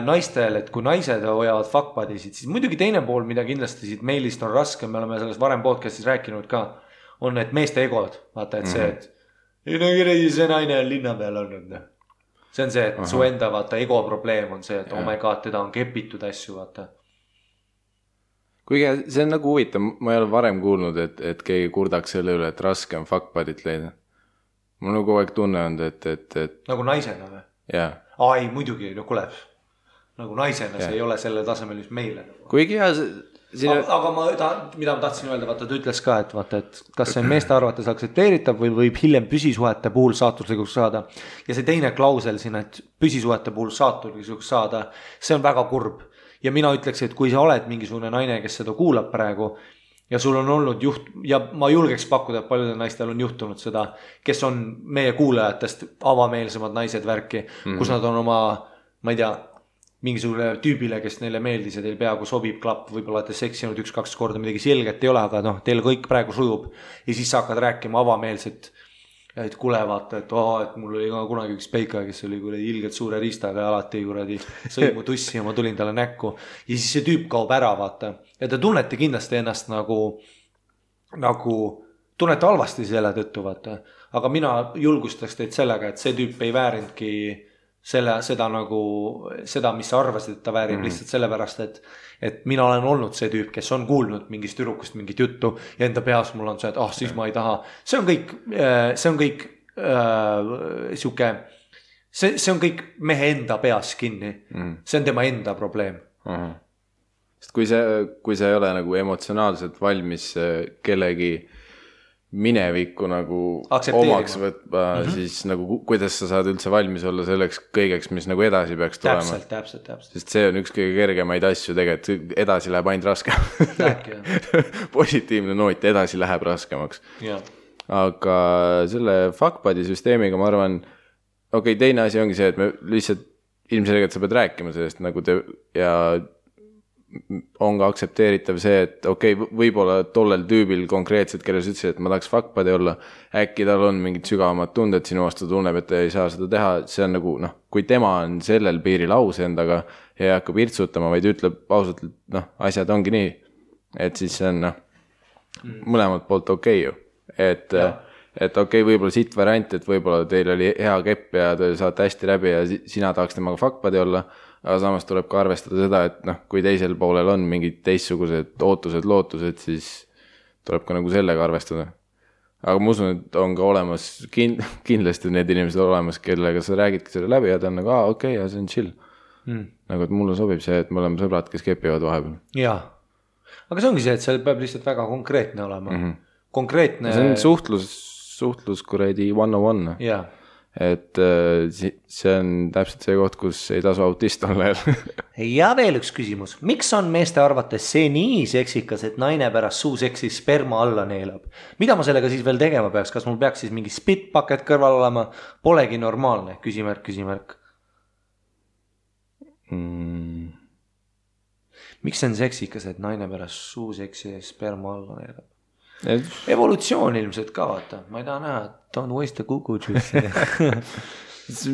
naistel, et kui naised hoiavad fuckbuddysid, siis muidugi teine pool, mida kindlasti siit meilist on raske, me oleme selles varem podcastis rääkinud ka, on need meeste egod. Vaata, et see, et see naine on linna peal olnud. See on see, et su enda vaata ego probleem on see, et oh my god, teda on kepitud asju, vaata. Kuigi see on nagu huvitav, ma ei ole varem kuulnud, et keegi kurdaks selle üle, et raske on fuckbuddyt leida. Mul on kogu aeg tunne olnud, et... Nagu naisena või? Jaa. Ei, muidugi, kuule. Nagu naisena, see ei ole selle tasemel, mis meile. Kuigi hea... Aga mida ma tahtsin öelda, vaata, ta ütles ka, et vaata, et kas see meeste arvates aksepteeritav või võib hiljem püsisuhete puhul saatuslikuks saada. Ja see teine klausel siin, et püsisuhete puhul saatuslikuks saada, see on väga kurb. Ja mina ütleks, et kui sa oled mingisugune naine, kes seda kuulab praegu, ja sul on olnud ja ma julgeks pakkuda, et paljudel naistel on juhtunud seda, kes on meie kuulajatest avameelsemad naised värki, kus nad on oma, ma ei tea, mingisugune tüübile, kes neile meeldis ja teil peaaegu sobib klapp, võib-olla olete seksinud 1-2 korda, midagi selget ei ole, aga teil kõik praegu sujub ja siis sa hakkad rääkima avameelset, et kuule vaata, et mul oli ka kunagi üks peika, kes oli kuradi ilgelt suure riistaga ja alati kuradi sõi mu tussi ja ma tulin talle näkku ja siis see tüüp kaob ära, vaata. Ja te tunnete kindlasti ennast nagu tunnete halvasti selle tõttu, vaata. Aga mina julgustaks teid sellega, et see tüüp ei väärinudki seda, mis sa arvasid, et ta väärib lihtsalt sellepärast, et mina olen olnud see tüüp, kes on kuulnud mingist tüdrukust mingit juttu ja enda peas mul on see, et siis ma ei taha. See on kõik siuke, see on kõik mehe enda peas kinni. See on tema enda probleem. Sest kui sa ei ole nagu emotsionaalselt valmis kellegi minevikku nagu omaks võtma, siis nagu kuidas sa saad üldse valmis olla selleks kõigeks, mis nagu edasi peaks tulema. Täpselt. Sest see on üks kõige kergemaid asju tegelikult, edasi läheb ainult raskemaks. Positiivne noot, edasi läheb raskemaks. Aga selle fuckbuddy süsteemiga ma arvan, teine asi ongi see, et me lihtsalt ilmselgelt sa pead rääkima sellest nagu ja on ka aktsepteeritav see, et võib-olla tollel tüübil konkreetselt, kelles ütlesid, et ma tahaks fuckbuddy olla, äkki tal on mingid sügavamad tunded sinu vastu, tunneb, et ta ei saa seda teha, see on nagu, kui tema on sellel piiril aus endaga ja ei hakka pirtsutama, vaid ütleb ausalt, et asjad ongi nii, et siis see on, mõlemalt poolt okei ju. Et okei, võib-olla siit variant, et võib-olla teil oli hea kepp ja te saate hästi läbi ja sina tahaks temaga fuckbuddy olla, aga samas tuleb ka arvestada seda, et noh, kui teisel poolel on mingid teistsugused ootused, lootused, siis tuleb ka nagu sellega arvestada. Aga ma usun, et on ka olemas, kindlasti need inimesed olemas, kellega sa räägidki selle läbi ja ta on nagu, okei, ja see on chill. Nagu, et mulle sobib see, et me oleme sõbrad, kes kepivad vahepeal. Jaa, aga see ongi see, et seal peab lihtsalt väga konkreetne olema. Konkreetne. See on suhtlus kuradi 101. Jaa. Et see on täpselt see koht, kus ei tasu autist olla jälle. Ja veel üks küsimus. Miks on meeste arvates see nii seksikas, et naine pärast suuseksi sperma alla neelab? Mida ma sellega siis veel tegema peaks? Kas mul peaks siis mingi spitbucket kõrval olema? Polegi normaalne, küsimärk. Miks see on seksikas, et naine pärast suuseksi sperma alla neelab? Evolutsioon ilmselt ka, vaata. Ma ei taha näha, don't waste a kukujuice.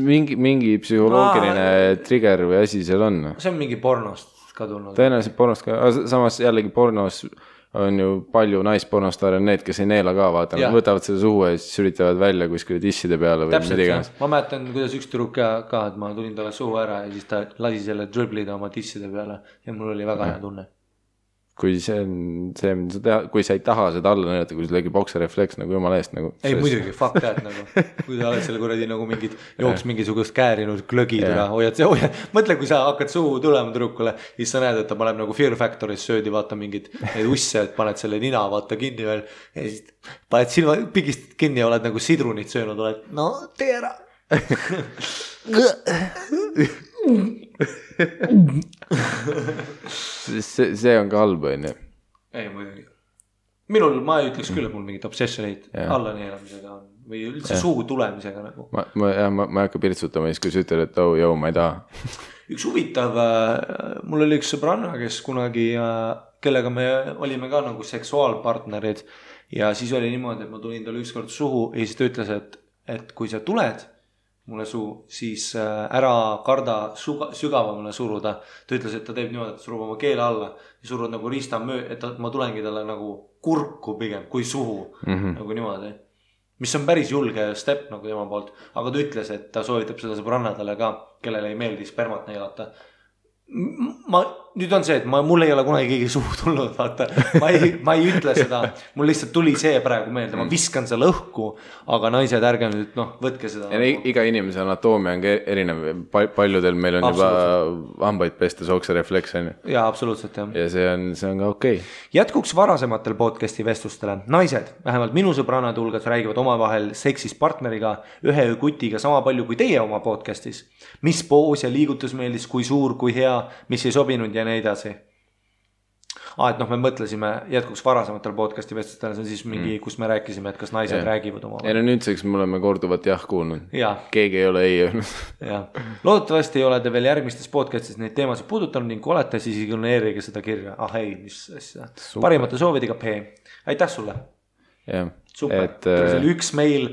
mingi psühholoogiline trigger või asi seal on. See on mingi pornost ka tulnud. Tõenäoliselt pornost ka, samas jällegi pornos on ju palju naispornostaare on need, kes ei neela ka, vaata. Nad võtavad selle suhu ja siis üritavad välja kuskile tisside peale või täpselt, ma mäletan, kuidas üks tüdruk ka, et ma tulin talle suhu ära ja siis ta lasi selle driblida oma tisside peale ja mul oli väga hea tunne. Kui see on see, mida sa teha, kui sa ei taha seda alla näidata, kui sul tegi bokserefleks nagu jumala eest nagu. Ei muidugi, fuck that nagu, kui sa oled selle kuradi nagu mingid jooks mingisugust käärinud glögid üle, hoiad, mõtle, kui sa hakkad suhu tulema tüdrukule, siis sa näed, et ta paneb nagu Fear Factoris söödi, vaata mingid neid usse, et paned selle nina, vaata kinni veel ja siis paned silma pigist kinni ja oled nagu sidrunit söönud, oled, no tee ära. see on ka halb, on ju. Ei muidugi. Minul, ma ei ütleks küll, et mul mingit obsessionit alla neelamisega on või üldse suhu tulemisega nagu. Ma ei hakka pirtsutama siis, kui sa ütled, et ma ei taha. Üks huvitav, mul oli üks sõbranna, kes kunagi, kellega me olime ka nagu seksuaalpartnerid ja siis oli niimoodi, et ma tulin talle ükskord suhu ja siis ta ütles, et kui sa tuled mulle suu, siis ära karda sügavamale suruda. Ta ütles, et ta teeb niimoodi, et surub oma keele alla ja surud nagu riista et ma tulengi talle nagu kurku pigem kui suhu nagu niimoodi. Mis on päris julge step nagu tema poolt, aga ta ütles, et ta soovitab seda sõbrannadele ka, kellele ei meeldi spermat neelata. Nüüd on see, et mul ei ole kunagi keegi suhu tulnud, vaata, ma ei ütle seda, mul lihtsalt tuli see praegu meelde, ma viskan selle õhku, aga naised ärge nüüd, võtke seda. Ja iga inimese anatoomia on erinev, paljudel meil on juba hambaid pestes okserefleks, on ju. Jaa, absoluutselt, jah. Ja see on ka okei. Jätkuks varasematel podcasti vestlustele. Naised, vähemalt minu sõbrannad hulgas räägivad omavahel seksist partneriga, ühe kutiga sama palju kui teie oma podcastis. Mis poos ja liigutus meeldis, kui suur, kui hea, mis ei sobinud ja nii edasi. Et me mõtlesime jätkuks varasematel podcasti vestlustele, see on siis mingi, kus me rääkisime, et kas naised räägivad oma. Ja nüüdseks me oleme korduvat kuulnud. Keegi ei ole ei öelnud. Loodetavasti ei ole te veel järgmistes podcastis neid teemasid puudutanud ning kui olete, siis ignoreerige seda kirja. Ei, mis asja. Parimate soovidega P. Aitäh sulle. Super. See oli üks meil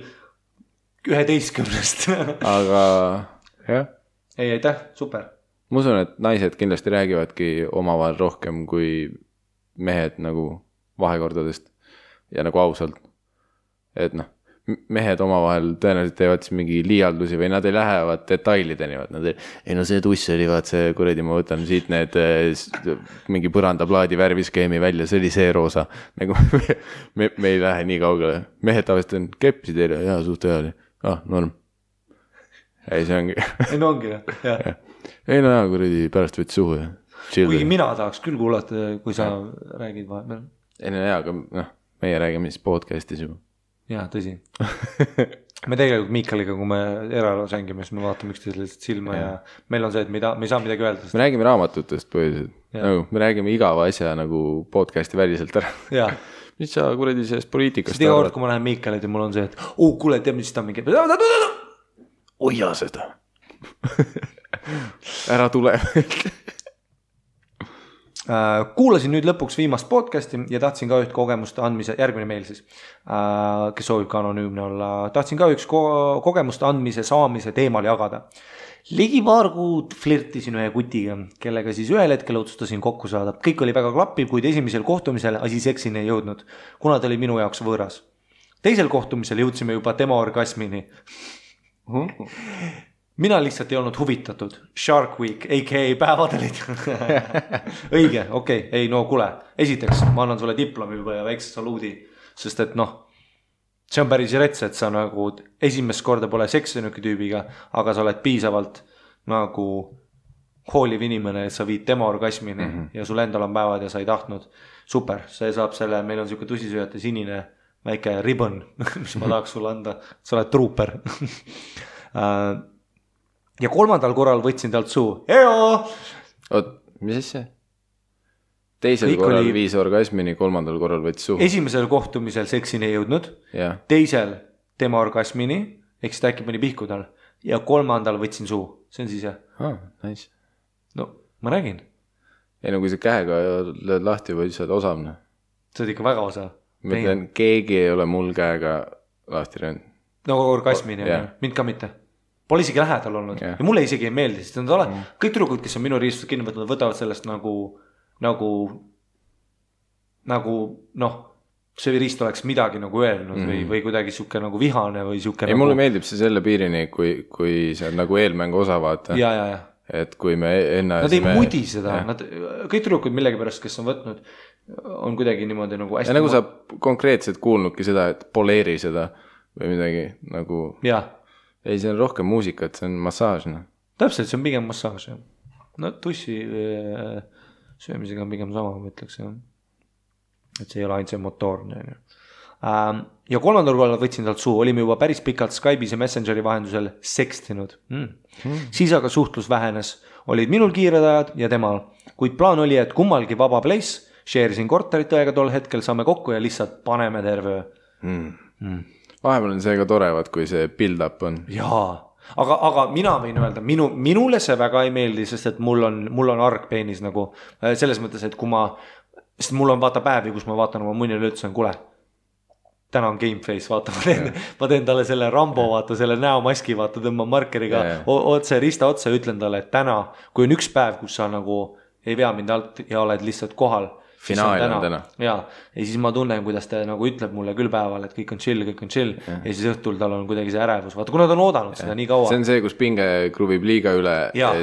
11. Aga jah. Ei, aitäh, super. Ma usun, et naised kindlasti räägivadki omavahel rohkem kui mehed nagu vahekordadest ja nagu ausalt. Et mehed omavahel tõenäoliselt teevad siis mingi liialdusi või nad ei lähevad detailideni. See tuss oli, see kuradi, ma võtan siit need mingi põrandaplaadi värviskeemi välja, see oli see roosa. Nagu me ei lähe nii kaugele. Mehed tavaliselt on kepsi teile, suht hea oli. Norm. Ei, see ongi. Ei, no ongi, jah. Ei, kuradi pärast võtsi suhu. Kuigi mina tahaks küll kuulata, kui sa räägid vahepeal. Ei, aga meie räägime siis podcastis juba. Jaa, tõsi. Me tegelikult Miikaliga, kui me eraelus hängime, siis me vaatame üksteisele lihtsalt silma ja meil on see, et me ei saa midagi öelda. Me räägime raamatutest põhiliselt. Me räägime igava asja nagu podcasti väliselt ära. Jaa. Mis sa kuradi sellest poliitikast iga kord, kui ma lähen Miikalid ja mul on see, et kuule, teab, mis ta mingi hoia seda. Ära tule. Kuulasin nüüd lõpuks viimast podcasti ja tahtsin ka üht kogemust andmise, järgmine meil siis, kes soovib ka anonüümne olla, tahtsin ka üks kogemust andmise saamise teemal jagada. ligi paar kuud flirtisin ühe kutiga, kellega siis ühel hetkel otsustasin kokku saada. Kõik oli väga klappiv, kuid esimesel kohtumisel asi seksini ei jõudnud, kuna ta oli minu jaoks võõras. Teisel kohtumisel jõudsime juba tema orgasmini. Mina lihtsalt ei olnud huvitatud. Shark Week, a.k.a. päevad olid. Õige, okei, ei no kuule. Esiteks, ma annan sulle diplomi juba ja väikse saluudi, sest et noh, see on päris rets, et sa nagu esimest korda pole seksinud tüübiga, aga sa oled piisavalt nagu hooliv inimene, et sa viid tema orgasmini ja sul endal on päevad ja sa ei tahtnud. Super, see saab selle, meil on siuke tusisööjate sinine väike ribbon, mis ma tahaks sulle anda. Sa oled trooper. Ja 3. korral võtsin talt suu. Eo! Oot, mis asja? Teisel korral viis orgasmini, 3. korral võttis suhu. Esimesel kohtumisel seksini ei jõudnud. Teisel tema orgasmini, eks ta äkki mõni pihku tal. Ja 3. võtsin suhu. See on siis jah. Nice. No, ma räägin. Ei no kui sa käega lööd lahti või sa oled osavne. Sa oled ikka väga osav. Ma ütlen, keegi ei ole mul käega lahti röönud. No orgasmini, mind ka mitte. Pole isegi lähedal olnud. Ja mulle isegi ei meeldi, sest nad kõik tüdrukud, kes on minu riistud kinni võtnud, võtavad sellest nagu noh, see riist oleks midagi nagu öelnud või kuidagi siuke nagu vihane või siuke. Ei, mulle meeldib see selle piirini, kui see on nagu eelmängu osa vaata. Ja. Et kui me enne... Nad ei mudi seda, kõik tüdrukud millegipärast, kes on võtnud, on kuidagi niimoodi nagu hästi... Ja nagu sa konkreetselt kuulnudki seda, et poleeri seda või midagi nagu... Ja. Ei, see on rohkem muusikat, see on massaaž. Täpselt, see on pigem massaaž. No tussi söömisega on pigem sama, ma ütleks. Et see ei ole ainult see motoorne. Ja 3. korral võtsin talt suu, olime juba päris pikalt Skype'is ja Messengeri vahendusel sekstinud. Siis aga suhtlus vähenes, olid minul kiired ajad ja temal, kuid plaan oli, et kummalgi vaba place, share'isin korterit õega tol hetkel, saame kokku ja lihtsalt paneme terve. Vahepeal on see ka torevad, kui see build-up on. Jaa, aga mina võin öelda, minule see väga ei meeldi, sest et mul on argpeenis nagu selles mõttes, et kui sest mul on vaata päevi, kus ma vaatan oma munile ütlesin, kuule, täna on gameface, vaata, ma teen talle selle Rambo, vaata, selle näomaski, vaata, tõmban markeriga otse, rista otse, ütlen talle, et täna, kui on üks päev, kus sa nagu ei vea mind alt ja oled lihtsalt kohal, finaal on täna. Ja siis ma tunnen, kuidas ta nagu ütleb mulle küll päeval, et kõik on chill ja siis õhtul tal on kuidagi see ärevus. Vaata, kui nad on oodanud seda nii kaua. See on see, kus pinge kruvib liiga üle ja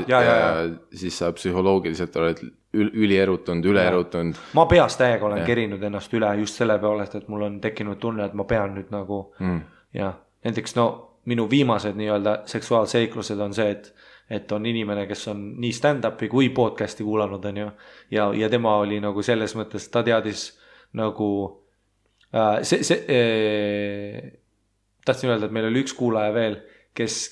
siis sa psühholoogiliselt oled ülierutunud, üleerutunud. Ma peas täiega olen kerinud ennast üle just selle peolest, et mul on tekkinud tunne, et ma pean nüüd nagu ja näiteks minu viimased nii-öelda seksuaalseiklused on see, et on inimene, kes on nii stand-upi kui podcasti kuulanud on ju, ja tema oli nagu selles mõttes, ta teadis nagu tahtsin öelda, et meil oli üks kuulaja veel, kes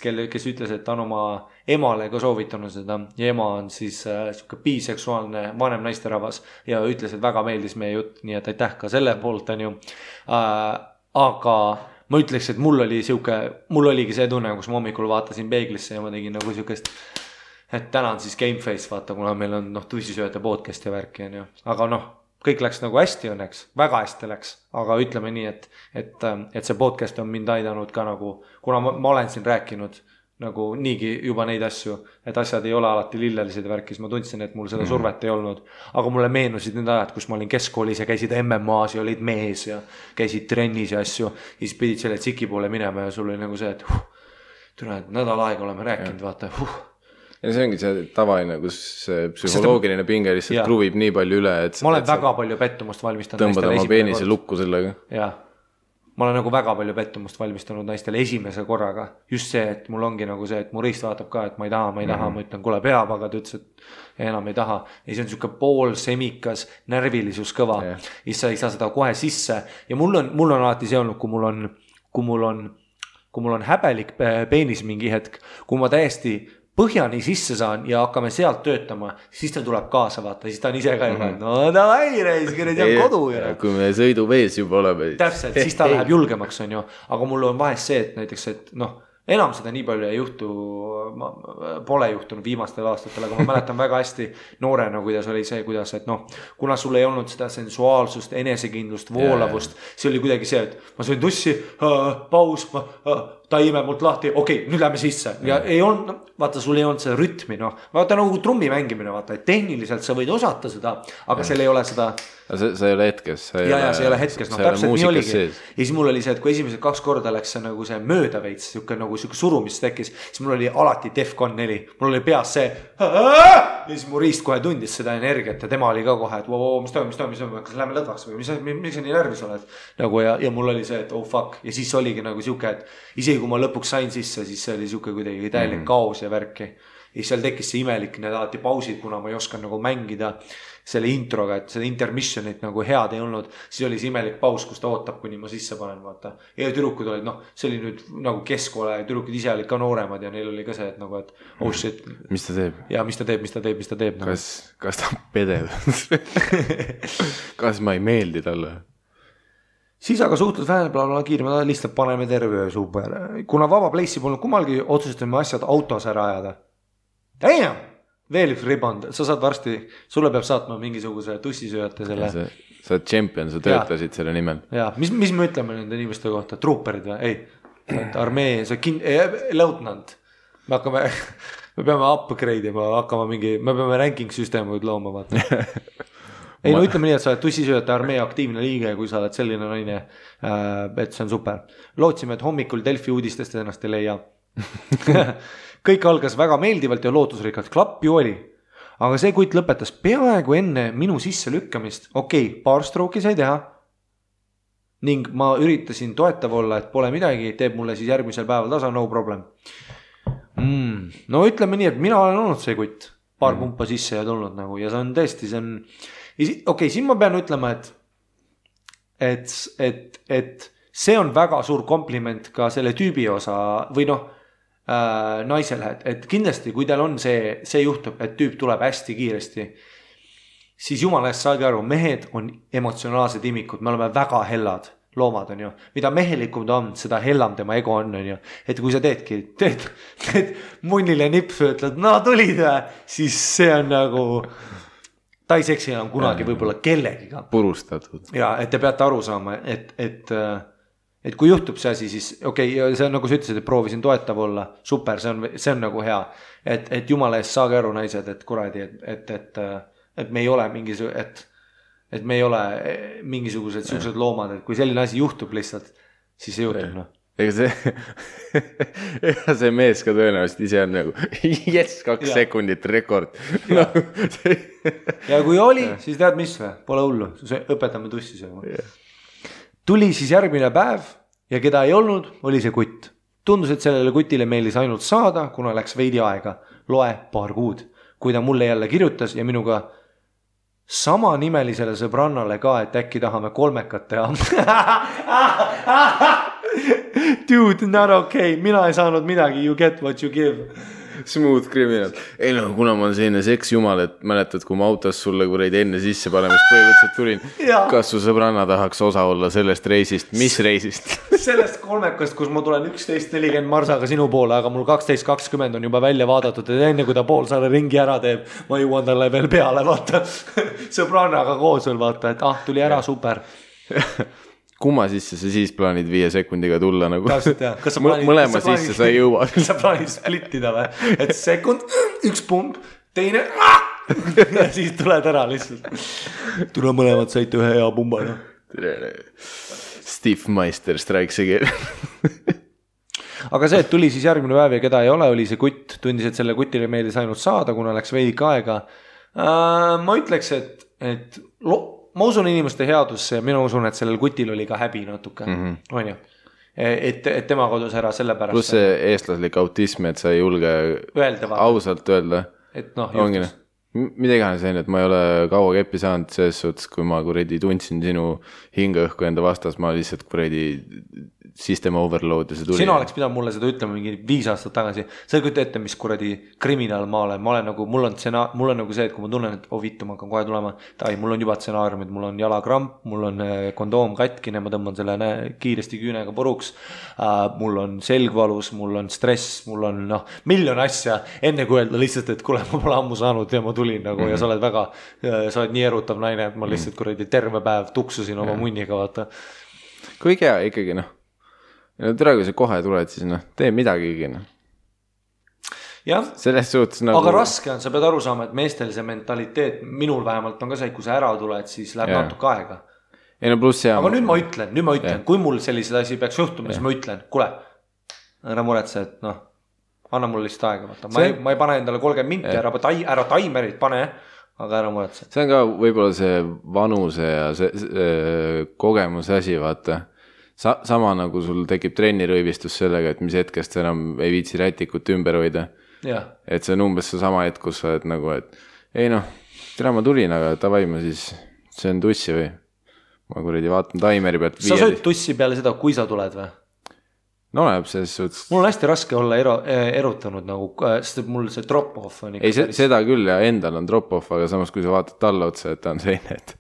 ütles, et ta on oma emale ka soovitanud seda ja ema on siis siuke biseksuaalne vanem naisterahvas ja ütles, et väga meeldis meie jutt, nii et aitäh ka selle poolt on ju, aga ma ütleks, et mul oligi see tunne, kus ma hommikul vaatasin peeglisse ja ma tegin nagu siukest, et täna on siis gameface, vaata, kuna meil on tusisööjate podcast ja värki on ju, aga kõik läks nagu hästi õnneks, väga hästi läks, aga ütleme nii, et see podcast on mind aidanud ka nagu, kuna ma olen siin rääkinud nagu niigi juba neid asju, et asjad ei ole alati lillelised värkis, ma tundsin, et mul seda survet ei olnud, aga mulle meenusid need ajad, kus ma olin keskkoolis ja käisid MMA-s ja olid mees ja käisid trennis ja asju, ja siis pidid selle tsiki poole minema ja sul oli nagu see, et nädal aega oleme rääkinud, vaata, Ja see ongi see tavaline, kus psühholoogiline pinge lihtsalt kruvib nii palju üle, et ma olen väga palju pettumust valmistanud tõmbad oma peenise lukku sellega. Jah, ma olen nagu väga palju pettumust valmistanud naistele esimese korraga. Just see, et mul ongi nagu see, et mu riist vaatab ka, et ma ei taha, ma ütlen, kuule peab, aga ta ütles, et enam ei taha. Ja see on siuke pool semikas närvilisus kõva. Ja sa ei saa seda kohe sisse. Ja mul on alati see olnud, kui mul on häbelik peenis mingi hetk, kui ma täiesti põhjani sisse saan ja hakkame sealt töötama, siis ta tuleb kaasa vaata, siis ta on ise ka juba, no davai reis, kui need on kodu. Kui me sõidu vees juba oleme. Täpselt, siis ta läheb julgemaks on ju, aga mul on vahest see, et näiteks, et enam seda nii palju ei juhtu, pole juhtunud viimastel aastatel, aga ma mäletan väga hästi noorena, kuidas oli see, kuidas, et kuna sul ei olnud seda sensuaalsust, enesekindlust, voolavust, see oli kuidagi see, et ma sõin tussi, paus, ta imeb mult lahti, okei, nüüd lähme sisse ja ei olnud, vaata, sul ei olnud seda rütmi, noh, vaata nagu trummi mängimine, vaata, et tehniliselt sa võid osata seda, aga seal ei ole seda. Sa ei ole hetkes. Ja see ei ole hetkes, noh, täpselt nii oligi. Ja siis mul oli see, et kui esimesed 2 korda läks see nagu see mööda veits, nagu surumist tekkis, siis mul oli alati Defcon 4, mul oli peas see ja siis mu riist kohe tundis seda energiat ja tema oli ka kohe, et mis toimub, kas lähme lõdvaks või miks sa nii närvis oled nagu ja mul oli see, et oh fuck ja siis oligi nagu siuke, et isegi kui ma lõpuks sain sisse, siis see oli siuke kuidagi täielik kaos ja värki ja seal tekkis see imelik need alati pausid, kuna ma ei osanud nagu mängida selle introga, et seda intermissionit nagu head ei olnud, siis oli see imelik paus, kus ta ootab, kuni ma sisse panen, vaata. Ja tüdrukud olid, noh, see oli nüüd nagu keskkoole ja tüdrukud ise olid ka nooremad ja neil oli ka see, et nagu, et oh shit. Mis ta teeb? Ja mis ta teeb. Kas ta pedeb? Kas ma ei meeldi talle? Siis aga suhtlus vähemalt kiire, me lihtsalt paneme terve öö super. Kuna vaba place'i polnud kummalgi, otsustame asjad autos ära ajada. Damn! Veel üks riband, sa saad varsti, sulle peab saatma mingisuguse tussisööjate selle. Sa oled champion, sa töötasid selle nimel. Ja, mis me ütleme nende inimeste kohta? Trooperid või? Ei, armee, leutnant. Me peame upgrade ima, me peame ranking süsteemid looma, vaata. Ei, no ütleme nii, et sa oled tussisööjate armee aktiivne liige, kui sa oled selline naine, et see on super. Lootsime, et hommikul Delfi uudistest ennast ei leia. Kõik algas väga meeldivalt ja lootusrikkalt, klapp ju oli. Aga see kuit lõpetas peaaegu enne minu sisse lükkamist. Okei, paar strooki sai teha. Ning ma üritasin toetav olla, et pole midagi, teeb mulle siis järgmisel päeval tasa, no problem. No ütleme nii, et mina olen olnud see kutt. Paar pumpa sisse ja tulnud nagu ja see on tõesti, see on... Okei, siin ma pean ütlema, et see on väga suur kompliment ka selle tüübi osa või noh, naisele, et kindlasti kui teil on see juhtub, et tüüp tuleb hästi kiiresti, siis jumala eest saage aru, mehed on emotsionaalsed imikud, me oleme väga hellad loomad on ju, mida mehelikum ta on, seda hellam tema ego on ju, et kui sa teed munnile nipsu, ütled, no tulid siis see on nagu ta ei seksi enam kunagi võib-olla kellegiga purustatud ja et te peate aru saama, et kui juhtub see asi, siis okei, see on nagu sa ütlesid, et proovisin toetav olla, super, see on nagu hea, et jumala eest saage aru naised, et kuradi, et me ei ole et me ei ole mingisugused siuksed loomad, et kui selline asi juhtub lihtsalt, siis see juhtub, noh. Ega see mees ka tõenäoliselt ise on nagu, yes, 2 sekundit rekord. Ja kui oli, siis tead mis või, pole hullu, õpetame tussi see. Tuli siis järgmine päev ja keda ei olnud, oli see kutt. Tundus, et sellele kutile meelis ainult saada, kuna läks veidi aega. Loe paar kuud. Kui ta mulle jälle kirjutas ja minuga sama nimelisele sõbrannale ka, et äkki tahame 3 teha. Dude, not okay. Mina ei saanud midagi. You get what you give. Smooth criminal. Ei no, kuna ma olen selline seksjumal, et mäletad, kui ma autos sulle kuradi enne sisse panemist põhimõtteliselt tulin. Kas su sõbranna tahaks osa olla sellest reisist? Mis reisist? Sellest 3, kus ma tulen 11.40 marsaga sinu poole, aga mul 12.20 on juba välja vaadatud, et enne kui ta poolsaare ringi ära teeb, ma jõuan talle veel peale, vaata. Sõbrannaga koos veel, vaata, et tuli ära, super. Kumma sisse sa siis plaanid 5 sekundiga tulla nagu? Täpselt, jah. Mõlema sisse sa ei jõua. Sa plaanid splittida või? Et sekund, 1 pump, teine ja siis tuled ära lihtsalt. Tule mõlemad saite 1 hea pumba. No. Steve Meister strikes again. Aga see, et tuli siis järgmine päev ja keda ei ole, oli see kutt. Tundis, et selle kutile meeldis ainult saada, kuna läks veidi aega. Ma ütleks, et ma usun inimeste headusse ja mina usun, et sellel kutil oli ka häbi natuke, on ju? Et tema kodus ära selle pärast. Plus see eestlaslik autism, et sa ei julge ausalt öelda. Et noh, juhtus. Mida iganes see on, et ma ei ole kaua keppi saanud selles suhtes, kui ma kuredi tundsin sinu hingeõhku enda vastas, ma lihtsalt kuredi system overload ja see tuli. Sina oleks pidanud mulle seda ütlema mingi 5 aastat tagasi. Sa ei kujuta ette, mis kuradi kriminaal ma olen. Ma olen nagu, mul on nagu see, et kui ma tunnen, et vittu, ma hakkan kohe tulema. Mul on juba stsenaariumid, mul on jalakramp, mul on kondoom katkine, ma tõmban selle kiiresti küünega puruks. Mul on selgvalus, mul on stress, mul on miljon asja. Enne kui öelda lihtsalt, et kuule, ma pole ammu saanud ja ma tulin nagu ja sa oled nii erutav naine, et ma lihtsalt kuradi terve päev tuksusin oma munniga, vaata. Kuigi hea ikkagi no tere, kui sa kohe tuled, siis noh, tee midagigi noh. Selles suhtes nagu aga raske on, sa pead aru saama, et meestel see mentaliteet, minul vähemalt on ka see, kui sa ära tuled, siis läheb natuke aega. Ei no pluss aga nüüd ma ütlen, kui mul sellised asi peaks juhtuma, siis ma ütlen, kuule, ära muretse, et noh, anna mulle lihtsalt aega, vaata. Ma ei pane endale 30 minti, ära taimerit pane, aga ära muretse. See on ka võib-olla see vanuse ja see kogemuse asi, vaata. Sama nagu sul tekib trennirõivistus sellega, et mis hetkest sa enam ei viitsi rätikut ümber hoida. Et see on umbes see sama hetk, kus sa oled nagu, et ei noh, tere ma tulin, aga tavai ma siis söön tussi või ma kuradi vaatan taimeri pealt. Sa sööd tussi peale seda, kui sa tuled või? No läheb selles suhtes. Mul on hästi raske olla erutanud nagu, sest mul see drop-off on ei, seda küll ja endal on drop-off, aga samas kui sa vaatad talle otsa, et ta on seine, et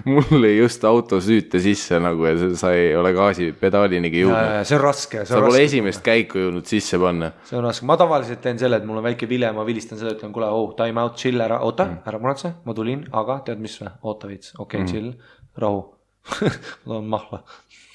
mul ei just auto süüte sisse nagu ja sa ei ole gaasi pedaalinigi jõudnud. See on raske. Sa pole esimest käiku jõudnud sisse panna. See on raske. Ma tavaliselt teen selle, et mul on väike vile, ma vilistan seda, ütlen, kuule, time out, chill ära, oota, ära muretse, ma tulin, aga tead mis või? Oota viits, okei, chill, rahu. Ma on mahla.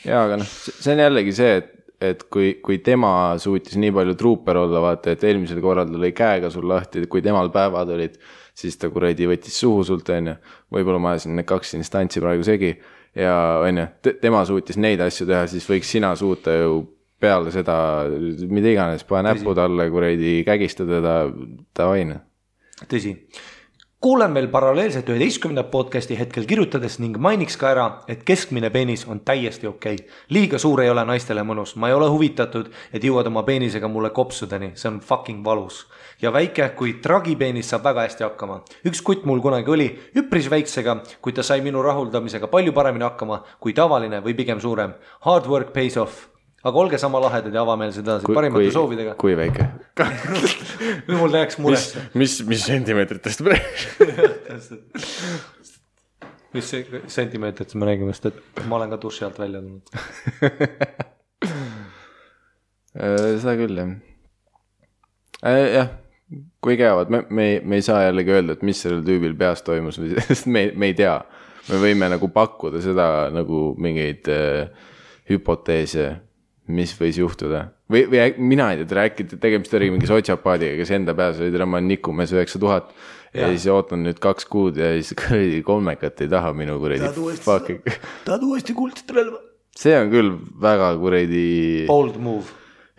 Jaa, aga noh, see on jällegi see, et kui tema suutis nii palju truuper olla, vaata, et eelmisel korral lõi käega sul lahti, kui temal päevad olid, siis ta kuradi võttis suhu sult, on ju. Võib-olla ma ajasin need 2 instantsi praegu segi ja on ju, tema suutis neid asju teha, siis võiks sina suuta ju peale seda, mida iganes, pane näppu talle, kuradi kägistada ta vaine. Tõsi. Kuulen veel paralleelselt 11. podcasti hetkel kirjutades ning mainiks ka ära, et keskmine peenis on täiesti okei. Liiga suur ei ole naistele mõnus. Ma ei ole huvitatud, et jõuad oma peenisega mulle kopsudeni. See on fucking valus. Ja väike, kui tragipeenis saab väga hästi hakkama. Üks kutt mul kunagi oli üpris väiksega, kui ta sai minu rahuldamisega palju paremini hakkama kui tavaline või pigem suurem. Hard work pays off. Aga olge sama lahedad ja avameelsed edasi parimate soovidega. Kui väike? Nüüd mul läheks muresse. Mis sentimeetritest praegu? Mis sentimeetritest me räägime, sest et ma olen ka duši alt välja tulnud. Seda küll, jah. Jah, kui käivad, me ei saa jällegi öelda, et mis sellel tüübil peas toimus, sest me ei tea. Me võime nagu pakkuda seda nagu mingeid hüpoteese, mis võis juhtuda. Või mina ei tea, rääkida, tegemist oli mingi sotsiopaadiga, kes enda peas oli ma nikumees 9000 ja siis ootan nüüd 2 kuud ja siis kolmekat ei taha minu kuredi. Tahad uuesti kuldset relva? See on küll väga kuredi bold move.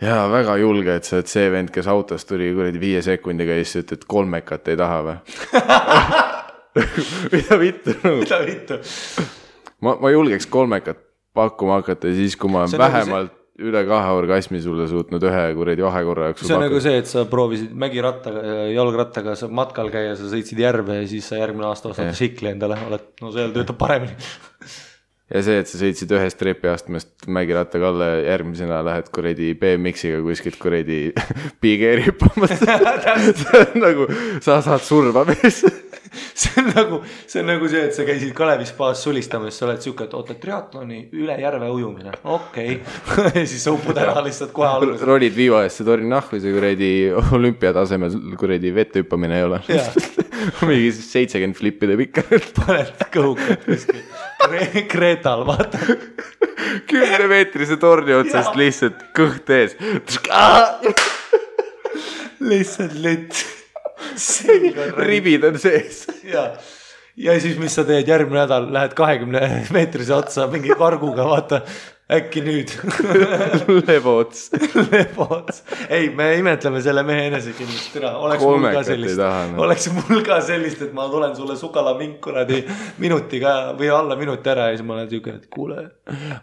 Jaa, väga julge, et sa oled see vend, kes autost tuli kuredi 5 sekundiga ja siis ütled, et kolmekat ei taha või? Mida vittu? Ma julgeks kolmekat pakkuma hakata ja siis, kui ma vähemalt üle 2 orgasmi sulle suutnud 1 kuredi vahekorra jaoks. See on nagu see, et sa proovisid mägirattaga, jalgrattaga matkal käia, sa sõitsid järve ja siis sa järgmine aasta ostad šikli endale. No seal töötab paremini. Ja see, et sa sõitsid 1 trepiastmest mägirattaga alla ja järgmisena lähed kuredi BMX-iga kuskilt kuredi pigeeri hüppamas. See on nagu, sa saad surma mees. See on nagu see, et sa käisid Kalevi spaas sulistamas, sa oled siuke, et oota triatloni üle järve ujumine. Okei. Ja siis sa upud ära lihtsalt kohe alguses. Rolid viiva eest, see tori nahku, see kuredi olümpiatasemel kuredi vette hüppamine ei ole. Mingi 70 flippide pikka. Paned kõhukat kuskil. Kreetal, vaata. 10-meetrise torni otsast lihtsalt kõht ees. Lihtsalt litt. Ribid on sees. Ja siis mis sa teed järgmine nädal, lähed 20-meetrise otsa mingi karguga, vaata, äkki nüüd. Leboots. Ei, me imetleme selle mehe enesekindlust. Oleks mul ka sellist, et ma tulen sulle sukala minkuradi minutiga või alla minuti ära ja siis ma olen siuke, et kuule,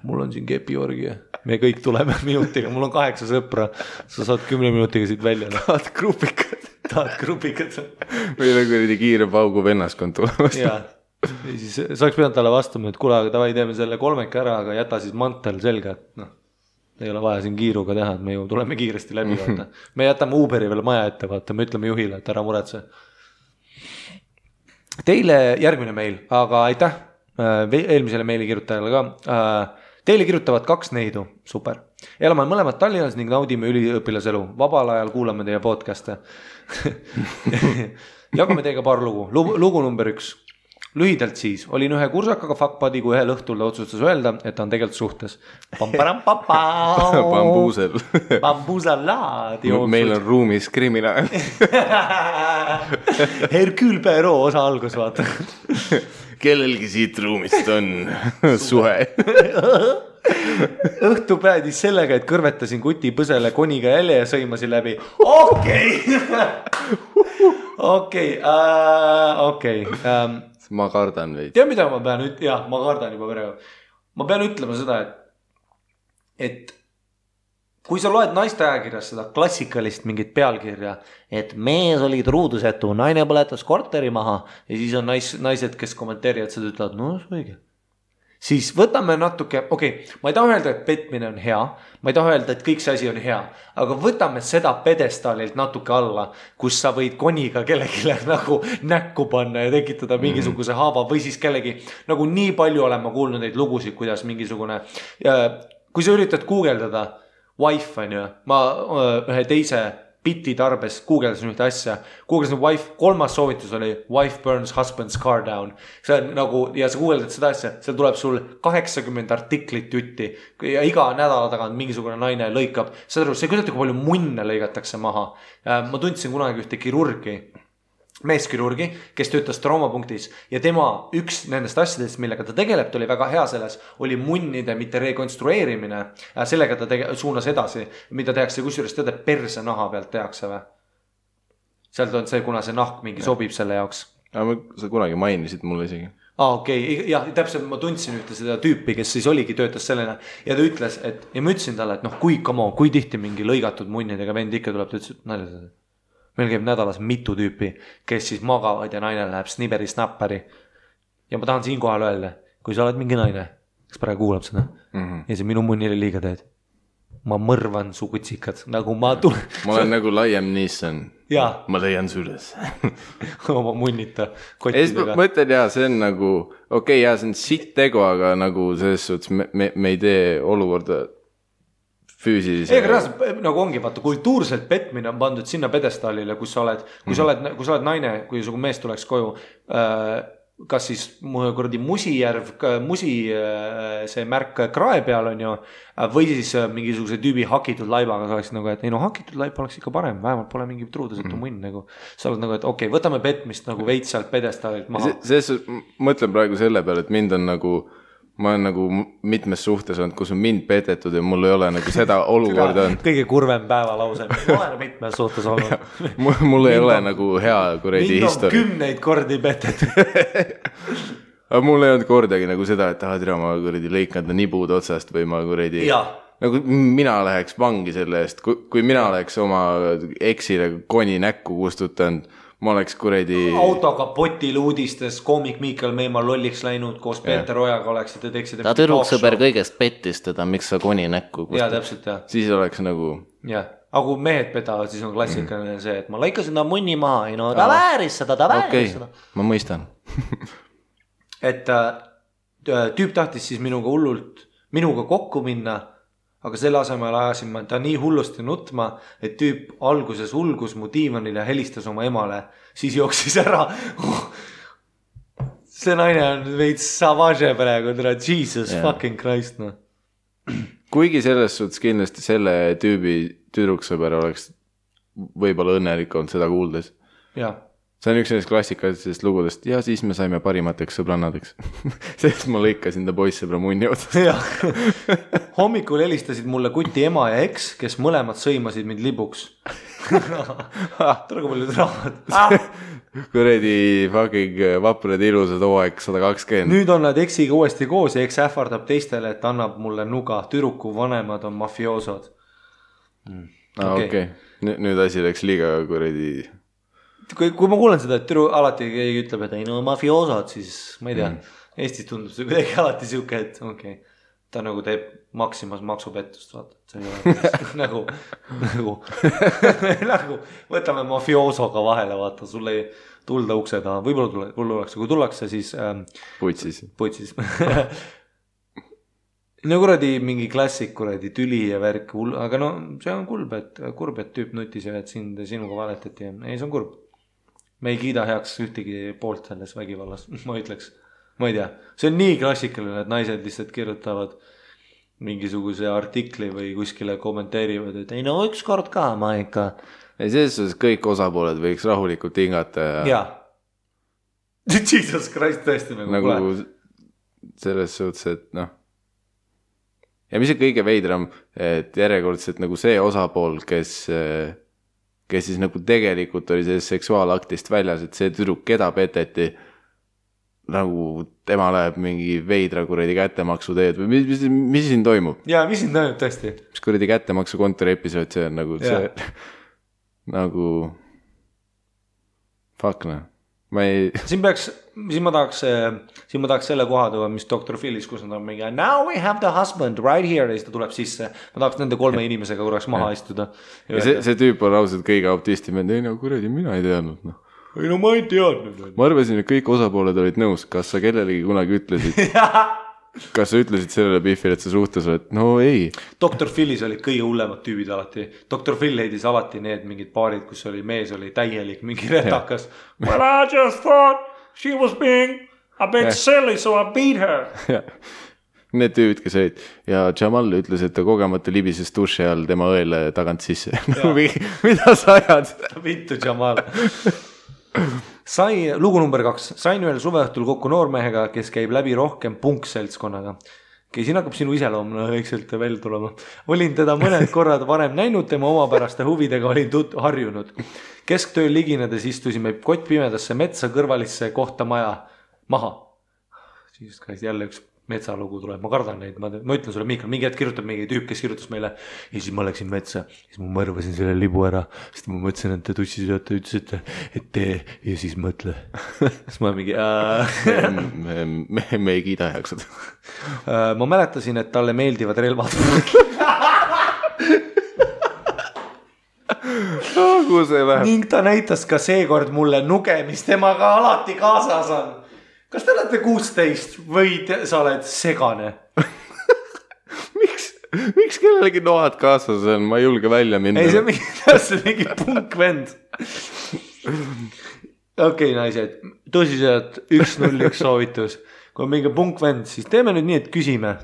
mul on siin kepiorgi ja me kõik tuleme minutiga, mul on 8 sõpra, sa saad 10 minutiga siit välja. Tahad grupikad. Või nagu kiire paugu vennaskond tulemas. Jaa. Ja siis sa oleks pidanud talle vastama, et kuule, aga tavai teeme selle 3 ära, aga jäta siis mantel selga, et noh, ei ole vaja siin kiiruga teha, et me ju tuleme kiiresti läbi, vaata. Me jätame Uberi veel maja ette, vaata, me ütleme juhile, et ära muretse. Teile järgmine meil, aga aitäh eelmisele meili kirjutajale ka. Teile kirjutavad 2 neidu, super. Elame mõlemad Tallinnas ning naudime üliõpilaselu. Vabal ajal kuulame teie podcast'e. Jagame teiega paar lugu. Lugu number 1. lühidalt siis, olin ühe kursakaga fuckbuddy, kui ühel õhtul ta otsustas öelda, et ta on tegelikult suhtes. Bambuusel. Bambuusalaad. Meil on ruumis kriminaal. Hercule Poirot osa algus, vaata. Kellelgi siit ruumist on suhe. Õhtu päädis sellega, et kõrvetasin kuti põsele koniga jälje ja sõimasin läbi. Okei. Ma kardan veidi. Tea, mida ma pean ma kardan juba praegu. Ma pean ütlema seda, et kui sa loed naiste ajakirjas seda klassikalist mingit pealkirja, et mees oli truudusetu, naine põletas korteri maha ja siis on naised, kes kommenteerivad seda, ütlevad, no see õige. Siis võtame natuke, ma ei taha öelda, et petmine on hea, ma ei taha öelda, et kõik see asi on hea, aga võtame seda pedestaalilt natuke alla, kus sa võid koniga kellegile nagu näkku panna ja tekitada mingisuguse haava või siis kellegi, nagu nii palju olen ma kuulnud neid lugusid, kuidas mingisugune, kui sa üritad guugeldada wife on ju, ma ühe teise biti tarbes guugeldasin ühte asja, guugeldasin wife, 3. soovitus oli wife burns husband's car down. See on nagu, ja sa guugeldad seda asja, seal tuleb sul 80 artiklit jutti ja iga nädala tagant mingisugune naine lõikab. Saad aru, see kuidagi palju munne lõigatakse maha. Ma tundsin kunagi ühte kirurgi, meeskirurgi, kes töötas traumapunktis ja tema üks nendest asjadest, millega ta tegeleb, ta oli väga hea selles, oli munnide mitte rekonstrueerimine. Sellega ta suunas edasi, mida tehakse, kusjuures teada perse naha pealt tehakse või? Sealt on see, kuna see nahk mingi sobib selle jaoks. Sa kunagi mainisid mulle isegi. Ja täpselt ma tundsin ühte seda tüüpi, kes siis oligi töötas sellena ja ta ütles, et ja ma ütlesin talle, et kui tihti mingi lõigatud munnidega vend ikka tuleb, ta ütles, et naljased. Meil käib nädalas mitu tüüpi, kes siis magavad ja naine läheb sniberi snapperi. Ja ma tahan siin kohal öelda, kui sa oled mingi naine, kes praegu kuulab seda ja see minu munnile liiga teed. Ma mõrvan su kutsikad, nagu ma tulen. Ma olen nagu Liam Neeson. Ma leian süles. Oma munnita kottidega. Ma ütlen see on nagu, see on sitt tegu, aga nagu selles suhtes me ei tee olukorda füüsilise. Nagu ongi, vaata, kultuurselt petmine on pandud sinna pedestaalile, kus sa oled naine, kui su mees tuleks koju, kas siis Musijärv, see märk krae peal on ju, või siis mingisuguse tüübi hakitud laibaga, sa oleks nagu, et ei hakitud laib oleks ikka parem, vähemalt pole mingi truudusetu munn nagu. Sa oled nagu, et võtame petmist nagu veits sealt pedestaalilt maha. Mõtlen praegu selle peale, et mind on nagu ma olen nagu mitmes suhtes olnud, kus on mind petetud ja mul ei ole nagu seda olukorda on. Kõige kurvem päevalause. Ma olen mitmes suhtes olnud. Mul ei ole nagu hea kuredi histori. Mind on 10 kordi petetud. Aga mul ei olnud kordagi nagu seda, et tere, ma kuredi lõikanda nibud otsast või ma kuredi. Nagu mina läheks vangi selle eest. Kui mina oleks oma eksile koni näkku kustutanud, ma oleks kuredi. Autokapotil uudistes koomik Miikal Meemaa lolliks läinud koos Peeter Ojaga oleksite teeksid. Ta tüdruksõber kõigest pettis teda, miks sa koni näkku kustutad. Ja täpselt jah. Siis oleks nagu. Jah, aga kui mehed petavad, siis on klassikaline see, et ma lõikasin ta munni maha. Ta vääris seda. Ma mõistan. Et tüüp tahtis siis minuga kokku minna. Aga selle asemel ajasin ma ta nii hullusti nutma, et tüüp alguses hulgus mu diivanil ja helistas oma emale. Siis jooksis ära. See naine on veits savage praegu, Jesus fucking Christ. No. Kuigi selles suhtes kindlasti selle tüübi tüdruksõber oleks võib-olla õnnelik olnud seda kuuldes. See on üks klassikalisest lugudest ja siis me saime parimateks sõbrannadeks. Sest ma lõikasin ta poissõbra munni otsast. Hommikul helistasid mulle kuti ema ja eks, kes mõlemad sõimasid mind libuks. Tore kui palju draamat. Kuredi fucking vaprad ilusad hooaeg 120. Nüüd on nad eksiga uuesti koos ja eks ähvardab teistele, et annab mulle nuga. Türuku vanemad on mafioosod. Okei. Nüüd asi läks liiga kuredi. Kui ma kuulen seda, et türu alati keegi ütleb, et ei mafioosod, siis ma ei tea, Eestis tundub see kuidagi alati siuke, et ta nagu teeb Maximas maksupettust, vaata, et see ei ole nagu võtame mafiosoga vahele, vaata, sul ei tulda ukse taha, võib-olla tullakse, kui tullakse, siis putsis. No kuradi mingi klassik, kuradi tüli ja värk, aga see on kurb, et tüüp nutis ja et sinuga valetati. Ei, see on kurb. me ei kiida heaks ühtegi poolt selles vägivallas, ma ütleks. Ma ei tea, see on nii klassikaline, et naised lihtsalt kirjutavad mingisuguse artikli või kuskile kommenteerivad, et ei no ükskord ka ma ikka. Ei, selles suhtes kõik osapooled võiks rahulikult hingata ja Jesus Christ tõesti nagu selles suhtes, et noh. Ja mis on kõige veidram, et järjekordselt nagu see osapool, kes siis nagu tegelikult oli sellest seksuaalaktist väljas, et see tüdruk, keda peteti, nagu tema läheb mingi veidra kuradi kättemaksu teed või mis siin toimub? Jaa, mis siin toimub tõesti? Mis kuradi kättemaksu kontori episood, see on nagu see nagu fuck noh. Siin ma tahaks selle koha tuua, mis Dr. Phillis, kus nad on mingi now we have the husband right here ja siis ta tuleb sisse. Ma tahaks nende 3 inimesega korraks maha istuda. Ja see tüüp on ausalt kõige optistim, et ei no kuradi, mina ei teadnud noh. Ei no ma ei teadnud. Ma arvasin, et kõik osapooled olid nõus. Kas sa kellelegi kunagi ütlesid? Kas sa ütlesid sellele Biffile, et sa suhtes oled? No ei. Dr. Phillis olid kõige hullemad tüübid alati. Dr. Phil heidis alati need mingid paarid, kus oli mees oli täielik mingi retakas. Well, I just thought she was being a bit silly, so I beat her. Need tüübid, kes olid. Ja Jamal ütles, et ta kogemata libises duši all tema õele tagant sisse. Mida sa ajad? Vittu Jamal. Lugu number 2. Sain ühel suveõhtul kokku noormehega, kes käib läbi rohkem punkseltskonnaga. Siin hakkab sinu iseloomne õigselt välja tulema. Olin teda mõned korrad varem näinud, tema omapäraste huvidega olin harjunud. Kesktööl liginedes istusime kott pimedasse metsa kõrvalisse kohta maha. Siis jälle üks metsalugu tuleb, ma kardan neid, ma ütlen sulle, Miikal, mingi hetk kirjutab mingi tüüp, kes kirjutas meile ja siis ma läksin metsa, siis ma mõrvasin selle libu ära, sest ma mõtlesin, et te tussisööte, ütlesite, et tee ja siis mõtle. Siis ma mingi me ei kiida heaks seda. Ma mäletasin, et talle meeldivad relvad. Ning ta näitas ka seekord mulle nuge, mis temaga alati kaasas on. Kas te olete 16 või sa oled segane? Miks kellelegi noad kaasas on? Ma ei julge välja minna. Ei, see on mingi punkvend. Okei, naised, tõsiselt 1-0-1 soovitus. Kui on mingi punkvend, siis teeme nüüd nii, et küsime.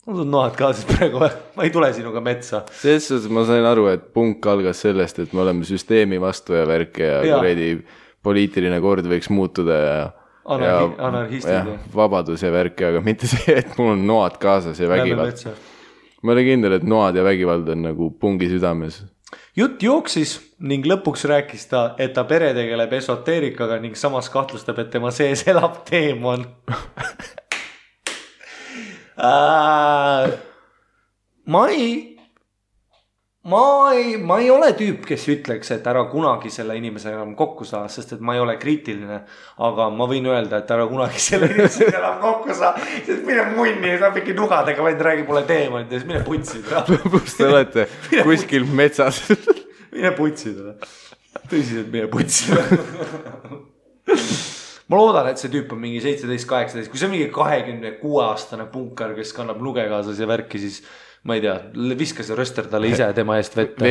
On sul noad kaasas praegu? Ma ei tule sinuga metsa. Selles ma sain aru, et punk algas sellest, et me oleme süsteemi vastu ja värk ja poliitiline kord võiks muutuda ja anarhistid ja vabadus ja värk, aga mitte see, et mul on noad kaasas ja vägivald. Ma olin kindel, et noad ja vägivald on nagu pungi südames. Jutt jooksis ning lõpuks rääkis ta, et ta pere tegeleb esoteerikaga ning samas kahtlustab, et tema sees elab teemon. Ma ei ole tüüp, kes ütleks, et ära kunagi selle inimesega enam kokku saa, sest et ma ei ole kriitiline, aga ma võin öelda, et ära kunagi selle inimesega enam kokku saa, sest mine munni, saab ikka nugadega, vaid räägi mulle teemant ja siis mine putsida. Kus te olete? Kuskil metsas. Mine putsida. Tõsiselt mine putsida. Ma loodan, et see tüüp on mingi 17-18, kui see on mingi 26-aastane punkar, kes kannab nuge kaasas ja värki, siis ma ei tea, viska see röster talle ise tema eest vette.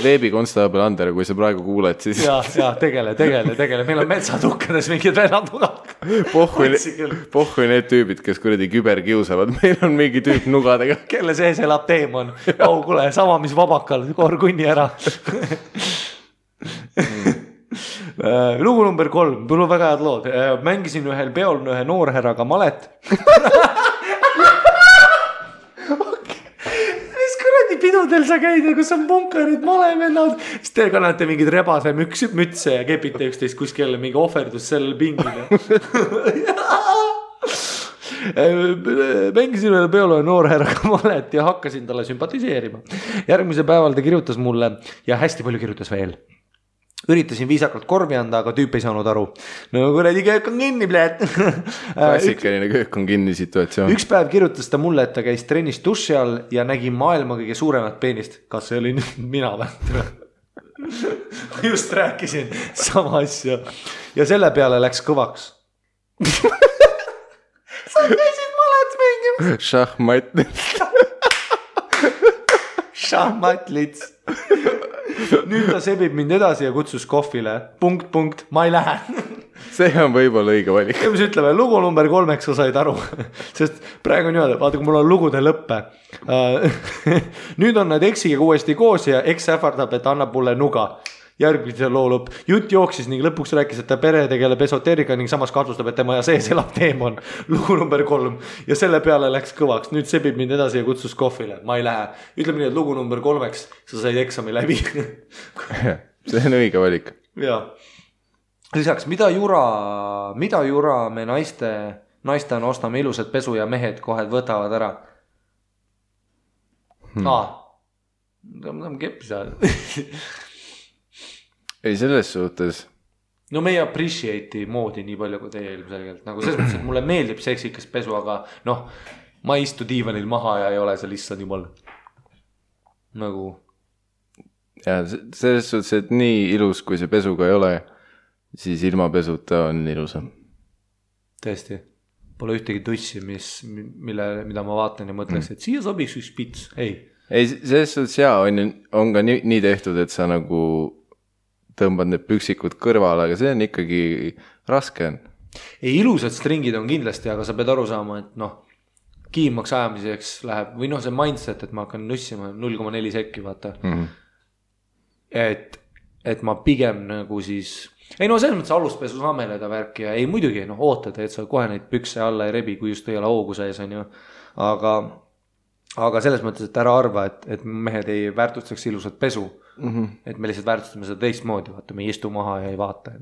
Veebikonstaabel Ander, kui sa praegu kuuled, siis... Ja, tegele. Meil on metsatukkades mingid vennad. Pohhui need tüübid, kes kuradi küber kiusavad. Meil on mingi tüüp nugadega. Kelle sees elab teemon. Kule, sama mis vabakal, koor kunni ära. Lugu number 3, mul on väga head lood. Mängisin ühel peol ühe noorherraga malet. Pidudel sa käid, kus on punkarid, malevennad, siis te kannate mingid rebase mütse ja kepite üksteist kuskil mingi ohverdus sellel pingile. Mängisin ühel peole noorherraga malet ja hakkasin talle sümpatiseerima. Järgmise päeval ta kirjutas mulle ja hästi palju kirjutas veel. Üritasin viisakalt korvi anda, aga tüüp ei saanud aru. No kuradi köök on kinni, pläät. Klassikaline köök on kinni situatsioon. Üks päev kirjutas ta mulle, et ta käis trennis duši all ja nägi maailma kõige suuremat peenist. Kas see oli mina või? Just rääkisin sama asja. Ja selle peale läks kõvaks. Sa käisid malet mängima. Šahmat. šahmatlits. Nüüd ta sebib mind edasi ja kutsus kohvile. Punkt, ma ei lähe. See on võib-olla õige valik. Ja mis ütleme, lugu number 3 sa said aru. Sest praegu on niimoodi, vaata kui mul on lugude lõppe. Nüüd on nad eksiga uuesti koos ja eks ähvardab, et annab mulle nuga. Järgmise loo lõpp. Jutt jooksis ning lõpuks rääkis, et ta pere tegeleb esoteerika ning samas kahtlustab, et tema ja sees elab teemon. Lugu number 3. Ja selle peale läks kõvaks. Nüüd sebib mind edasi ja kutsus kohvile. Ma ei lähe. Ütleme nii, et lugu number 3 sa said eksami läbi. See on õige valik. Jaa. Lisaks, mida jura me naistena ostame ilusad pesu ja mehed kohe võtavad ära? Ma keppis ajal. Ei, selles suhtes. No me ei appreciate'i moodi nii palju kui teie ilmselgelt. Nagu selles mõttes, et mulle meeldib seksikas pesu, aga ma ei istu diivanil maha ja ei ole seal issand jumal. Nagu. Ja selles suhtes, et nii ilus, kui see pesuga ei ole, siis ilma pesuta on ilusam. Tõesti. Pole ühtegi tussi, mida ma vaatan ja mõtleks, et siia sobiks üks pits. Ei, selles suhtes on ka nii tehtud, et sa nagu tõmbad need püksikud kõrvale, aga see on ikkagi raske. Ei, ilusad stringid on kindlasti, aga sa pead aru saama, et kiimaks ajamiseks läheb, või see mindset, et ma hakkan nussima 0,4 sekki, vaata. Et ma pigem nagu siis ei selles mõttes aluspesu sameleda värki ja ei muidugi ootad, et sa kohe neid pükse alla ei rebi, kui just ei ole hoogu sees on ju. Aga selles mõttes, et ära arva, et mehed ei väärtustaks ilusat pesu. Et me lihtsalt väärtustame seda teistmoodi, vaata, me ei istu maha ja ei vaata.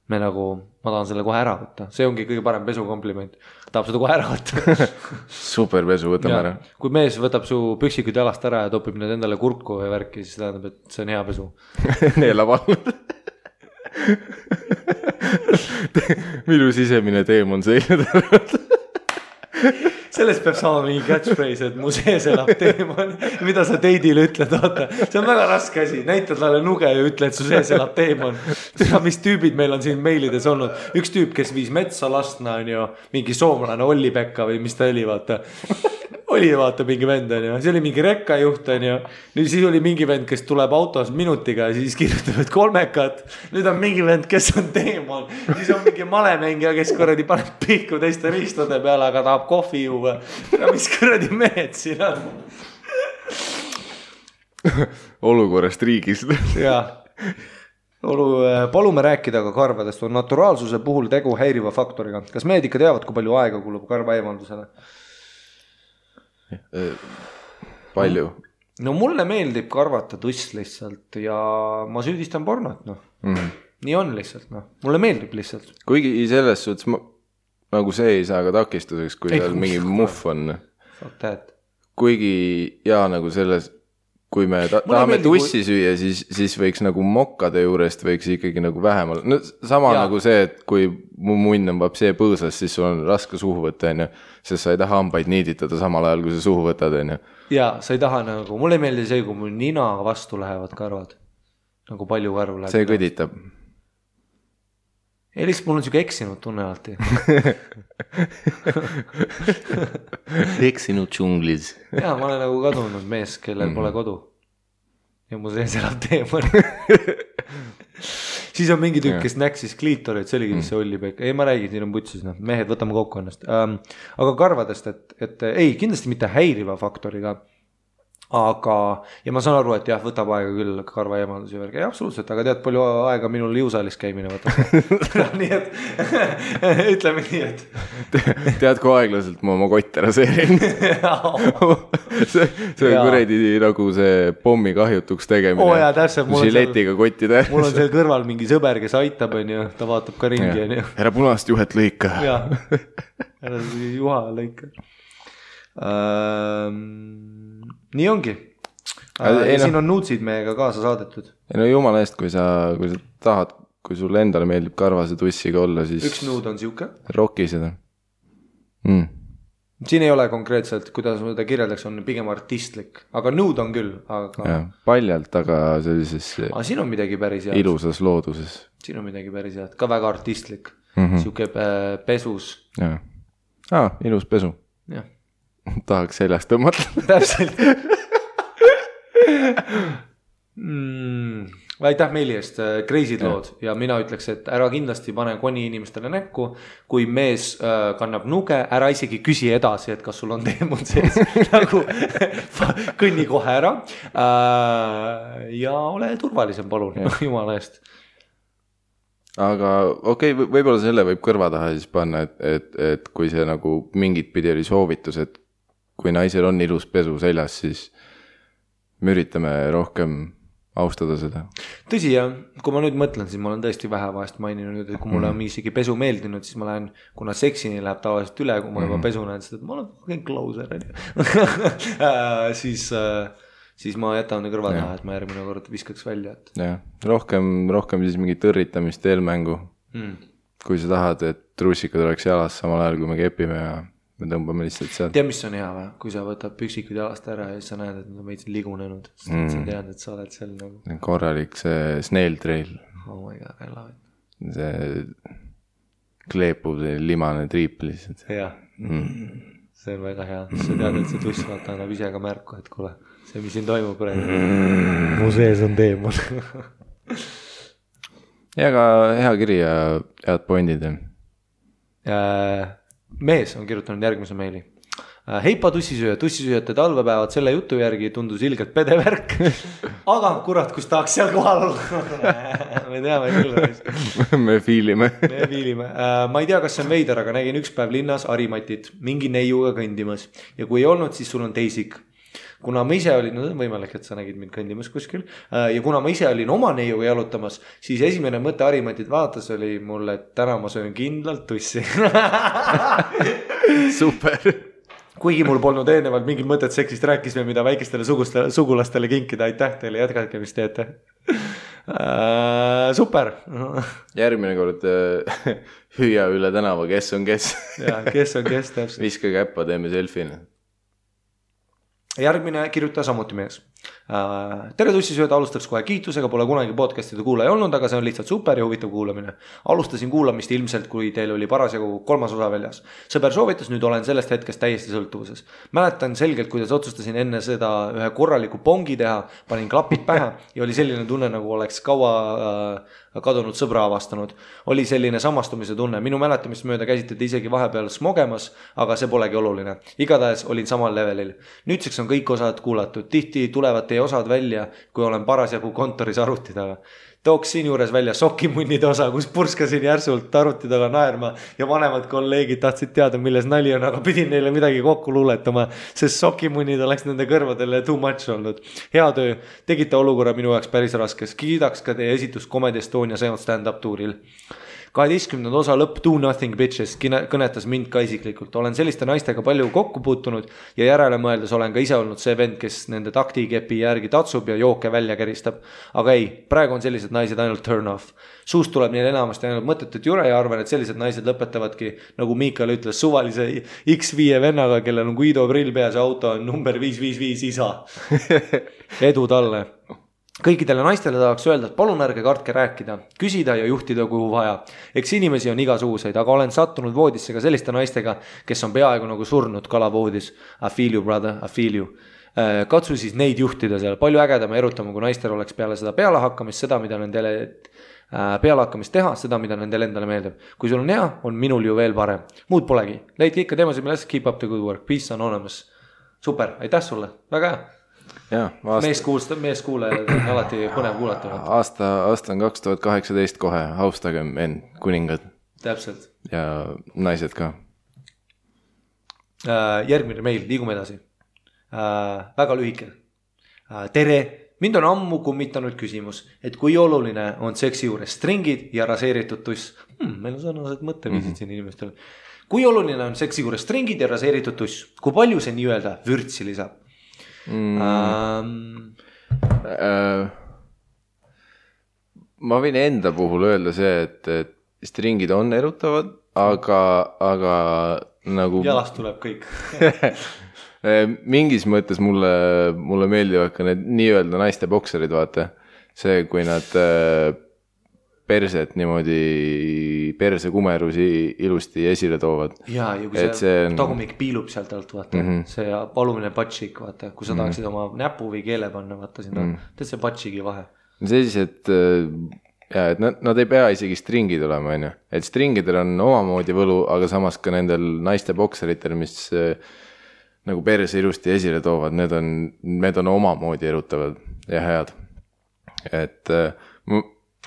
Me nagu, ma tahan selle kohe ära võtta. See ongi kõige parem pesu kompliment. Tahab seda kohe ära võtta. Super pesu, võtame ära. Kui mees võtab su püksikud jalast ära ja topib need endale kurku või värki, siis tähendab, et see on hea pesu. Neelab all. Minu sisemine teemon seile tõrvad. Sellest peab saama mingi catchphrase, et mu sees elab teemon. Mida sa teidile ütled, vaata. See on väga raske asi. Näitad talle nuge ja ütle, et su sees elab teemon. Mis tüübid meil on siin meilides olnud. Üks tüüp, kes viis metsa lastna on ju mingi soomlane Olli Pekka või mis ta oli, vaata. Oli vaata mingi vend on ju. See oli mingi rekkajuht on ju. Nüüd siis oli mingi vend, kes tuleb autos minutiga ja siis kirjutavad 3. Nüüd on mingi vend, kes on teemon. Siis on mingi malemängija, kes kuradi paneb pihku teiste riistade peale, aga tahab kohvi juua. Ja mis kuradi mehed siin on? Olukorrast riigis. Jaa. Palume rääkida ka karvadest. On naturaalsuse puhul tegu häiriva faktoriga. Kas mehed ikka teavad, kui palju aega kulub karva eemaldusele? Palju? No mulle meeldib karvata tuss lihtsalt ja ma süüdistan pornot, Nii on lihtsalt, Mulle meeldib lihtsalt. Kuigi selles suhtes nagu see ei saa ka takistuseks, kui seal mingi muff on. Kuigi nagu selles, kui me tahame tussi süüa, siis võiks nagu mokkade juurest võiks ikkagi nagu vähemal. No sama nagu see, et kui mu munn on vapsee põõsas, siis sul on raske suhu võtta, sest sa ei taha hambaid niiditada samal ajal, kui sa suhu võtad. Ja sa ei taha nagu, mulle ei meeldi see, kui mul nina vastu lähevad karvad. Nagu palju karvu läheb. See kõditab. Ei, lihtsalt mul on siuke eksinud tunne alati. Eksinud džunglis. Jaa, ma olen nagu kadunud mees, kellel pole kodu. Ja mu sees elab teemon. Siis on mingi tükk, kes näksis kliitorit, see oligi mis see Olli Pekka. Ei, ma räägin, siin on putsis, mehed, võtame kokku ennast. Aga karvadest, et ei, kindlasti mitte häiriva faktoriga. Aga, ja ma saan aru, et jah, võtab aega küll karva eemaldus ja värgi. Ei, absoluutselt, aga tead, palju aega minul jõusaalis käimine võtab. Nii et, ütleme nii, et. Tead, kui aeglaselt ma oma kotte raseerin. See on kuredi nagu see pommi kahjutuks tegemine. Oo jaa, täpselt. Žiletiga kottide. Mul on seal kõrval mingi sõber, kes aitab, on ju, ta vaatab ka ringi. Ära punast juhet lõika. Jaa, ära juha lõika. Nii ongi. Siin on nuutsid meiega kaasa saadetud. No jumala eest, kui sa tahad, kui sulle endale meeldib karvase tussiga olla, siis üks nuud on siuke. Roki seda. Siin ei ole konkreetselt, kuidas ma seda kirjeldaks, on pigem artistlik. Aga nuud on küll. Ja, paljalt, aga sellises siin on midagi päris head. Ilusas looduses. Siin on midagi päris head. Ka väga artistlik. Siuke pesus. Ilus pesu. Jah. Tahaks seljast tõmmata. Täpselt. Aitäh meili eest, crazy'd lood ja mina ütleks, et ära kindlasti pane koni inimestele näkku. Kui mees kannab nuge, ära isegi küsi edasi, et kas sul on teemon sees. Nagu kõnni kohe ära ja ole turvalisem, palun, jumala eest. Aga okei, võib-olla selle võib kõrva taha siis panna, et kui see nagu mingit pidi oli soovitus, et kui naisel on ilus pesu seljas, siis me üritame rohkem austada seda. Tõsi jah, kui ma nüüd mõtlen, siis ma olen tõesti vähe vahest maininud, et kui mulle on isegi pesu meeldinud, siis ma lähen, kuna seksini läheb tavaliselt üle, kui ma juba pesu näen seda, et ma olen kõik closer siis ma jätan kõrva taha, et ma järgmine kord viskaks välja. Jah, rohkem siis mingi tõrritamist, eelmängu. Kui sa tahad, et trussikad oleks jalas samal ajal, kui me kepime ja me tõmbame lihtsalt sealt. Tea, mis on hea või? Kui sa võtad püksikud jalast ära ja siis sa näed, et nad on veits ligunenud. Sa tead, et sa oled seal nagu... Korralik see snail trail. Oh my god, I love it. See kleepub see limane triip lihtsalt. Jah, see on väga hea. Sa tead, et see tuss vaata annab ise ka märku, et kuule, see, mis siin toimub praegu. Mu sees on teemon. Ja ka hea kiri ja head pointid. Mees on kirjutanud järgmise meili. Heipa tussisööjate talvepäevad selle jutu järgi tundus ilgelt pedevärk. Aga kurat, kus tahaks seal kohal olla. Me teame küll. Me fiilime. Ma ei tea, kas see on veider, aga nägin üks päev linnas Harimatit mingi neiuga kõndimas. Ja kui ei olnud, siis sul on teisik. Kuna ma ise olin, no võimalik, et sa nägid mind kõndimas kuskil. Ja kuna ma ise olin oma neiuga jalutamas, siis esimene mõte Harimatit vaatas oli mulle, et täna ma söön kindlalt tussi. Super. Kuigi mul polnud eelnevalt mingit mõtet seksist rääkisime, mida väikestele sugulastele kinkida. Aitäh teile, jätkake, mis teete. Super. Järgmine kord hüüa üle tänava, kes on kes. Ja, kes on kes täpselt. Viska käppa, teeme selfine. Järgmine kirjuta samuti mees. Tere tussisööd, alustaks kohe kiitusega, pole kunagi podcastide kuulaja olnud, aga see on lihtsalt super ja huvitav kuulamine. Alustasin kuulamist ilmselt, kui teil oli parasjagu 3. osa väljas. Sõber soovitas, nüüd olen sellest hetkest täiesti sõltuvuses. Mäletan selgelt, kuidas otsustasin enne seda ühe korraliku pongi teha, panin klapid pähe ja oli selline tunne, nagu oleks kaua kadunud sõbra avastanud. Oli selline samastumise tunne. Minu mäletamist mööda käsitleti isegi vahepeal smogemas, aga see polegi oluline. Igatahes olin samal levelil. Nüüdseks on kõik osad kuulatud. Tihti tulevad teie osad välja, kui olen parasjagu kontoris arvuti taga. Tooks siin juures välja sokimunnide osa, kus purskasin järsult arvuti taga naerma ja vanemad kolleegid tahtsid teada, milles nali on, aga pidin neile midagi kokku luuletama, sest sokimunnid oleks nende kõrvadele too much olnud. Hea töö, tegite olukorra minu jaoks päris raskes. Kiidaks ka teie esitust Comedy Estonia stand-up tuuril. 12. osa lõpp Do Nothing Bitches kõnetas mind ka isiklikult. Olen selliste naistega palju kokku puutunud ja järele mõeldes olen ka ise olnud see vend, kes nende taktikepi järgi tatsub ja jooke välja käristab. Aga ei, praegu on sellised naised ainult turn off. Suust tuleb neil enamasti ainult mõttetut jure ja arvan, et sellised naised lõpetavadki, nagu Miikal ütles, suvalise X5 vennaga, kellel on Guido prill peas ja auto on number 555 isa. Edu talle. Kõikidele naistele tahaks öelda, et palun ärge kartke rääkida, küsida ja juhtida kuhu vaja. Eks inimesi on igasuguseid, aga olen sattunud voodisse ka selliste naistega, kes on peaaegu nagu surnud kalavoodis. I feel you, brother, I feel you. Katsu siis neid juhtida seal. Palju ägedama erutama, kui naistel oleks peale seda pealehakkamist, seda, mida nendele pealehakkamist teha, seda, mida nendele endale meeldib. Kui sul on hea, on minul ju veel parem. Muud polegi. Leidke ikka teemasid, milles keep up the good work. Peace anonymous. Super, aitäh sulle. Väga hea. Ja, mees kuulajad on alati põnev kuulata. Aasta on 2018 kohe, austagem end, kuningad. Täpselt. Ja naised ka. Järgmine meil, liigume edasi. Väga lühike. Tere, mind on ammu kummitanud küsimus, et kui oluline on seksi juures stringid ja raseeritud tuss. Meil on sarnased mõtteviisid siin inimestel. Kui oluline on seksi juures stringid ja raseeritud tuss? Kui palju see nii-öelda vürtsi lisab? Ma võin enda puhul öelda see, et stringid on erutavad, aga nagu jalast tuleb kõik. Mingis mõttes mulle meeldivad ka need nii-öelda naiste bokserid, vaata. See, kui nad perset niimoodi persekumerusi ilusti esile toovad. Ja kui see tagumik piilub sealt alt, vaata, see alumine patšik, vaata, kui sa tahaksid oma näpu või keele panna, vaata sinna, teed see patšigi vahe. See siis, et nad ei pea isegi stringid olema, on ju. Et stringidel on omamoodi võlu, aga samas ka nendel naiste bokseritel, mis nagu perse ilusti esile toovad, need on omamoodi erutavad ja head. Et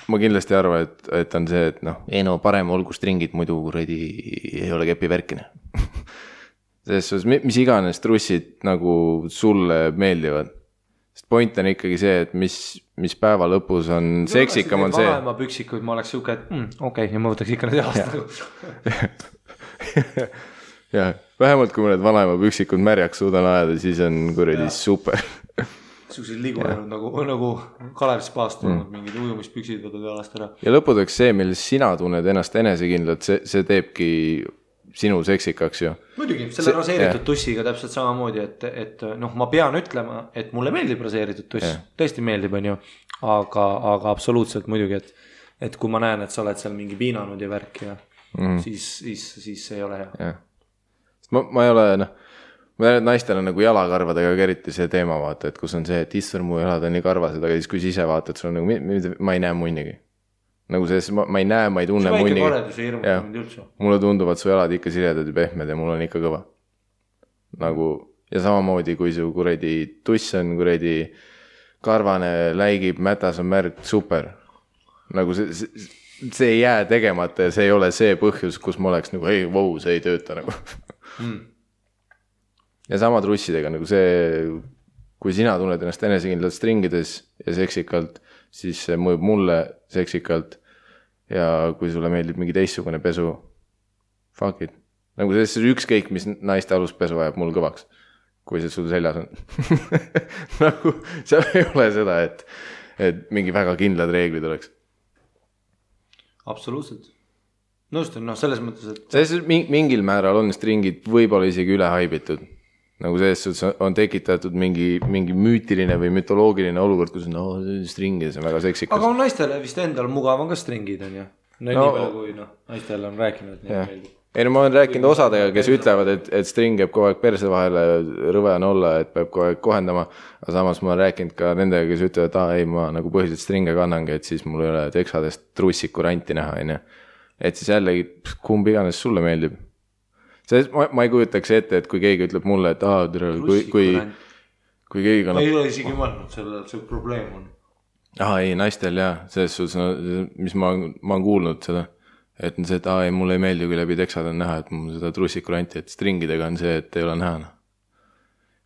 ma kindlasti arvan, et on see, et no parem olgu stringid, muidu kuradi ei ole kepi värkine. Selles, mis iganes trussid nagu sulle meeldivad. Sest point on ikkagi see, et mis päeva lõpus on seksikam on see. Vanaema püksikuid ma oleks siuke, et okei, ja ma võtaks ikka need aasta. Jah, vähemalt kui ma need vanaema püksikud märjaks suudan ajada, siis on kuradi super. Suusid ligunenud nagu Kalev Spaast olnud mingid ujumispüksid võtad jalast ära. Ja lõpudeks see, milles sina tunned ennast enesekindlalt, see teebki sinu seksikaks ju. Muidugi, selle raseeritud tussiga täpselt samamoodi, et ma pean ütlema, et mulle meeldib raseeritud tuss, tõesti meeldib, on ju, aga absoluutselt muidugi, et kui ma näen, et sa oled seal mingi piinanud ja värk ja siis see ei ole hea. Ja. Ma ei ole, ma tean, et naistel on nagu jalakarvadega eriti see teema, vaata, et kus on see, et issand mu jalad on nii karvased, aga siis kui sa ise vaatad, sul on nagu, ma ei näe munnigi. Nagu see, ma ei näe, ma ei tunne munnigi. See väike koredus ei hirmuta mind üldse. Mulle tunduvad su jalad ikka siledad ja pehmed ja mul on ikka kõva. Nagu, ja samamoodi, kui su kuredi tuss on kuredi karvane, läigib, mätas on märg, super. Nagu see ei jää tegemata ja see ei ole see põhjus, kus ma oleks nagu, ei, vau, see ei tööta nagu. Ja sama trussidega, nagu see, kui sina tunned ennast enesekindlalt stringides ja seksikalt, siis see mõjub mulle seksikalt ja kui sulle meeldib mingi teistsugune pesu, fuck it. Nagu see ükskõik, mis naiste aluspesu ajab mul kõvaks, kui see sul seljas on. Nagu seal ei ole seda, et mingi väga kindlad reeglid oleks. Absoluutselt. Nõustun, selles mõttes, et... Selles mingil määral on stringid võib-olla isegi üle haibitud. Nagu selles on tekitatud mingi müütiline või mütoloogiline olukord, kus stringid on väga seksikas. Aga on naistele vist endal mugav on ka stringid, on ju? Nii palju kui naistele on rääkinud, et nii meeldib. Ei, ma olen rääkinud osadega, kes ütlevad, et string jääb kogu aeg perse vahele, rõve on olla, et peab kogu aeg kohendama. Aga samas ma olen rääkinud ka nendega, kes ütlevad, et ei, ma nagu põhiliselt stringe kannangi, et siis mul ei ole teksadest trussiku ranti näha, on ju. Et siis jällegi, kumb iganes sulle meeldib. Ma ei kujutaks ette, et kui keegi ütleb mulle, et kui keegi kannab... Ma ei ole isegi mõelnud selle, et see probleem on. Ei, naistel jah, selles suhtes, mis ma olen kuulnud seda, et on see, et ei, mulle ei meeldi, kui läbi teksad on näha, et mul seda trussiku ranti, et stringidega on see, et ei ole näha.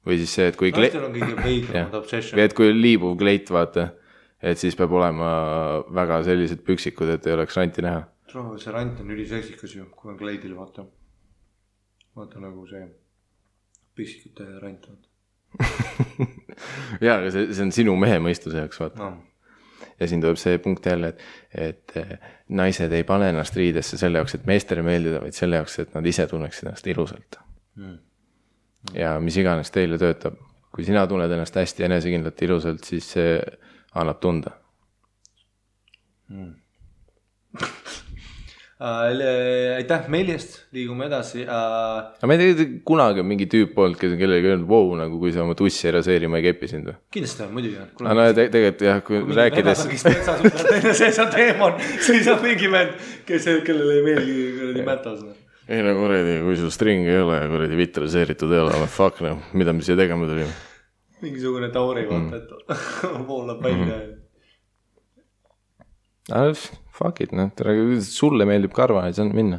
Või siis see, et kui... Naistel on kõige veidramad obsession. Et kui liibuv kleit, vaata, et siis peab olema väga sellised püksikud, et ei oleks ranti näha. See rant on üliseksikas ju, kui on kleidil, vaata nagu see püksikute rant. Jaa, aga see on sinu mehe mõistuse jaoks, vaata. No. Ja siin tuleb see punkt jälle, et naised ei pane ennast riidesse selle jaoks, et meestele meeldida, vaid selle jaoks, et nad ise tunneksid ennast ilusalt. Ja mis iganes teile töötab. Kui sina tunned ennast hästi enesekindlalt ilusalt, siis see annab tunda. Aitäh meilist, liigume edasi. Aga ma ei tea, kunagi on mingi tüüp olnud, kes on kellelegi öelnud, wow, nagu kui sa oma tussi ei raseeri, ma ei kepi sind või? Kindlasti on, muidugi. No tegelikult jah, kui rääkides... see on teemon, siis on mingi vend, kellele ei meelgi mätas. Ei no kuredi, kui sul string ei ole ja kuredi vitt raseeritud ei ole, fuck, mida me siia tegema tulime? Mingisugune tauri vaata, et voolab välja. Fuck it, sulle meeldib karva, ei saa minna.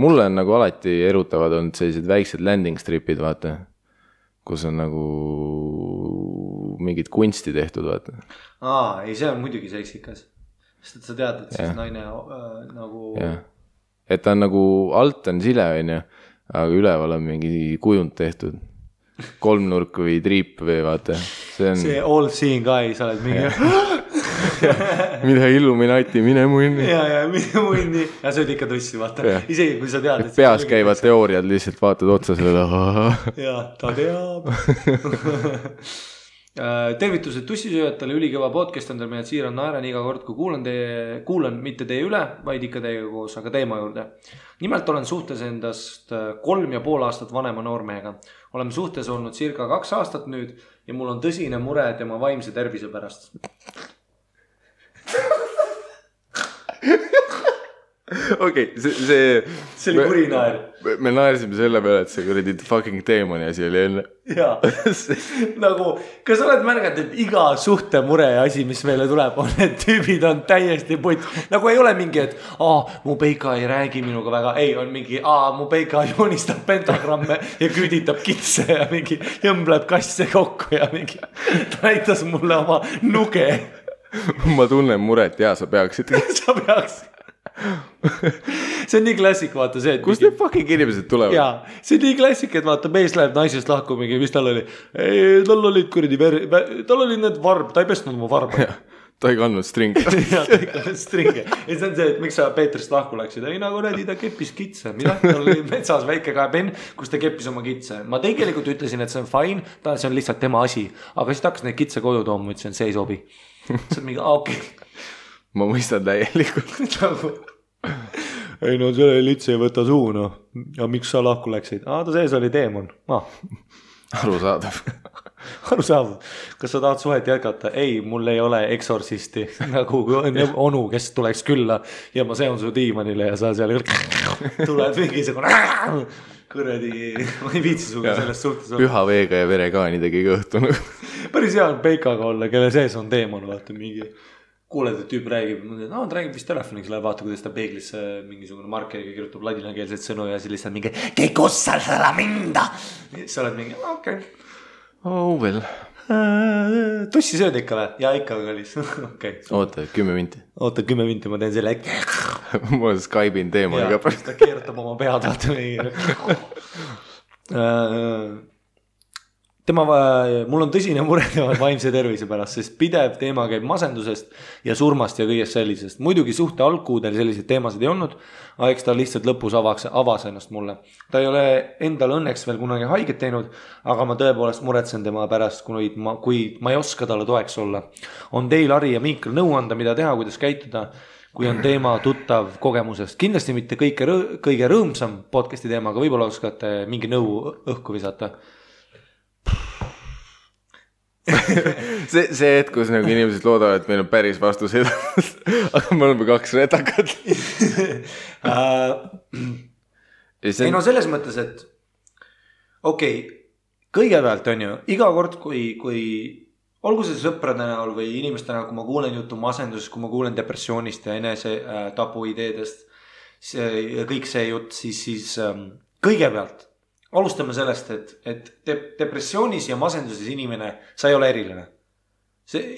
Mulle on nagu alati erutavad olnud sellised väiksed landing stripid, vaata, kus on nagu mingid kunsti tehtud, vaata. Ei, see on muidugi seksikas. Sest et sa tead, et siis naine nagu... Ja. Et ta on nagu alt on sile, aga üleval on mingi kujund tehtud. Kolmnurk või triip või vaata. See all seeing eye, sa oled mingi... Mida Illuminati, mine munni. Ja mine munni. Ja see oli ikka tussi, vaata. Isegi kui sa tead, et peas käivad teooriad, lihtsalt vaatad otsa selle. Ja, ta teab. Tervitused tussisööjatele, ülikõva podcast on teil mehed siirad naeran iga kord, kui kuulan mitte teie üle, vaid ikka teiega koos, aga teema juurde. Nimelt olen suhtes endast 3,5 aastat vanema noormehega. Oleme suhtes olnud circa 2 aastat nüüd ja mul on tõsine mure tema vaimse tervise pärast. Okei, see oli kuri naer. Me naersime selle peale, et see kuradi fucking teemani asi oli enne. Jaa, nagu, kas oled märganud, et iga suhte mure asi, mis meile tuleb, on, et tüübid on täiesti putt. Nagu ei ole mingi, et mu peika ei räägi minuga väga. Ei, on mingi, mu peika joonistab pentagramme ja küüditab kitse ja mingi jõmbleb kasse kokku ja mingi ta näitas mulle oma nuge. Ma tunnen muret, jaa, sa peaksid. Sa peaksid. See on nii klassik, vaata see, et kus need fucking inimesed tulevad? Jaa, see on nii klassik, et vaata mees läheb naisest lahku mingi, mis tal oli? Tal olid kuradi tal olid need varb, ta ei pestnud oma varba. Ta ei kandnud stringe. Jaa, ta ei kandnud stringe. Ja see on see, et miks sa Peetrist lahku läksid? Ei nagu nädi, ta keppis kitse. Mida? Tal oli metsas väike kaepen, kus ta keppis oma kitse. Ma tegelikult ütlesin, et see on fine, see on lihtsalt tema asi. Aga siis ta hakkas neid kitse koju tooma, ütlesin, see ei sobi. See on mingi, okei. Ma mõistan täielikult. Ei no selle litse ei võta suu, no. Ja miks sa lahku läksid? Ta sees oli teemon. Arusaadav. Kas sa tahad suhet jätkata? Ei, mul ei ole eksorsisti. Nagu onu, kes tuleks külla ja ma seon su diimanile ja sa seal tuled mingisugune kõredi, ma ei viitsi suga sellest suhtes. Püha veega ja verekaanidegi kõhtunud. Päris hea on peikaga olla, kelle sees on teemon, vaata mingi. Kuuled, et tüüp räägib, ta räägib vist telefoniks, läheb vaata, kuidas ta peeglisse mingisugune markeriga kirjutab ladinakeelset sõnu ja siis lihtsalt mingi "Che cosa sarà minda?" Sa oled mingi, okei. Oh well. Tussi sööd ikka või? Jaa, ikka kallis. Okay. Oota, 10 minti. Oota, 10 minti, ma teen selle ma Skype'in teemoniga. Jaa, ta keerutab oma pead, vaata mul on tõsine mure tema vaimse tervise pärast, sest pidev teema käib masendusest ja surmast ja kõigest sellisest. Muidugi suhte algkuudel selliseid teemasid ei olnud, aga eks ta lihtsalt lõpus avas ennast mulle. Ta ei ole endal õnneks veel kunagi haiget teinud, aga ma tõepoolest muretsen tema pärast, kui ma ei oska talle toeks olla. On teil, Ari ja Miikal nõu anda, mida teha, kuidas käituda, kui on teema tuttav kogemusest. Kindlasti mitte kõige rõõmsam podcasti teema, aga võib-olla oskate mingi nõu õhku visata. see hetk, kus nagu inimesed loodavad, et meil on päris vastused, aga me oleme 2 retakat. Ei no selles mõttes, et okei, kõigepealt on ju, iga kord, kui olgu see sõprade näol või inimeste näol, kui ma kuulen juttu masendusest, kui ma kuulen depressioonist ja enese tapu ideedest, kõik see jutt, siis kõigepealt alustame sellest, et depressioonis ja masenduses inimene, sa ei ole eriline.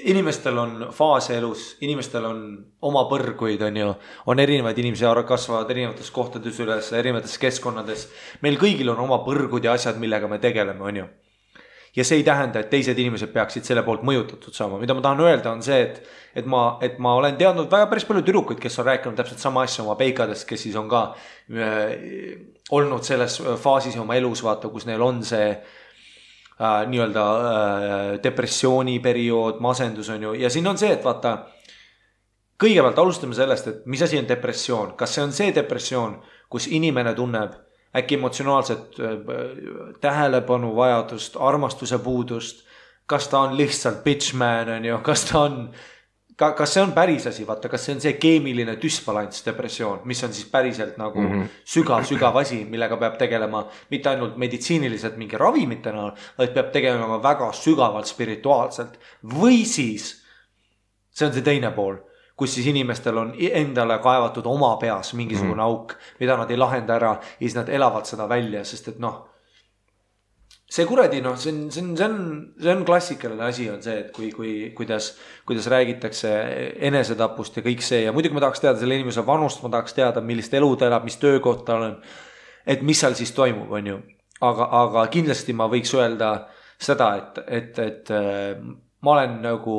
Inimestel on faase elus, inimestel on oma põrguid, on erinevaid inimesi, kasvavad erinevates kohtades üles, erinevates keskkonnades. Meil kõigil on oma põrgud ja asjad, millega me tegeleme, on ju. Ja see ei tähenda, et teised inimesed peaksid selle poolt mõjutatud saama. Mida ma tahan öelda on see, et ma olen teadnud väga päris palju tüdrukuid, kes on rääkinud täpselt sama asja oma peikadest, kes siis on ka olnud selles faasis oma elus, vaata, kus neil on see nii-öelda depressiooni periood, masendus on ju. Ja siin on see, et vaata, kõigepealt alustame sellest, et mis asi on depressioon. Kas see on see depressioon, kus inimene tunneb äkki emotsionaalset tähelepanu vajadust, armastuse puudust, kas ta on lihtsalt bitchman, on ju, kas see on päris asi, vaata, kas see on see keemiline düsbalants depressioon, mis on siis päriselt nagu sügav asi, millega peab tegelema mitte ainult meditsiiniliselt mingi ravimitena, vaid peab tegelema väga sügavalt spirituaalselt. Või siis, see on see teine pool, kus siis inimestel on endale kaevatud oma peas mingisugune auk, mida nad ei lahenda ära ja siis nad elavad seda välja, sest et see kuradi, see on klassikaline asi on see, et kuidas räägitakse enesetapust ja kõik see ja muidugi ma tahaks teada selle inimese vanust, ma tahaks teada, millist elu ta elab, mis töökoht tal on, et mis seal siis toimub, on ju. Aga kindlasti ma võiks öelda seda, et ma olen nagu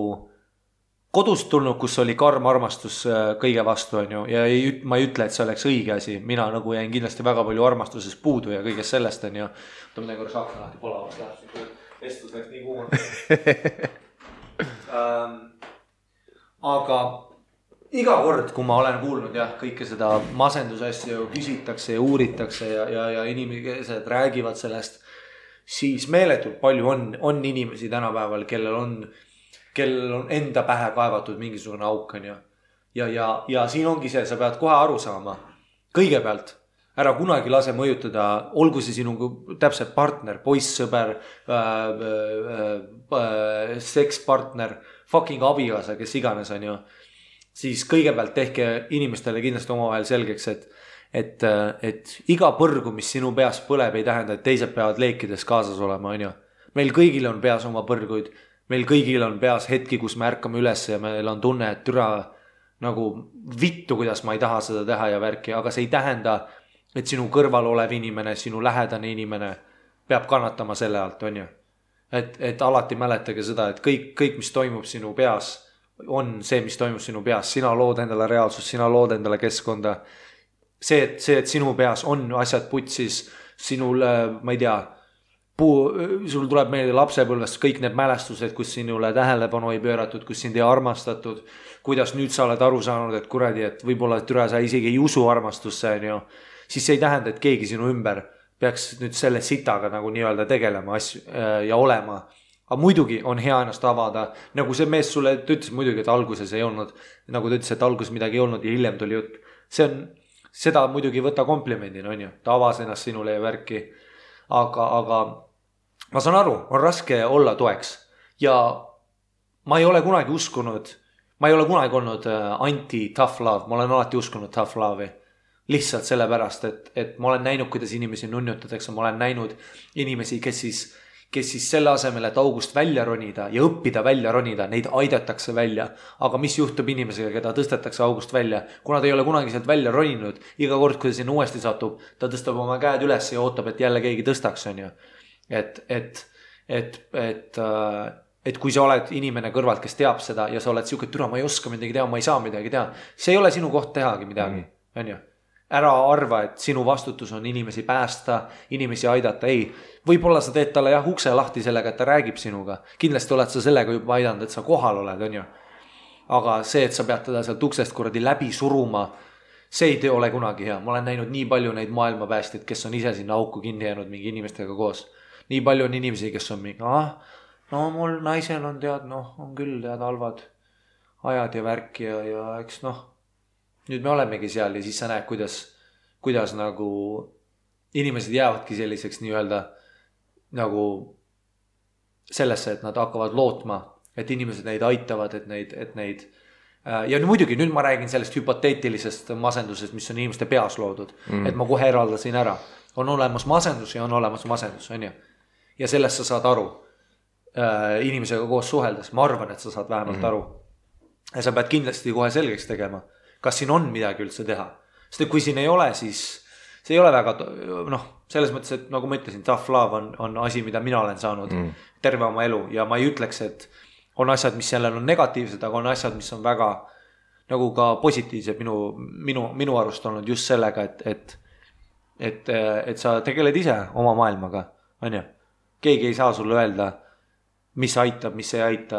kodust tulnud, kus oli karm armastus kõige vastu, on ju, ja ma ei ütle, et see oleks õige asi. Mina nagu jäin kindlasti väga palju armastuses puudu ja kõigest sellest, on ju. Võtame korraks akna lahti, polavast läheb. vestlus läks nii kuuma. Aga iga kord, kui ma olen kuulnud jah, kõike seda masendusasju küsitakse ja uuritakse ja inimesed räägivad sellest, siis meeletult palju on inimesi tänapäeval, kellel on enda pähe kaevatud mingisugune auk, on ju. Ja siin ongi see, sa pead kohe aru saama. Kõigepealt, ära kunagi lase mõjutada, olgu see sinu täpselt partner, poissõber, sekspartner, fucking abikaasa, kes iganes on ju. Siis kõigepealt tehke inimestele kindlasti omavahel selgeks, et iga põrgu, mis sinu peas põleb, ei tähenda, et teised peavad leekides kaasas olema, on ju. Meil kõigil on peas oma põrguid, meil kõigil on peas hetki, kus me ärkame üles ja meil on tunne, et türa nagu vittu, kuidas ma ei taha seda teha ja värki, aga see ei tähenda, et sinu kõrval olev inimene, sinu lähedane inimene peab kannatama selle alt, on ju. Et alati mäletage seda, et kõik, mis toimub sinu peas, on see, mis toimub sinu peas. Sina lood endale reaalsust, sina lood endale keskkonda. See, et sinu peas on asjad putsis, sinul, ma ei tea, sul tuleb meelde lapsepõlvest kõik need mälestused, kus sinule tähelepanu ei pööratud, kus sind ei armastatud, kuidas nüüd sa oled aru saanud, et kuradi, et võib-olla türa sa isegi ei usu armastusse, on ju. Siis see ei tähenda, et keegi sinu ümber peaks nüüd selle sitaga nagu nii-öelda tegelema asju ja olema. Aga muidugi on hea ennast avada, nagu see mees sulle ütles muidugi, et alguses ei olnud, nagu ta ütles, et alguses midagi ei olnud ja hiljem tuli jutt. Seda muidugi võta komplimendina, on ju, ta avas ennast sinule ja värki, aga ma saan aru, on raske olla toeks ja ma ei ole kunagi uskunud, ma ei ole kunagi olnud anti-tough love, ma olen alati uskunud tough love'i. Lihtsalt sellepärast, et ma olen näinud, kuidas inimesi nunnutatakse, ma olen näinud inimesi, kes siis selle asemel, et august välja ronida ja õppida välja ronida, neid aidatakse välja. Aga mis juhtub inimesega, keda tõstetakse august välja? Kuna ta ei ole kunagi sealt välja roninud, iga kord, kui ta sinna uuesti satub, ta tõstab oma käed üles ja ootab, et jälle keegi tõstaks, on ju. Et kui sa oled inimene kõrvalt, kes teab seda ja sa oled siuke, türa, ma ei oska midagi teha, ma ei saa midagi teha. See ei ole sinu koht tehagi midagi, on ju. Ära arva, et sinu vastutus on inimesi päästa, inimesi aidata, ei. Võib-olla sa teed talle jah ukse lahti sellega, et ta räägib sinuga. Kindlasti oled sa sellega juba aidanud, et sa kohal oled, on ju. Aga see, et sa pead teda sealt uksest kuradi läbi suruma, see ei ole kunagi hea. Ma olen näinud nii palju neid maailmapäästjaid, kes on ise sinna auku kinni jäänud mingi inimestega koos. Nii palju on inimesi, kes on mingi, no mul naisel on on küll halvad ajad ja värk ja eks nüüd me olemegi seal ja siis sa näed, kuidas nagu inimesed jäävadki selliseks nii-öelda nagu sellesse, et nad hakkavad lootma, et inimesed neid aitavad, et neid ja muidugi nüüd ma räägin sellest hüpoteetilisest masendusest, mis on inimeste peas loodud, et ma kohe eraldasin ära. On olemas masendus ja on olemas masendus, on ju. Ja sellest sa saad aru inimesega koos suheldes. Ma arvan, et sa saad vähemalt aru. Ja sa pead kindlasti kohe selgeks tegema, kas siin on midagi üldse teha. Sest kui siin ei ole, siis see ei ole väga, selles mõttes, et nagu ma ütlesin, tough love on asi, mida mina olen saanud terve oma elu ja ma ei ütleks, et on asjad, mis sellel on negatiivsed, aga on asjad, mis on väga nagu ka positiivsed minu arust olnud just sellega, et sa tegeled ise oma maailmaga, on ju. Keegi ei saa sulle öelda, mis aitab, mis ei aita,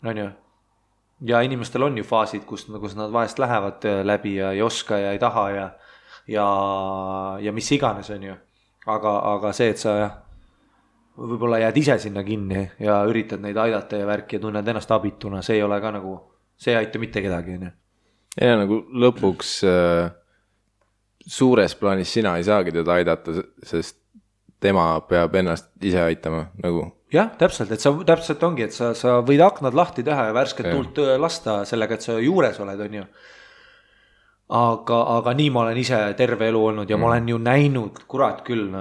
on ju. Ja inimestel on ju faasid, kus nad vahest lähevad läbi ja ei oska ja ei taha ja mis iganes on ju. Aga see, et sa võib-olla jääd ise sinna kinni ja üritad neid aidata ja värki ja tunned ennast abituna, see ei ole ka nagu, see ei aita mitte kedagi. Ja nagu lõpuks suures plaanis sina ei saagi teda aidata, sest tema peab ennast ise aitama nagu. Jah, täpselt, et sa täpselt ongi, et sa võid aknad lahti teha ja värsket tuult lasta sellega, et sa juures oled, on ju. Aga nii ma olen ise terve elu olnud ja ma olen ju näinud, kurat küll,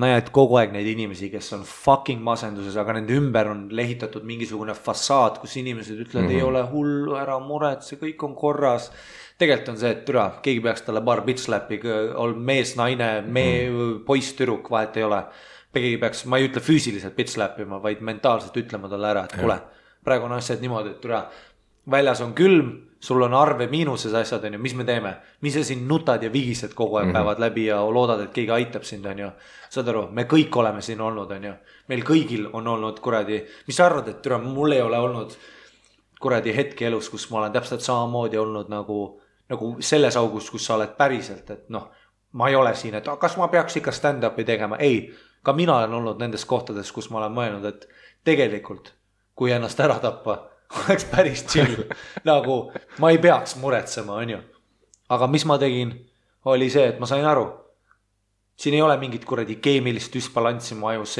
näed kogu aeg neid inimesi, kes on fucking masenduses, aga nende ümber on lehitatud mingisugune fassaad, kus inimesed ütlevad, ei ole hullu, ära muret, see kõik on korras. Tegelikult on see, et türa, keegi peaks talle paar bitch-läppi, mees, naine, poiss, tüdruk, vahet ei ole. Keegi peaks, ma ei ütle füüsiliselt bitch-läppima, vaid mentaalselt ütlema talle ära, et kuule, praegu on asjad niimoodi, et türa, väljas on külm, sul on arve miinuses asjad, on ju, mis me teeme? Mis sa siin nutad ja vigised kogu aeg päevad läbi ja loodad, et keegi aitab sind, on ju. Saad aru, me kõik oleme siin olnud, on ju. Meil kõigil on olnud kuradi, mis sa arvad, et türa, mul ei ole olnud kuradi hetki elus, kus ma olen täpselt samamoodi olnud nagu selles augus, kus sa oled päriselt, et noh, ma ei ole siin, et kas ma peaks ikka stand-up'i tegema? Ei, ka mina olen olnud nendes kohtades, kus ma olen mõelnud, et tegelikult, kui ennast ära tappa, oleks päris chill. Nagu ma ei peaks muretsema, on ju. Aga mis ma tegin, oli see, et ma sain aru. Siin ei ole mingit kuradi keemilist düsbalanssi mu ajus,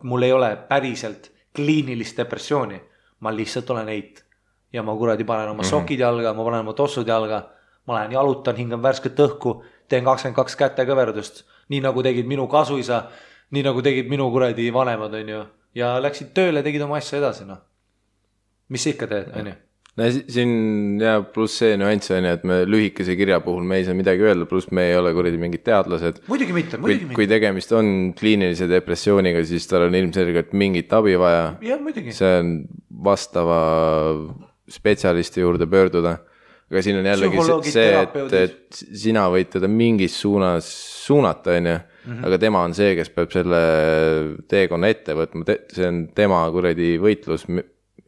mul ei ole päriselt kliinilist depressiooni. Ma lihtsalt olen eit. Ja ma kuradi panen oma sokid jalga, ma panen oma tossud jalga, ma lähen jalutan, hingan värsket õhku, teen 22 kätekõverdust, nii nagu tegid minu kasuisa, nii nagu tegid minu kuradi vanemad, on ju. Ja läksid tööle, tegid oma asja edasi, noh. Mis sa ikka teed, on ju? No, siin jääb pluss see nüanss on, et me lühikese kirja puhul me ei saa midagi öelda, pluss me ei ole kuradi mingid teadlased. Muidugi mitte. Kui tegemist on kliinilise depressiooniga, siis tal on ilmselgelt mingit abi vaja. Ja, muidugi. See on vastava spetsialisti juurde pöörduda. Aga siin on jällegi see, et sina võid teda mingis suunas suunata, on ju. Aga tema on see, kes peab selle teekonna ette võtma. See on tema kuradi võitlus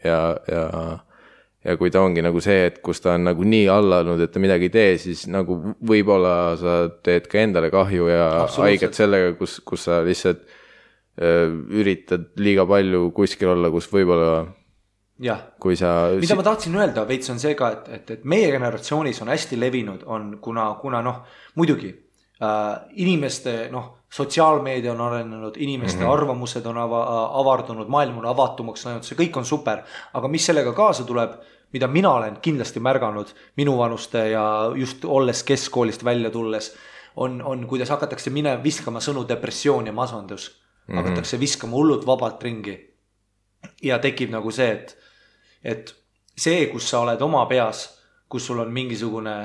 ja kui ta ongi nagu see, et kus ta on nagu nii allanud, et ta midagi ei tee, siis nagu võib-olla sa teed ka endale kahju ja haiget sellega, kus sa lihtsalt üritad liiga palju kuskil olla, kus võib-olla jah, mida ma tahtsin öelda veits on see ka, et meie generatsioonis on hästi levinud, on kuna noh, muidugi inimeste sotsiaalmeedia on arenenud, inimeste arvamused on avardunud, maailm on avatumaks läinud, see kõik on super, aga mis sellega kaasa tuleb, mida mina olen kindlasti märganud minu vanuste ja just olles keskkoolist välja tulles, on kuidas hakatakse viskama sõnu depressioon ja masandus, hakatakse viskama hullult vabalt ringi ja tekib nagu see, et see, kus sa oled oma peas, kus sul on mingisugune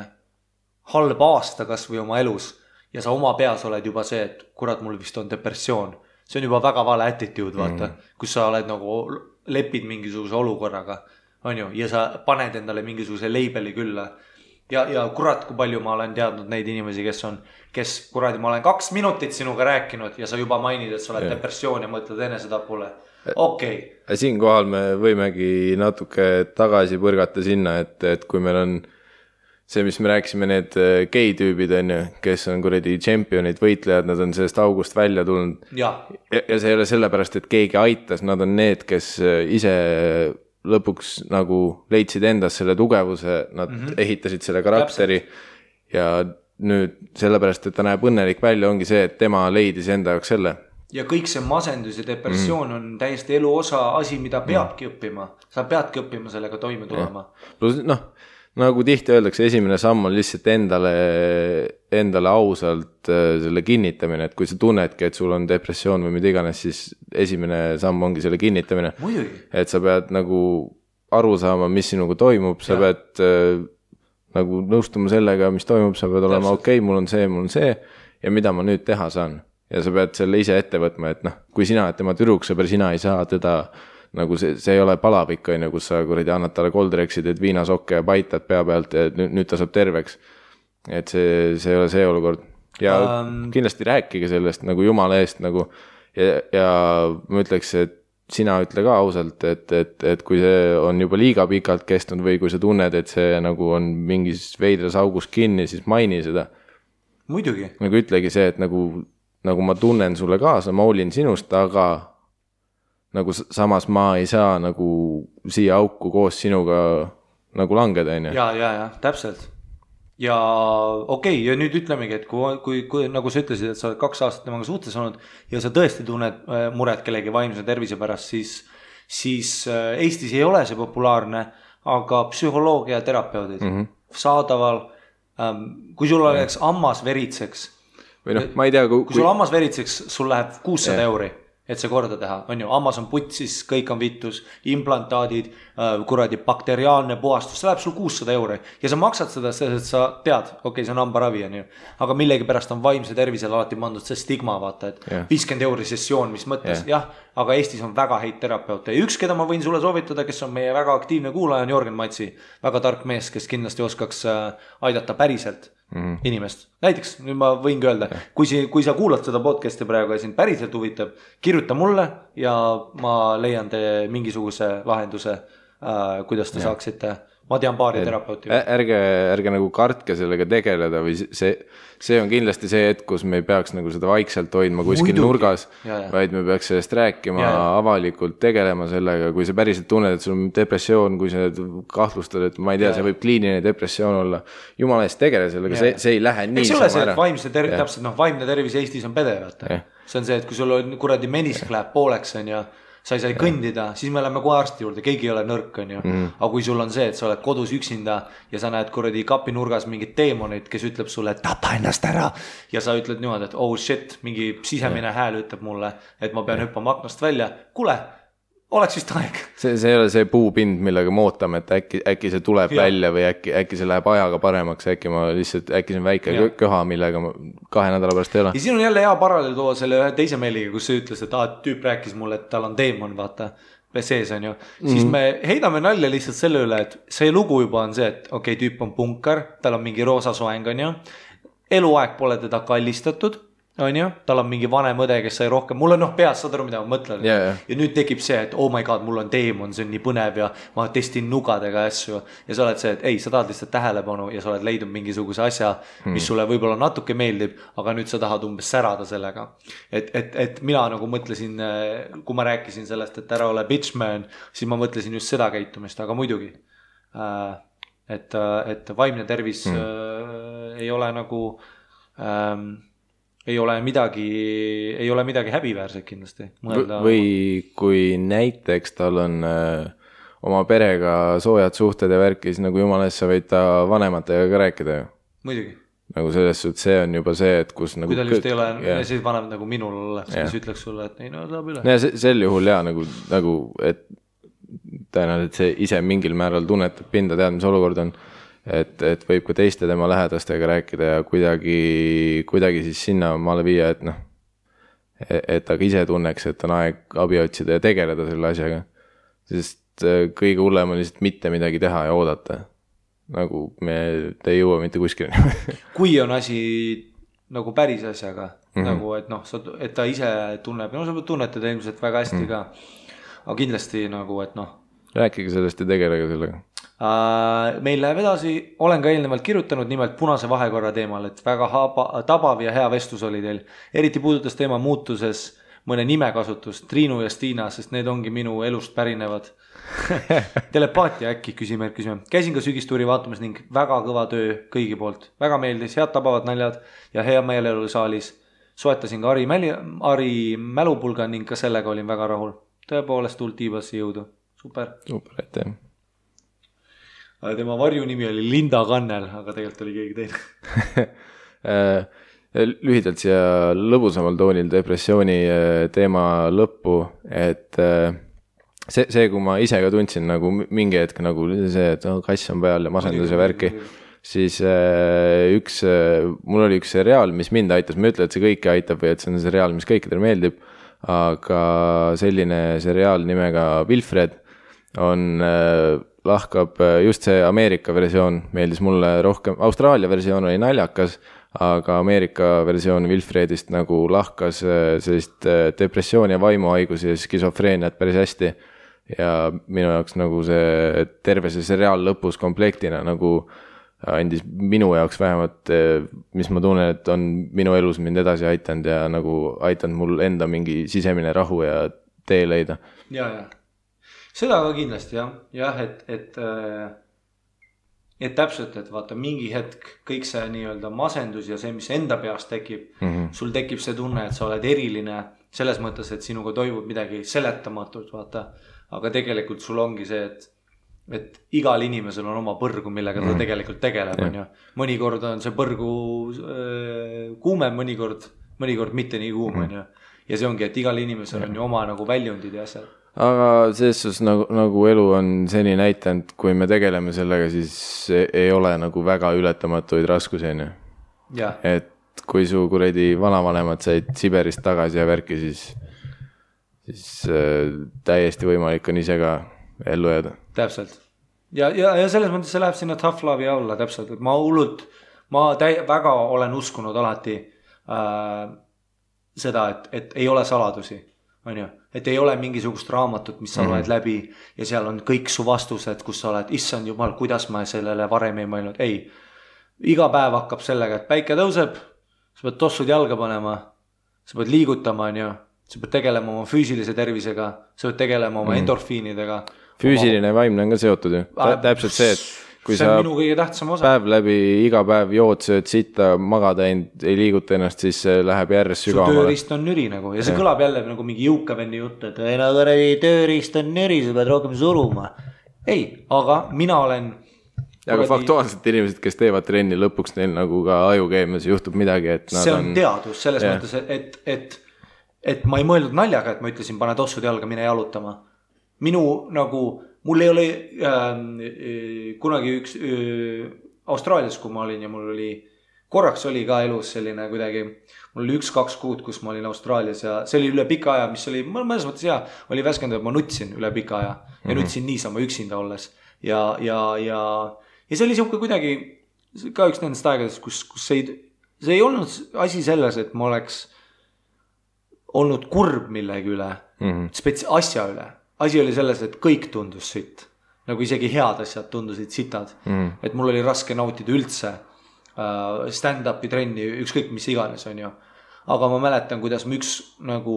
halb aasta kas või oma elus ja sa oma peas oled juba see, et kurat, mul vist on depressioon. See on juba väga vale attitude, vaata, kus sa oled nagu lepid mingisuguse olukorraga, on ju, ja sa paned endale mingisuguse leibeli külla. Ja kurat, kui palju ma olen teadnud neid inimesi, kes kuradi, ma olen 2 minutit sinuga rääkinud ja sa juba mainid, et sa oled depressioon ja mõtled enesetapule. Okei. Siinkohal me võimegi natuke tagasi põrgata sinna, et kui meil on see, mis me rääkisime, need gei-tüübid on ju, kes on kuradi tšempionid, võitlejad, nad on sellest august välja tulnud. Ja see ei ole sellepärast, et keegi aitas, nad on need, kes ise lõpuks nagu leidsid endas selle tugevuse, nad ehitasid selle karakteri ja nüüd sellepärast, et ta näeb õnnelik välja, ongi see, et tema leidis enda jaoks selle. Ja kõik see masendus ja depressioon on täiesti elu osa asi, mida peabki õppima. Sa peadki õppima sellega toime tulema. Plus, nagu tihti öeldakse, esimene samm on lihtsalt endale ausalt selle kinnitamine, et kui sa tunnedki, et sul on depressioon või mida iganes, siis esimene samm ongi selle kinnitamine. Muidugi. Et sa pead nagu aru saama, mis sinuga toimub, sa pead nagu nõustuma sellega, mis toimub, sa pead olema okei, mul on see ja mida ma nüüd teha saan. Ja sa pead selle ise ette võtma, et kui sina oled tema tüdruksõber, sina ei saa teda nagu see ei ole palavik, kus sa kuradi annad talle koldreksid, et viinasokke ja paitad pea pealt ja nüüd ta saab terveks. Et see ei ole see olukord. Ja kindlasti rääkige sellest nagu jumala eest nagu ja ma ütleks, et sina ütle ka ausalt, et kui see on juba liiga pikalt kestnud või kui sa tunned, et see nagu on mingis veidras augus kinni, siis maini seda. Muidugi. Nagu ütlegi see, et nagu ma tunnen sulle kaasa, ma hoolin sinust, aga nagu samas ma ei saa nagu siia auku koos sinuga nagu langeda, on ju. Ja, täpselt. Ja okei, ja nüüd ütlemegi, et kui nagu sa ütlesid, et sa oled 2 aastat temaga suhtes olnud ja sa tõesti tunned muret kellegi vaimse tervise pärast, siis Eestis ei ole see populaarne, aga psühholoogia terapeudid saadaval, kui sul oleks ammas veritseks, või ma ei tea, kui sul ammas veritseks, sul läheb 600 euri. et see korda teha, on ju, Amazon putsis, kõik on vittus, implantaadid, kuradi bakteriaalne puhastus, see läheb sul 600 euro ja sa maksad seda, sest sa tead, okei, see on hambaravi, on ju, aga millegi pärast on vaimse tervisele alati pandud see stigma, vaata, et 50 euro sessioon, mis mõttes, jah, aga Eestis on väga häid terapeute ja üks, keda ma võin sulle soovitada, kes on meie väga aktiivne kuulaja, on Jörgen Matsi, väga tark mees, kes kindlasti oskaks aidata päriselt inimest. Näiteks, nüüd ma võingi öelda, kui sa kuulad seda podcasti praegu ja sind päriselt huvitab, kirjuta mulle ja ma leian te mingisuguse lahenduse, kuidas te saaksite. Ma tean paari terapeuti. Ärge nagu kartke sellega tegeleda või see on kindlasti see hetk, kus me ei peaks nagu seda vaikselt hoidma kuskil nurgas, vaid me peaks sellest rääkima avalikult, tegelema sellega, kui sa päriselt tunned, et sul on depressioon, kui sa kahtlustad, et ma ei tea, see võib kliiniline depressioon olla. Jumala eest tegele sellega, see ei lähe nii sama ära. Täpselt, vaimne tervis Eestis on pede, vaata. See on see, et kui sul on kuradi menisk läheb pooleks, on ja sa ei sai kõndida, siis me läheme kohe arsti juurde, keegi ei ole nõrk, on ju. Aga kui sul on see, et sa oled kodus üksinda ja sa näed kuradi kapinurgas mingit teemonit, kes ütleb sulle, et tapa ennast ära. Ja sa ütled niimoodi, et oh shit, mingi sisemine hääl ütleb mulle, et ma pean hüppama aknast välja. Kuule, oleks vist aeg. See ei ole see puupind, millega me ootame, et äkki see tuleb välja või äkki see läheb ajaga paremaks, äkki see on väike köha, millega 2 nädala pärast ei ole. Ja siin on jälle hea paralleel tuua selle ühe teise meiliga, kus see ütles, et tüüp rääkis mulle, et tal on teemon, vaata, sees on ju. Siis me heidame nalja lihtsalt selle üle, et see lugu juba on see, et okei, tüüp on punkar, tal on mingi roosa soeng, on ju. Eluaeg pole teda kallistatud. On ju, tal on mingi vanem õde, kes sai rohkem, mul on peas, saad aru, mida ma mõtlen ja nüüd tekib see, et oh my god, mul on teemon, see on nii põnev ja ma testin nugadega asju ja sa oled see, et ei, sa tahad lihtsalt tähelepanu ja sa oled leidnud mingisuguse asja, mis sulle võib-olla natuke meeldib, aga nüüd sa tahad umbes särada sellega, et mina nagu mõtlesin, kui ma rääkisin sellest, et ära ole bitch man, siis ma mõtlesin just seda käitumist, aga muidugi et vaimne tervis ei ole nagu ei ole midagi häbiväärset kindlasti. Või kui näiteks tal on oma perega soojad suhted ja värki, siis nagu jumala eest sa võid ta vanematega ka rääkida ju. Muidugi. Nagu selles suhtes see on juba see, et kus nagu... Kui tal just ei ole, siis vanem nagu minul oleks, siis ütleks sulle, et ei, no saab üle. Ja sel juhul nagu et tõenäoliselt see ise mingil määral tunnetab pinda, tead, mis olukord on. Et võib ka teiste tema lähedastega rääkida ja kuidagi siis sinna maale viia, et ta ise tunneks, et on aeg abi otsida ja tegeleda selle asjaga. Sest kõige hullem on lihtsalt mitte midagi teha ja oodata. Nagu me ei jõua mitte kuskil. Kui on asi nagu päris asjaga, nagu et ta ise tunneb, sa tunnetada ilmselt väga hästi ka, aga kindlasti nagu, et rääkige sellest ja tegelege sellega. Meil läheb edasi, olen ka eelnevalt kirjutanud nimelt punase vahekorra teemal, et väga tabav ja hea vestlus oli teil. Eriti puudutas teema muutuses mõne nimekasutust, Triinu ja Stiina, sest need ongi minu elust pärinevad. Telepaatia äkki, küsime. Käisin ka sügistuuri vaatamas ning väga kõva töö kõigi poolt. Väga meeldis, head tabavad naljad ja hea meelelu saalis. Soetasin ka Ari mälupulga ning ka sellega olin väga rahul. Tõepoolest tuld tiibasi jõudu. Super, aitäh. Tema varju nimi oli Linda Kannel, aga tegelikult oli keegi teine. Lühidalt siia lõbusamal toonil depressiooni teema lõppu, et see, kui ma ise ka tundsin nagu mingi hetk nagu see, et kass on peal ja masendus ja värki, siis mul oli üks seriaal, mis mind aitas, ma ütlen, et see kõiki aitab või et see on seriaal, mis kõikidele meeldib, aga selline seriaal nimega Wilfred lahkab just see Ameerika versioon, meeldis mulle rohkem, Austraalia versioon oli naljakas, aga Ameerika versioon Wilfredist nagu lahkas sellist depressiooni ja vaimuhaigusi ja skisofreeniat päris hästi ja minu jaoks nagu see terve see seriaal lõpus komplektina nagu andis minu jaoks vähemalt, mis ma tunnen, et on minu elus mind edasi aitanud ja nagu aitanud mul enda mingi sisemine rahu ja tee leida. Ja. Seda ka kindlasti, jah, et täpselt, et vaata mingi hetk kõik see nii-öelda masendus ja see, mis enda peast tekib, sul tekib see tunne, et sa oled eriline selles mõttes, et sinuga toimub midagi seletamatult, vaata, aga tegelikult sul ongi see, et igal inimesel on oma põrgu, millega ta tegelikult tegeleb, on ju. Mõnikord on see põrgu kuumem, mõnikord mitte nii kuum, on ju. ja see ongi, et igal inimesel on ju oma nagu väljundid ja asjad. Aga selles suhtes nagu elu on seni näitanud, kui me tegeleme sellega, siis ei ole nagu väga ületamatuid raskusi, on ju. Et kui su kuradi vanavanemad said Siberist tagasi ja värki, siis täiesti võimalik on ise ka ellu jääda. Täpselt. Ja selles mõttes see läheb sinna tough love'i alla täpselt, et ma väga olen uskunud alati seda, et ei ole saladusi, on ju, et ei ole mingisugust raamatut, mis sa loed läbi ja seal on kõik su vastused, kus sa oled, issand jumal, kuidas ma sellele varem ei mõelnud. Ei, iga päev hakkab sellega, et päike tõuseb, sa pead tossud jalga panema, sa pead liigutama, on ju, sa pead tegelema oma füüsilise tervisega, sa pead tegelema oma endorfiinidega. Füüsiline ja vaimne on ka seotud ju. Täpselt see, et kui see sa minu kõige tähtsam osa. Päev läbi, iga päev jood, sööd sitta, magada ei liiguta ennast, siis läheb järjest sügavamale. Su tööriist on nüri nagu ja see kõlab jälle nagu mingi jõukavenni jutt, et tööriist on nüri, sa pead rohkem suruma. Ei, aga mina olen... Aga faktuaalselt inimesed, kes teevad trenni lõpuks, neil nagu ka ajukeemias juhtub midagi, et nad see on teadus selles mõttes, et ma ei mõelnud naljaga, et ma ütlesin, pane tossud jalga, mine jalutama. Minu nagu, mul ei ole kunagi üks Austraalias, kui ma olin ja mul oli, korraks oli ka elus selline kuidagi, mul oli 1-2 kuud, kus ma olin Austraalias ja see oli üle pika aja, mis oli, mõnes mõttes hea, oli värskendav, et ma nutsin üle pika aja ja nutsin niisama üksinda olles ja see oli siuke kuidagi ka üks nendest aegadest, kus see ei olnud asi selles, et ma oleks olnud kurb millegi üle, asja üle. Asi oli selles, et kõik tundus sitt. Nagu isegi head asjad tundusid sitad. Et mul oli raske nautida üldse stand-upi trenni, ükskõik mis iganes on ju. Aga ma mäletan, kuidas ma üks nagu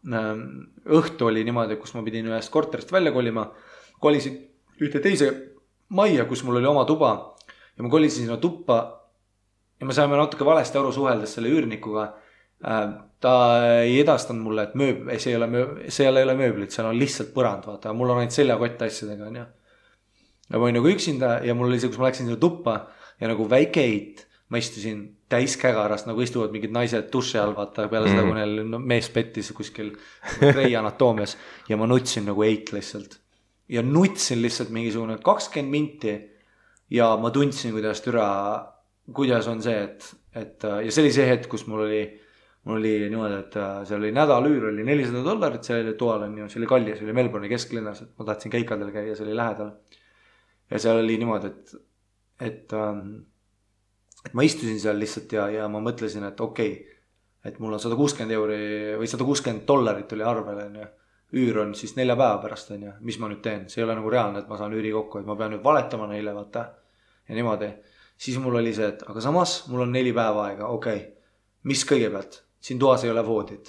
õhtu oli niimoodi, kus ma pidin ühest korterist välja kolima. Kolisin ühte teise majja, kus mul oli oma tuba ja ma kolisin sinna tuppa ja me saime natuke valesti aru suheldes selle üürnikuga. Ta ei edastanud mulle, et see ei ole mööblit, seal on lihtsalt põrand, vaata, mul on ainult seljakott asjadega, on ju. Ja ma olin nagu üksinda ja mul oli see, kus ma läksin sinna tuppa ja nagu väike eit, ma istusin täis kägarast, nagu istuvad mingid naised duši all, vaata, peale seda, kui neil mees pettis kuskil Grey Anatoomias ja ma nutsin nagu eit lihtsalt. Ja nutsin lihtsalt mingisugune 20 minti ja ma tundsin, kuidas on see, et ja see oli see hetk, kus mul oli niimoodi, et seal oli nädalüür, oli $400, see oli toal on ju, see oli kallis, see oli Melbourne'i kesklinnas, et ma tahtsin keikadel käia, see oli lähedal. Ja seal oli niimoodi, et ma istusin seal lihtsalt ja ma mõtlesin, et okei, et mul on €160 või $160 oli arvel, on ju. Üür on siis 4 päeva pärast, on ju, mis ma nüüd teen, see ei ole nagu reaalne, et ma saan üüri kokku, et ma pean nüüd valetama neile, vaata. Ja niimoodi, siis mul oli see, et aga samas mul on 4 päeva aega, okei, mis kõigepealt? Siin toas ei ole voodit.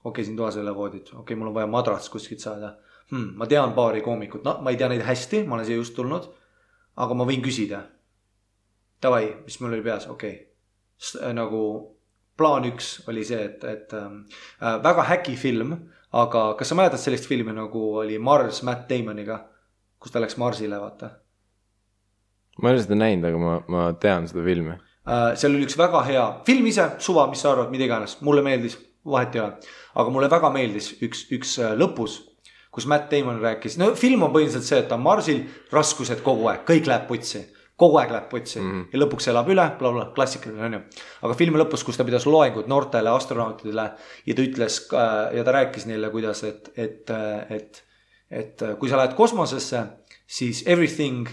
Okei, siin toas ei ole voodit. Okei, mul on vaja madrats kuskilt saada. Ma tean paari koomikut. No, ma ei tea neid hästi, ma olen siia just tulnud. Aga ma võin küsida. Tavai, mis mul oli peas? Okei. Nagu plaan 1 oli see, et väga häki film. Aga kas sa mäletad sellist filmi nagu oli Mars Matt Damoniga? Kus ta läks Marsile, vaata? Ma ei ole seda näinud, aga ma tean seda filmi. Seal oli üks väga hea film ise, suva, mis sa arvad, mida iganes, mulle meeldis, vahet ei ole, aga mulle väga meeldis üks lõpus, kus Matt Damon rääkis, no film on põhiliselt see, et ta on Marsil, raskused kogu aeg, kõik läheb putsi ja lõpuks elab üle, klassikaline on ju, aga filmi lõpus, kus ta pidas loengut noortele astronautidele ja ta ütles ja ta rääkis neile, kuidas, et kui sa lähed kosmosesse, siis everything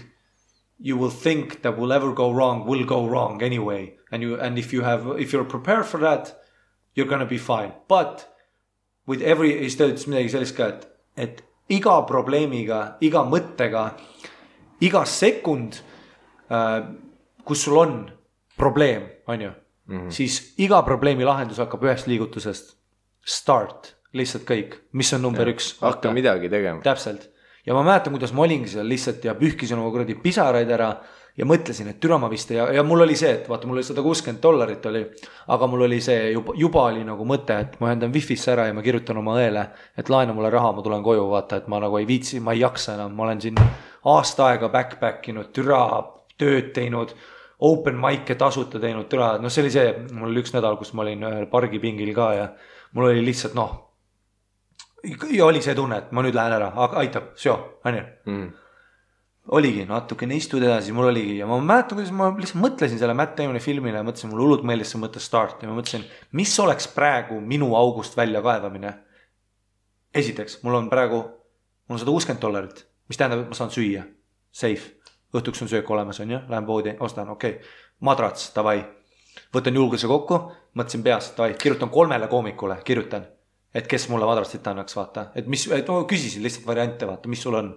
you will think that will ever go wrong anyway. And if you're prepared for that, you're gonna be fine. But with siis ta ütles midagi sellist ka, et iga probleemiga, iga mõttega, iga sekund, kus sul on probleem, on ju, siis iga probleemi lahendus hakkab ühest liigutusest. Start, lihtsalt kõik, mis on number 1. Hakka midagi tegema. Täpselt. Ja ma mäletan, kuidas ma olingi seal lihtsalt ja pühkisin oma kuradi pisaraid ära ja mõtlesin, et türa ma vist ja mul oli see, et vaata, mul oli $160 oli, aga mul oli see juba oli nagu mõte, et ma ühendan Wi-Fi'sse ära ja ma kirjutan oma õele, et laena mulle raha, ma tulen koju, vaata, et ma nagu ei viitsi, ma ei jaksa enam, ma olen siin aasta aega backpackinud, türa tööd teinud, open mic'e tasuta teinud, türa, no see oli see, mul oli 1 nädal, kus ma olin ühel pargipingil ka ja mul oli lihtsalt ja oli see tunne, et ma nüüd lähen ära, aitab, on ju. Oligi natukene istud edasi, mul oligi ja ma mäletan, kuidas ma lihtsalt mõtlesin selle Matt Damoni filmile ja mõtlesin, mul hullult meeldis see mõte Start ja ma mõtlesin, mis oleks praegu minu august välja kaevamine. Esiteks, mul on $160, mis tähendab, et ma saan süüa, safe, õhtuks on söök olemas, on ju, lähen poodi, ostan, okei, madrats, davai, võtan julguse kokku, mõtlesin peas, davai, kirjutan 3 koomikule, kirjutan, et kes mulle madratsit annaks, vaata, küsisin lihtsalt variante, vaata, mis sul on.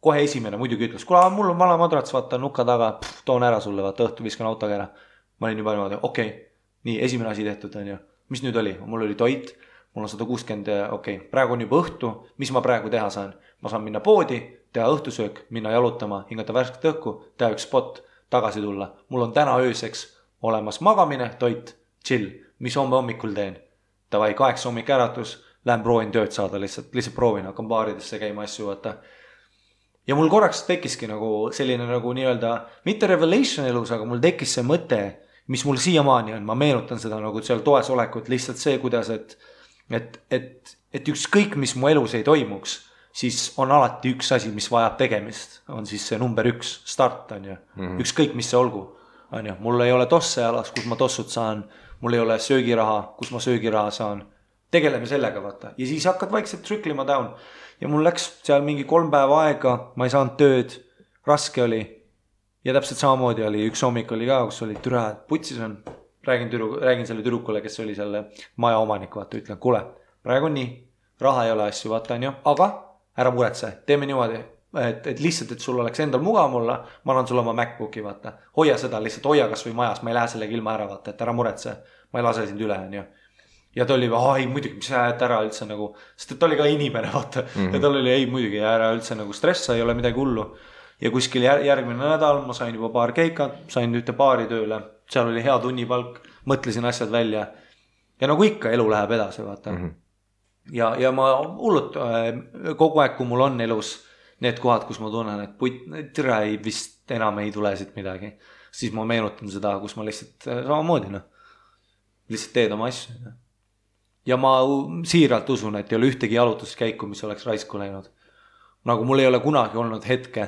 Kohe esimene muidugi ütles, kuule, mul on vana madrats, vaata nuka taga, toon ära sulle, vaata õhtu viskan autoga ära. Ma olin juba niimoodi, okei, nii esimene asi tehtud on ju. Mis nüüd oli? Mul oli toit, mul on 160, okei, praegu on juba õhtu, mis ma praegu teha saan? Ma saan minna poodi, teha õhtusöök, minna jalutama, hingata värsket õhku, teha üks spot, tagasi tulla. Mul on täna ööseks olemas magamine, toit, chill, mis homme hommikul teen. Tavai, 8 hommik äratus, lähen proovin tööd saada, lihtsalt proovin, hakkan baaridesse käima asju, vaata. Ja mul korraks tekkiski nagu selline nagu nii-öelda, mitte revelation elus, aga mul tekkis see mõte, mis mul siiamaani on, ma meenutan seda nagu seal toes olekut, lihtsalt see, kuidas, et ükskõik, mis mu elus ei toimuks, siis on alati üks asi, mis vajab tegemist, on siis see number 1, start on ju, ükskõik, mis see olgu, on ju, mul ei ole tosse alas, kus ma tossud saan, mul ei ole söögiraha, kus ma söögiraha saan, tegeleme sellega, vaata, ja siis hakkad vaikselt triklima down. Ja mul läks seal mingi 3 päeva aega, ma ei saanud tööd, raske oli. Ja täpselt samamoodi oli, üks hommik oli ka, kus oli türa, putsis on. Räägin selle tüdrukule, kes oli selle maja omanik, vaata, ütlen, kuule, praegu on nii, raha ei ole asju, vaata on ju, aga ära muretse, teeme niimoodi, et lihtsalt, et sul oleks endal mugav olla, ma annan sulle oma MacBooki, vaata, hoia seda, lihtsalt hoia kas või majas, ma ei lähe sellega ilma ära, vaata, et ära muretse, ma ei lase sind üle, on ju. Ja ta oli, muidugi, mis sa ära üldse nagu, sest ta oli ka inimene, vaata, ja tal oli, muidugi, ära üldse nagu stressa, ei ole midagi hullu. Ja kuskil järgmine nädal ma sain juba paar keikat, sain ühte baari tööle, seal oli hea tunnipalk, mõtlesin asjad välja. Ja nagu ikka, elu läheb edasi, vaata. Ja ma hullult, kogu aeg, kui mul on elus need kohad, kus ma tunnen, et tere vist enam ei tule siit midagi, siis ma meenutan seda, kus ma lihtsalt samamoodi, lihtsalt teed oma asju. Ja ma siiralt usun, et ei ole ühtegi jalutuskäiku, mis oleks raisku läinud. Nagu mul ei ole kunagi olnud hetke,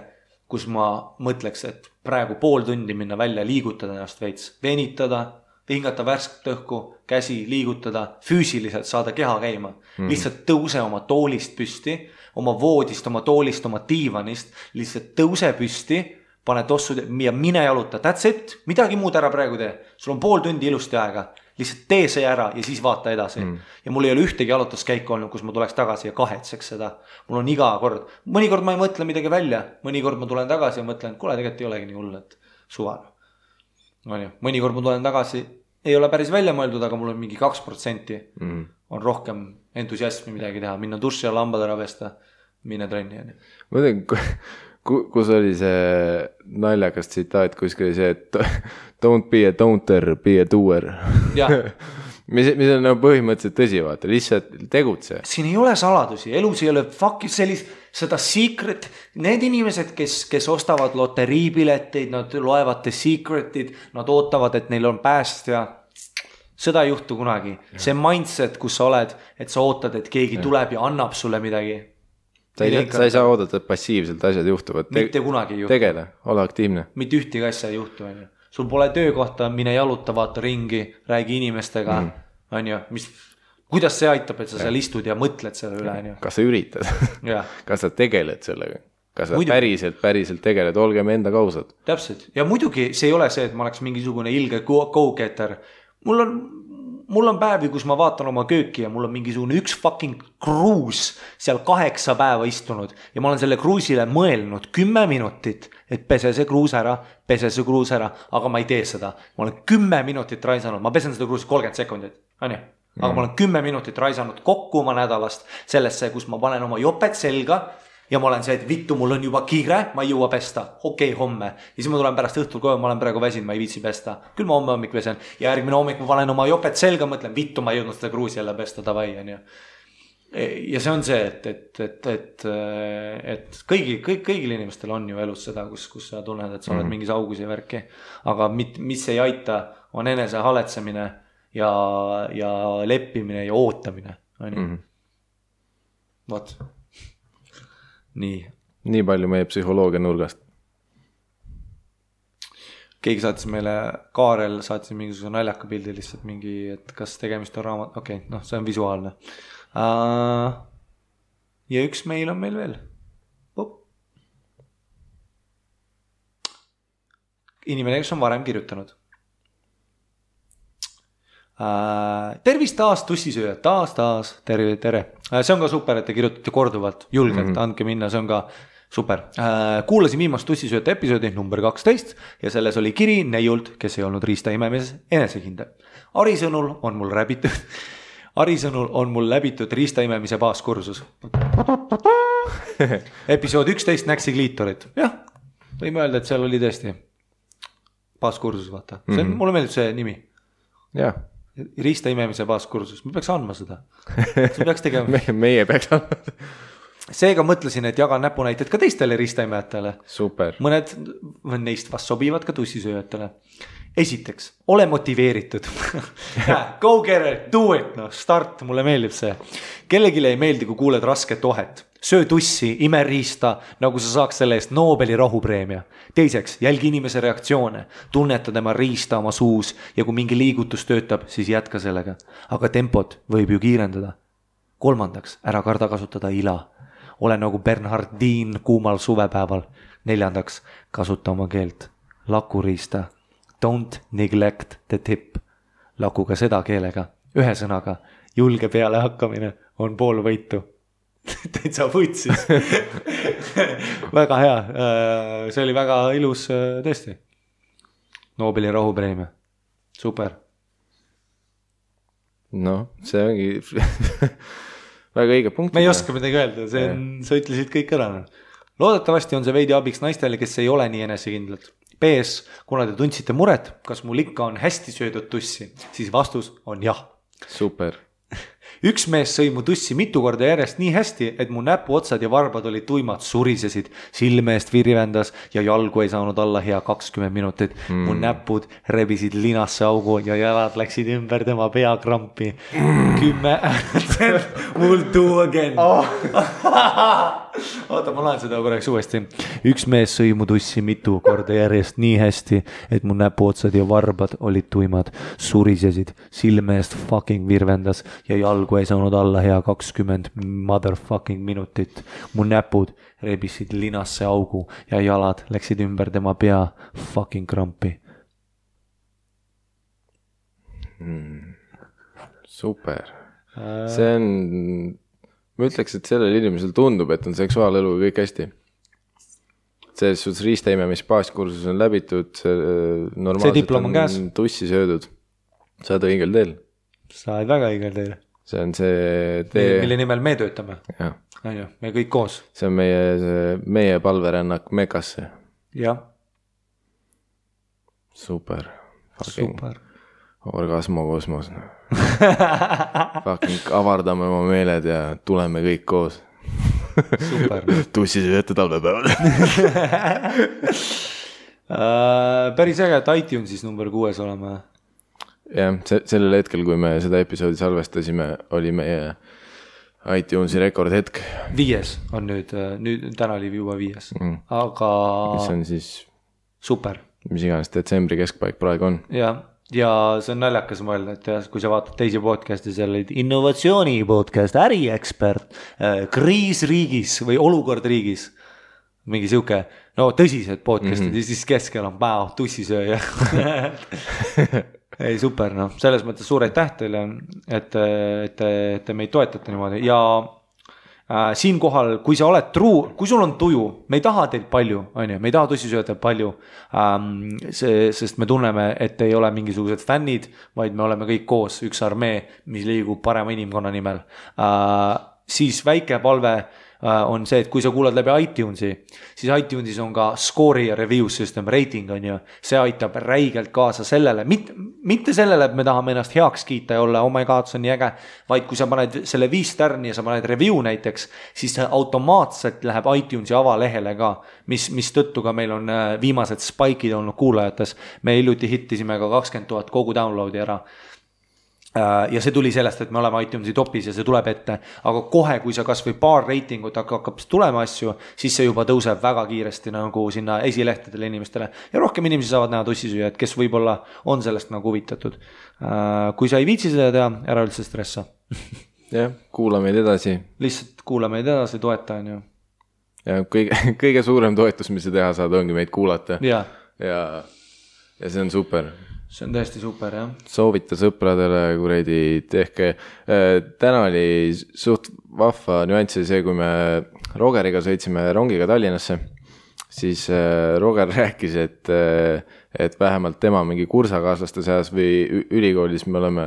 kus ma mõtleks, et praegu pool tundi minna välja, liigutada ennast veits, venitada, hingata värsket õhku, käsi liigutada, füüsiliselt saada keha käima. Lihtsalt tõuse oma toolist püsti, oma voodist, oma toolist, oma diivanist, lihtsalt tõuse püsti, pane tossud ja mine jaluta. That's it, midagi muud ära praegu tee. Sul on pool tundi ilusti aega. Lihtsalt tee see ära ja siis vaata edasi. Ja mul ei ole ühtegi jalutuskäiku olnud, kus ma tuleks tagasi ja kahetseks seda. Mul on iga kord. Mõnikord ma ei mõtle midagi välja. Mõnikord ma tulen tagasi ja mõtlen, kuule, tegelikult ei olegi nii hull, et suval. Mõnikord ma tulen tagasi, ei ole päris välja mõeldud, aga mul on mingi 2% on rohkem entusiasmi midagi teha. Minna duši ja lambad ära pesta, mine trenni. Ma tean, kus oli see naljakas tsitaat, kuskil oli see, et don't be a don'ter, be a doer. mis on nagu põhimõtteliselt tõsi, vaata, lihtsalt tegutse. Siin ei ole saladusi, elus ei ole seda secret, need inimesed, kes ostavad loteriipileteid, nad loevad the secretid, nad ootavad, et neil on päästja, seda ei juhtu kunagi. See mindset, kus sa oled, et sa ootad, et keegi tuleb ja annab sulle midagi. Sa ei saa oodata, et passiivselt asjad juhtuvad. Mitte kunagi ei juhtu. Tegele, ole aktiivne. Mitte ühtegi asja ei juhtu. Sul pole töökohta, mine jaluta, vaata ringi, räägi inimestega. Kuidas see aitab, et sa seal istud ja mõtled selle üle? Kas sa üritad? Kas sa tegeled sellega? Kas sa päriselt tegeled? Olgem enda kausad. Täpselt. Ja muidugi see ei ole see, et ma oleks mingisugune ilge go-getter. Mul on päevi, kus ma vaatan oma kööki ja mul on mingisugune üks fucking kruus seal 8 päeva istunud ja ma olen selle kruusile mõelnud 10 minutit, et pese see kruus ära, aga ma ei tee seda. Ma olen 10 minutit raisanud, ma pesen seda kruusi 30 sekundit, aga ma olen 10 minutit raisanud kokku oma nädalast sellesse, kus ma panen oma jopet selga ja ma olen see, et vittu, mul on juba kiire, ma ei jõua pesta, okei, homme. Ja siis ma tulen pärast õhtul koju, ma olen praegu väsinud, ma ei viitsi pesta. Küll ma homme hommik pesen ja järgmine hommik ma panen oma jopet selga, mõtlen, vittu, ma ei jõudnud seda kruusi jälle pesta, davai. Ja see on see, et kõigil inimestel on ju elus seda, kus sa tunned, et sa oled mingis augus ja värki. Aga mis ei aita, on enese haletsemine ja leppimine ja ootamine. Vot. Nii palju meie psühholoogia nurgast. Keegi saatis meile, Kaarel saatis mingisuguse naljaka pildi lihtsalt mingi, et kas tegemist on raamat, okei, see on visuaalne. Ja üks meil on meil veel. Inimene, kes on varem kirjutanud. Tervist taas tussisööjad, taas, tere. See on ka super, et te kirjutate korduvalt, julgelt, andke minna, see on ka super. Kuulasin viimast tussisööjate episoodi number 12 ja selles oli kiri neiult, kes ei olnud riista imemises enesekindel. Ari sõnul on mul läbitud riista imemise baaskursus. Episood 11 näksi kliitorit. Jah, võime öelda, et seal oli tõesti baaskursus, vaata. Mulle meeldib see nimi. Jah. Riista imemise baaskursus. Me peaks andma seda. See peaks tegema. Meie peaks andma. Seega mõtlesin, et jagan näpunäited ka teistele ristaimejatele. Super. Mõned neist vast sobivad ka tussisööjatele. Esiteks, ole motiveeritud. Go get it, do it, start, mulle meeldib see. Kellegile ei meeldi, kui kuuled rasket ohet. Söö tussi, ime riista, nagu sa saaks selle eest Nobeli rahupreemia. Teiseks, jälgi inimese reaktsioone, tunneta tema riista oma suus ja kui mingi liigutus töötab, siis jätka sellega. Aga tempot võib ju kiirendada. Kolmandaks, ära karda kasutada ila. Ole nagu Bernhardin kuumal suvepäeval. Neljandaks, kasuta oma keelt. Lakuriista. Don't neglect the tip. Laku ka seda keelega. Ühe sõnaga, julge peale hakkamine on pool võitu. Täitsa võtsis. Väga hea. See oli väga ilus tõesti. Nobeli rahupreemia. Super. See ongi väga õige punkt. Me ei oska midagi öelda, sa ütlesid kõik ära. Loodetavasti on see veidi abiks naistele, kes ei ole nii enesekindlad. PS, kuna te tundsite muret, kas mul ikka on hästi söödud tussi, siis vastus on jah. Super. Üks mees sõi mu tussi mitu korda järjest nii hästi, et mu näpuotsad ja varbad olid tuimad, surisesid, silme eest virvendas ja jalgu ei saanud alla hea 20 minutit. Mu näpud rebisid linasse augu ja jalad läksid ümber tema peakrampi. 10 We'll do again. Oota, ma laen seda korraks uuesti. Üks mees sõi mu tussi mitu korda järjest nii hästi, et mu näpuotsad ja varbad olid tuimad, surisesid, silme eest fucking virvendas ja jalgu ei saanud alla hea 20 motherfucking minutit. Mu näpud rebisid linasse augu ja jalad läksid ümber tema pea fucking krampi. Super. See on, ma ütleks, et sellel inimesel tundub, et on seksuaalelu kõik hästi. Selles suhtes riistaimemist baaskursus on läbitud, normaalselt on tussi söödud. Sa oled õigel teel. Sa oled väga õigel teel. See on see tee. Mille nimel me töötame. Me kõik koos. See on meie palverännak Mekasse. Jah. Super. Super. Orgasmokosmos. Fucking avardame oma meeled ja tuleme kõik koos. Super. Tussisööjate talvepäevad. Päris äge, et iTunesis number 6 oleme. Jah, sellel hetkel, kui me seda episoodi salvestasime, oli meie iTunesi rekordhetk. 5 on nüüd täna oli juba 5. Aga mis on siis super. Mis iganes detsembri keskpaik praegu on. Ja see on naljakas mõelda, et kui sa vaatad teisi podcasti, seal olid innovatsiooni podcast, äriekspert, kriis riigis või olukord riigis, mingi siuke, tõsised podcastid, ja siis keskel on tussisööja. Ei, super, selles mõttes suur aitäh teile, et meid toetate niimoodi ja siinkohal, kui sa oled kui sul on tuju, me ei taha teilt palju, me ei taha tussisööjatelt palju, sest me tunneme, et ei ole mingisugused fännid, vaid me oleme kõik koos, üks armee, mis liigub parema inimkonna nimel. Siis väike palve on see, et kui sa kuulad läbi iTunesi, siis iTunesis on ka score'i ja review system, rating on ju, see aitab räigelt kaasa sellele, mitte sellele, et me tahame ennast heaks kiita ja olla, oh my god, see on nii äge, vaid kui sa paned selle 5 tärni ja sa paned review näiteks, siis see automaatselt läheb iTunesi avalehele ka, mis tõttu ka meil on viimased spike'id olnud kuulajates, me hiljuti hittisime ka 20 000 kogu downloadi ära. ja see tuli sellest, et me oleme iTunesi topis ja see tuleb ette, aga kohe, kui sa kas või paar reitingut hakkab tulema asju, siis see juba tõuseb väga kiiresti nagu sinna esilehtedele inimestele ja rohkem inimesi saavad näha tussisüüjad, kes võib-olla on sellest nagu huvitatud. Kui sa ei viitsi seda teha, ära üldse stressa. Jah, kuula meid edasi. Lihtsalt kuula meid edasi, toeta on ju. Ja kõige suurem toetus, mis sa teha saad, ongi meid kuulata. Ja see on super. See on tõesti super, jah. Soovita sõpradele, kuradi, tehke. Täna oli suht vahva nüanss see, kui me Rogeriga sõitsime rongiga Tallinnasse, siis Roger rääkis, et vähemalt tema mingi kursakaaslaste seas või ülikoolis me oleme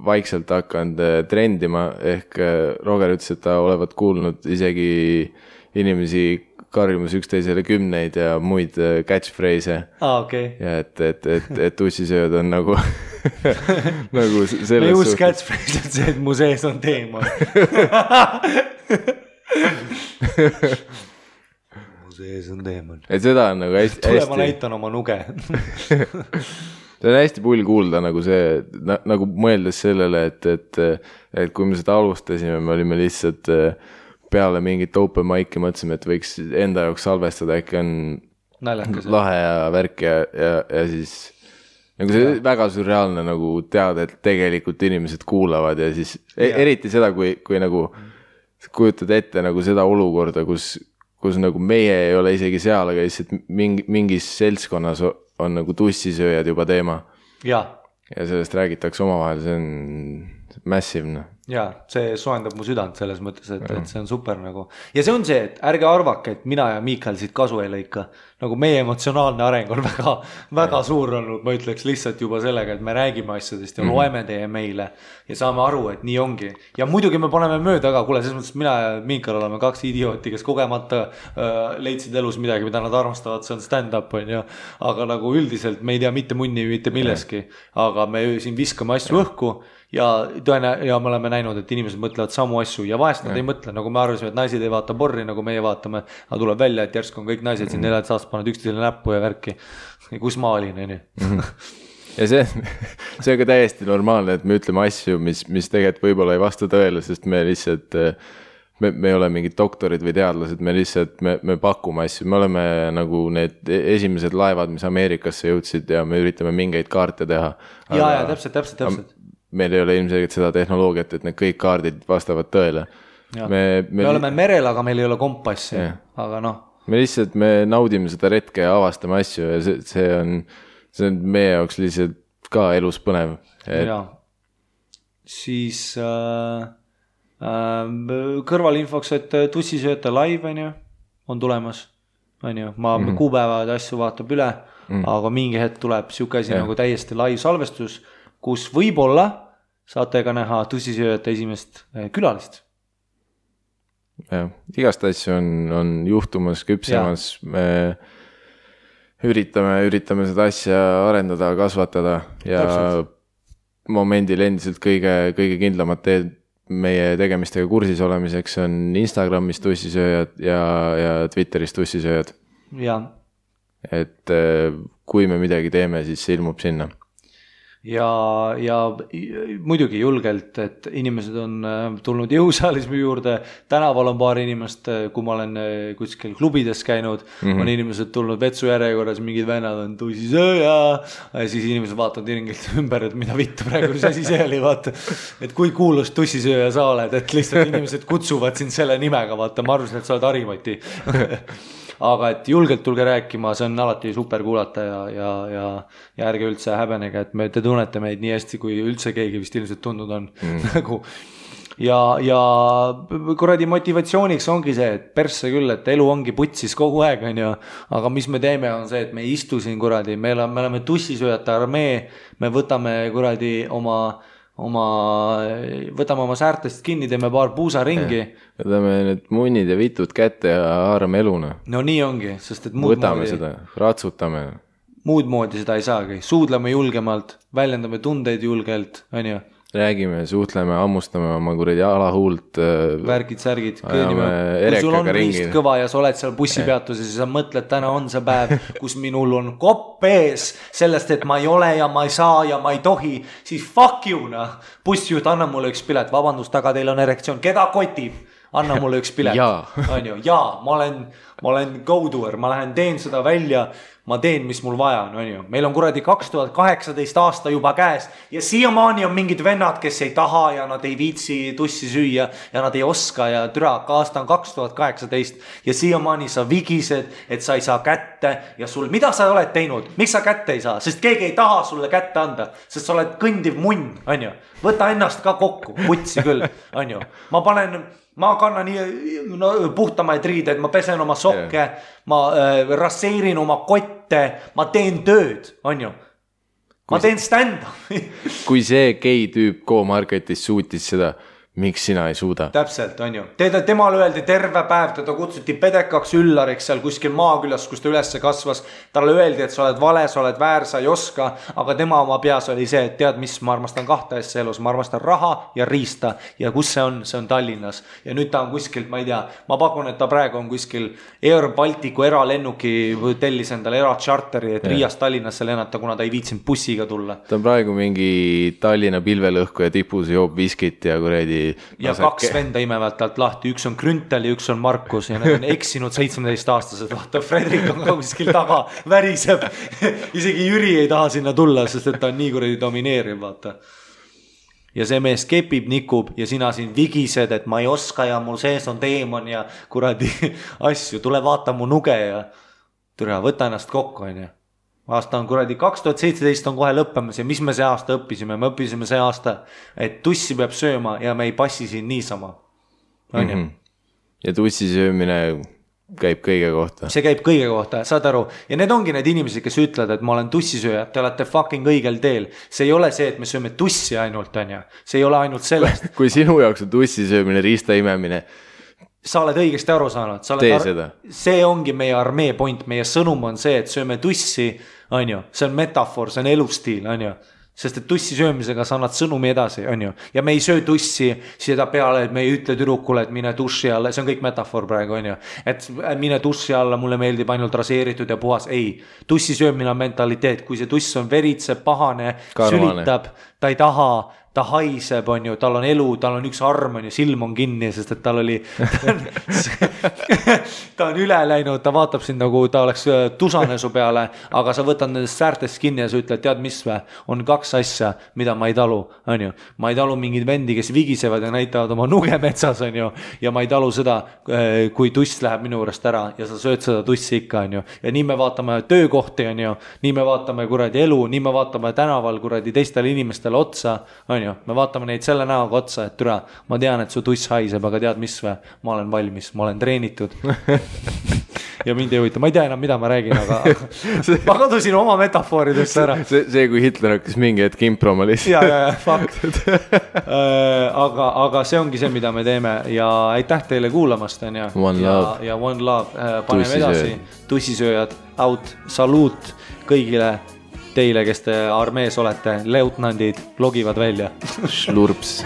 vaikselt hakanud trendima, ehk Roger ütles, et ta olevat kuulnud isegi inimesi karjumus üksteisele 10 ja muid catchphrase'e. Okay. Ja et tussisööd on nagu nagu selles me uus catchphrase on see, et mu sees on teemal. mu sees on teemal. Et seda on nagu hästi... Tule ma näitan oma nuge. See on hästi pull kuulda nagu see, nagu mõeldes sellele, et kui me seda alustasime, me olime lihtsalt... peale mingit open mic'i mõtlesime, et võiks enda jaoks salvestada, äkki on naljakas, lahe ja värk ja siis nagu see väga surreaalne nagu teada, et tegelikult inimesed kuulavad ja siis eriti seda, kui nagu kujutad ette nagu seda olukorda, kus nagu meie ei ole isegi seal, aga lihtsalt mingis seltskonnas on nagu tussisööjad juba teema. Ja sellest räägitakse omavahel, see on massive. Ja see soendab mu südant selles mõttes, et see on super nagu. Ja see on see, et ärge arvake, et mina ja Miikal siit kasu ei lõika. Nagu meie emotsionaalne areng on väga suur olnud, ma ütleks lihtsalt juba sellega, et me räägime asjadest ja loeme teie meile ja saame aru, et nii ongi. Ja muidugi me paneme mööda ka, kuule, selles mõttes mina ja Miikal oleme 2 idiooti, kes kogemata leidsid elus midagi, mida nad armastavad, see on stand-up on ju. Aga nagu üldiselt me ei tea mitte munni, mitte milleski, aga me siin viskame asju õhku ja me oleme näinud, et inimesed mõtlevad samu asju ja vahest nad ei mõtle, nagu me arvasime, et naised ei vaata porri, nagu meie vaatame, aga tuleb välja, et järsku on kõik naised siin 4 aastast pannud üksteisele näppu ja värki. Kus ma olin, nii? Ja see on ka täiesti normaalne, et me ütleme asju, mis tegelikult võib-olla ei vasta tõele, sest me lihtsalt, me ei ole mingid doktorid või teadlased, me lihtsalt, me pakume asju, me oleme nagu need esimesed laevad, mis Ameerikasse jõudsid ja me üritame mingeid kaarte teha. Ja, täpselt. Meil ei ole ilmselgelt seda tehnoloogiat, et need kõik kaardid vastavad tõele. Me oleme merel, aga meil ei ole kompassi, aga noh. Me lihtsalt, me naudime seda retke ja avastame asju ja see on meie jaoks lihtsalt ka elus põnev. Ja, siis kõrvalinfoks, et tussisööta live on tulemas, ma kuupäevad asju vaatab üle, aga mingi hetk tuleb siuke asi nagu täiesti live salvestus, kus võib-olla saate ka näha tussisööjate esimest külalist. Ja, igast asju on juhtumas, küpsemas, me üritame seda asja arendada, kasvatada ja momendil endiselt kõige kindlamad teed meie tegemistega kursis olemiseks on Instagramis tussisööjad ja Twitteris tussisööjad. Ja. Et kui me midagi teeme, siis see ilmub sinna. Ja muidugi julgelt, et inimesed on tulnud jõusaalismi juurde, tänaval on paar inimest, kui ma olen kuskil klubides käinud, on inimesed tulnud vetsu järjekorras, mingid vennad on tussisööja, ja siis inimesed vaatavad ringilt ümber, et mida vittu praegu, mis asi see oli, vaata, et kui kuulus tussisööja sa oled, et lihtsalt inimesed kutsuvad sind selle nimega, vaata, ma arvasin, et sa oled Harimati. Aga et julgelt tulge rääkima, see on alati super kuulata ja ärge üldse häbenege, et te tunnete meid nii hästi, kui üldse keegi vist ilmselt tundnud on. Ja kuradi motivatsiooniks ongi see, et persse küll, et elu ongi putsis kogu aeg, aga mis me teeme on see, et me ei istu siin kuradi, me oleme tussisööjate armee, me võtame kuradi võtame oma säärtest kinni, teeme paar puusa ringi. Võtame need munnid ja vitud kätte ja haarame eluna. No nii ongi, sest et võtame seda, ratsutame. Muud moodi seda ei saagi. Suudleme julgemalt, väljendame tundeid julgelt, räägime, suhtleme, hammustame oma kuradi alahuult. Värgid, särgid, kõõnime. Kui sul on riist kõva ja sa oled seal bussipeatuses ja sa mõtled, täna on see päev, kus minul on kopp ees sellest, et ma ei ole ja ma ei saa ja ma ei tohi, siis fuck you, noh. Bussijuht, anna mulle üks pilet, vabandust, aga teil on erektsioon, keda kotib? Anna mulle üks pilet. On ju, ma olen go-doer, ma lähen teen seda välja, ma teen, mis mul vaja on ju. Meil on kuradi 2018 aasta juba käes ja siiamaani on mingid vennad, kes ei taha ja nad ei viitsi tussi süüa ja nad ei oska ja türa, aasta on 2018 ja siiamaani sa vigised, et sa ei saa kätte ja sul, mida sa oled teinud? Miks sa kätte ei saa? Sest keegi ei taha sulle kätte anda, sest sa oled kõndiv munn, on ju. Võta ennast ka kokku, putsi küll, on ju. Ma kannan puhtamaid riideid, ma pesen oma sokke, ma rasseerin oma kotte, ma teen tööd, on ju. Ma teen stand-up. Kui see gei tüüp Go-Marketis suutis seda, miks sina ei suuda? Täpselt, on ju. Temal öeldi terve päev, teda kutsuti pedekaks üllariks seal kuskil maakülas, kus ta ülesse kasvas. Talle öeldi, et sa oled vale, sa oled väär, sa ei oska, aga tema oma peas oli see, et tead mis, ma armastan kahte asja elus, ma armastan raha ja riista ja kus see on Tallinnas. Ja nüüd ta on kuskilt, ma ei tea, ma pakun, et ta praegu on kuskil Air Balticu eralennuki tellis endale eratšarteri, et Riiast Tallinnasse lennata, kuna ta ei viitsinud bussiga tulla. Ta on praegu mingi Tallinna pilvelõhku ja tipus joob viskit ja kuredi ja kaks venda imevad talt lahti, üks on Grüntel ja üks on Markus ja need on eksinud 17-aastased, vaata Fredrik on ka kuskil taga, väriseb isegi Jüri ei taha sinna tulla, sest et ta on nii kuradi domineeriv, vaata ja see mees kepib, nikub ja sina siin vigised, et ma ei oska ja mul sees on teemon ja kuradi asju, tule vaata mu nuge ja türa, võta ennast kokku, on ju. Aasta on kuradi 2017 on kohe lõppemas ja mis me see aasta õppisime? Me õppisime see aasta, et tussi peab sööma ja me ei passi siin niisama. Ja tussi söömine käib kõige kohta. See käib kõige kohta, saad aru. Ja need ongi need inimesed, kes ütlevad, et ma olen tussisööja, te olete fucking õigel teel. See ei ole see, et me sööme tussi ainult, on ju. See ei ole ainult sellest. Kui sinu jaoks on tussi söömine, riista imemine, sa oled õigesti aru saanud. See ongi meie armee point, meie sõnum on see, et sööme tussi, on ju. See on metafoor, see on elustiil, on ju. Sest et tussi söömisega sa annad sõnumi edasi, on ju. Ja me ei söö tussi seda peale, et me ei ütle tüdrukule, et mine tussi alla, see on kõik metafoor praegu, on ju. Et mine tussi alla, mulle meeldib ainult raseeritud ja puhas. Ei, tussi söömine on mentaliteet, kui see tuss on veritse, pahane, sülitab, ta ei taha, ta haiseb, on ju, tal on elu, tal on üks arm, on ju, silm on kinni, sest et tal oli, ta on üle läinud, ta vaatab sind nagu ta oleks tusane su peale, aga sa võtad nendest säärtest kinni ja sa ütled, tead mis või, on kaks asja, mida ma ei talu, on ju. Ma ei talu mingid vendi, kes vigisevad ja näitavad oma nuge metsas, on ju, ja ma ei talu seda, kui tuss läheb minu juurest ära ja sa sööd seda tussi ikka, on ju. Ja nii me vaatame töökohti, on ju, nii me vaatame kuradi elu, nii me vaatame tänaval kuradi teistele inimestele otsa, on ju, me vaatame neid selle näoga otsa, et türa, ma tean, et su tuss haiseb, aga tead mis või, ma olen valmis, ma olen treenitud ja mind ei huvita, ma ei tea enam, mida ma räägin, aga ma kadusin oma metafooridest ära. See, kui Hitler hakkas mingi hetk improma lihtsalt. ja, fakt. aga see ongi see, mida me teeme ja aitäh teile kuulamast, on ja. Ja one love, paneme edasi, tussisööjad, out, saluut kõigile teile, kes te armees olete, leutnandid, logivad välja. Slurps.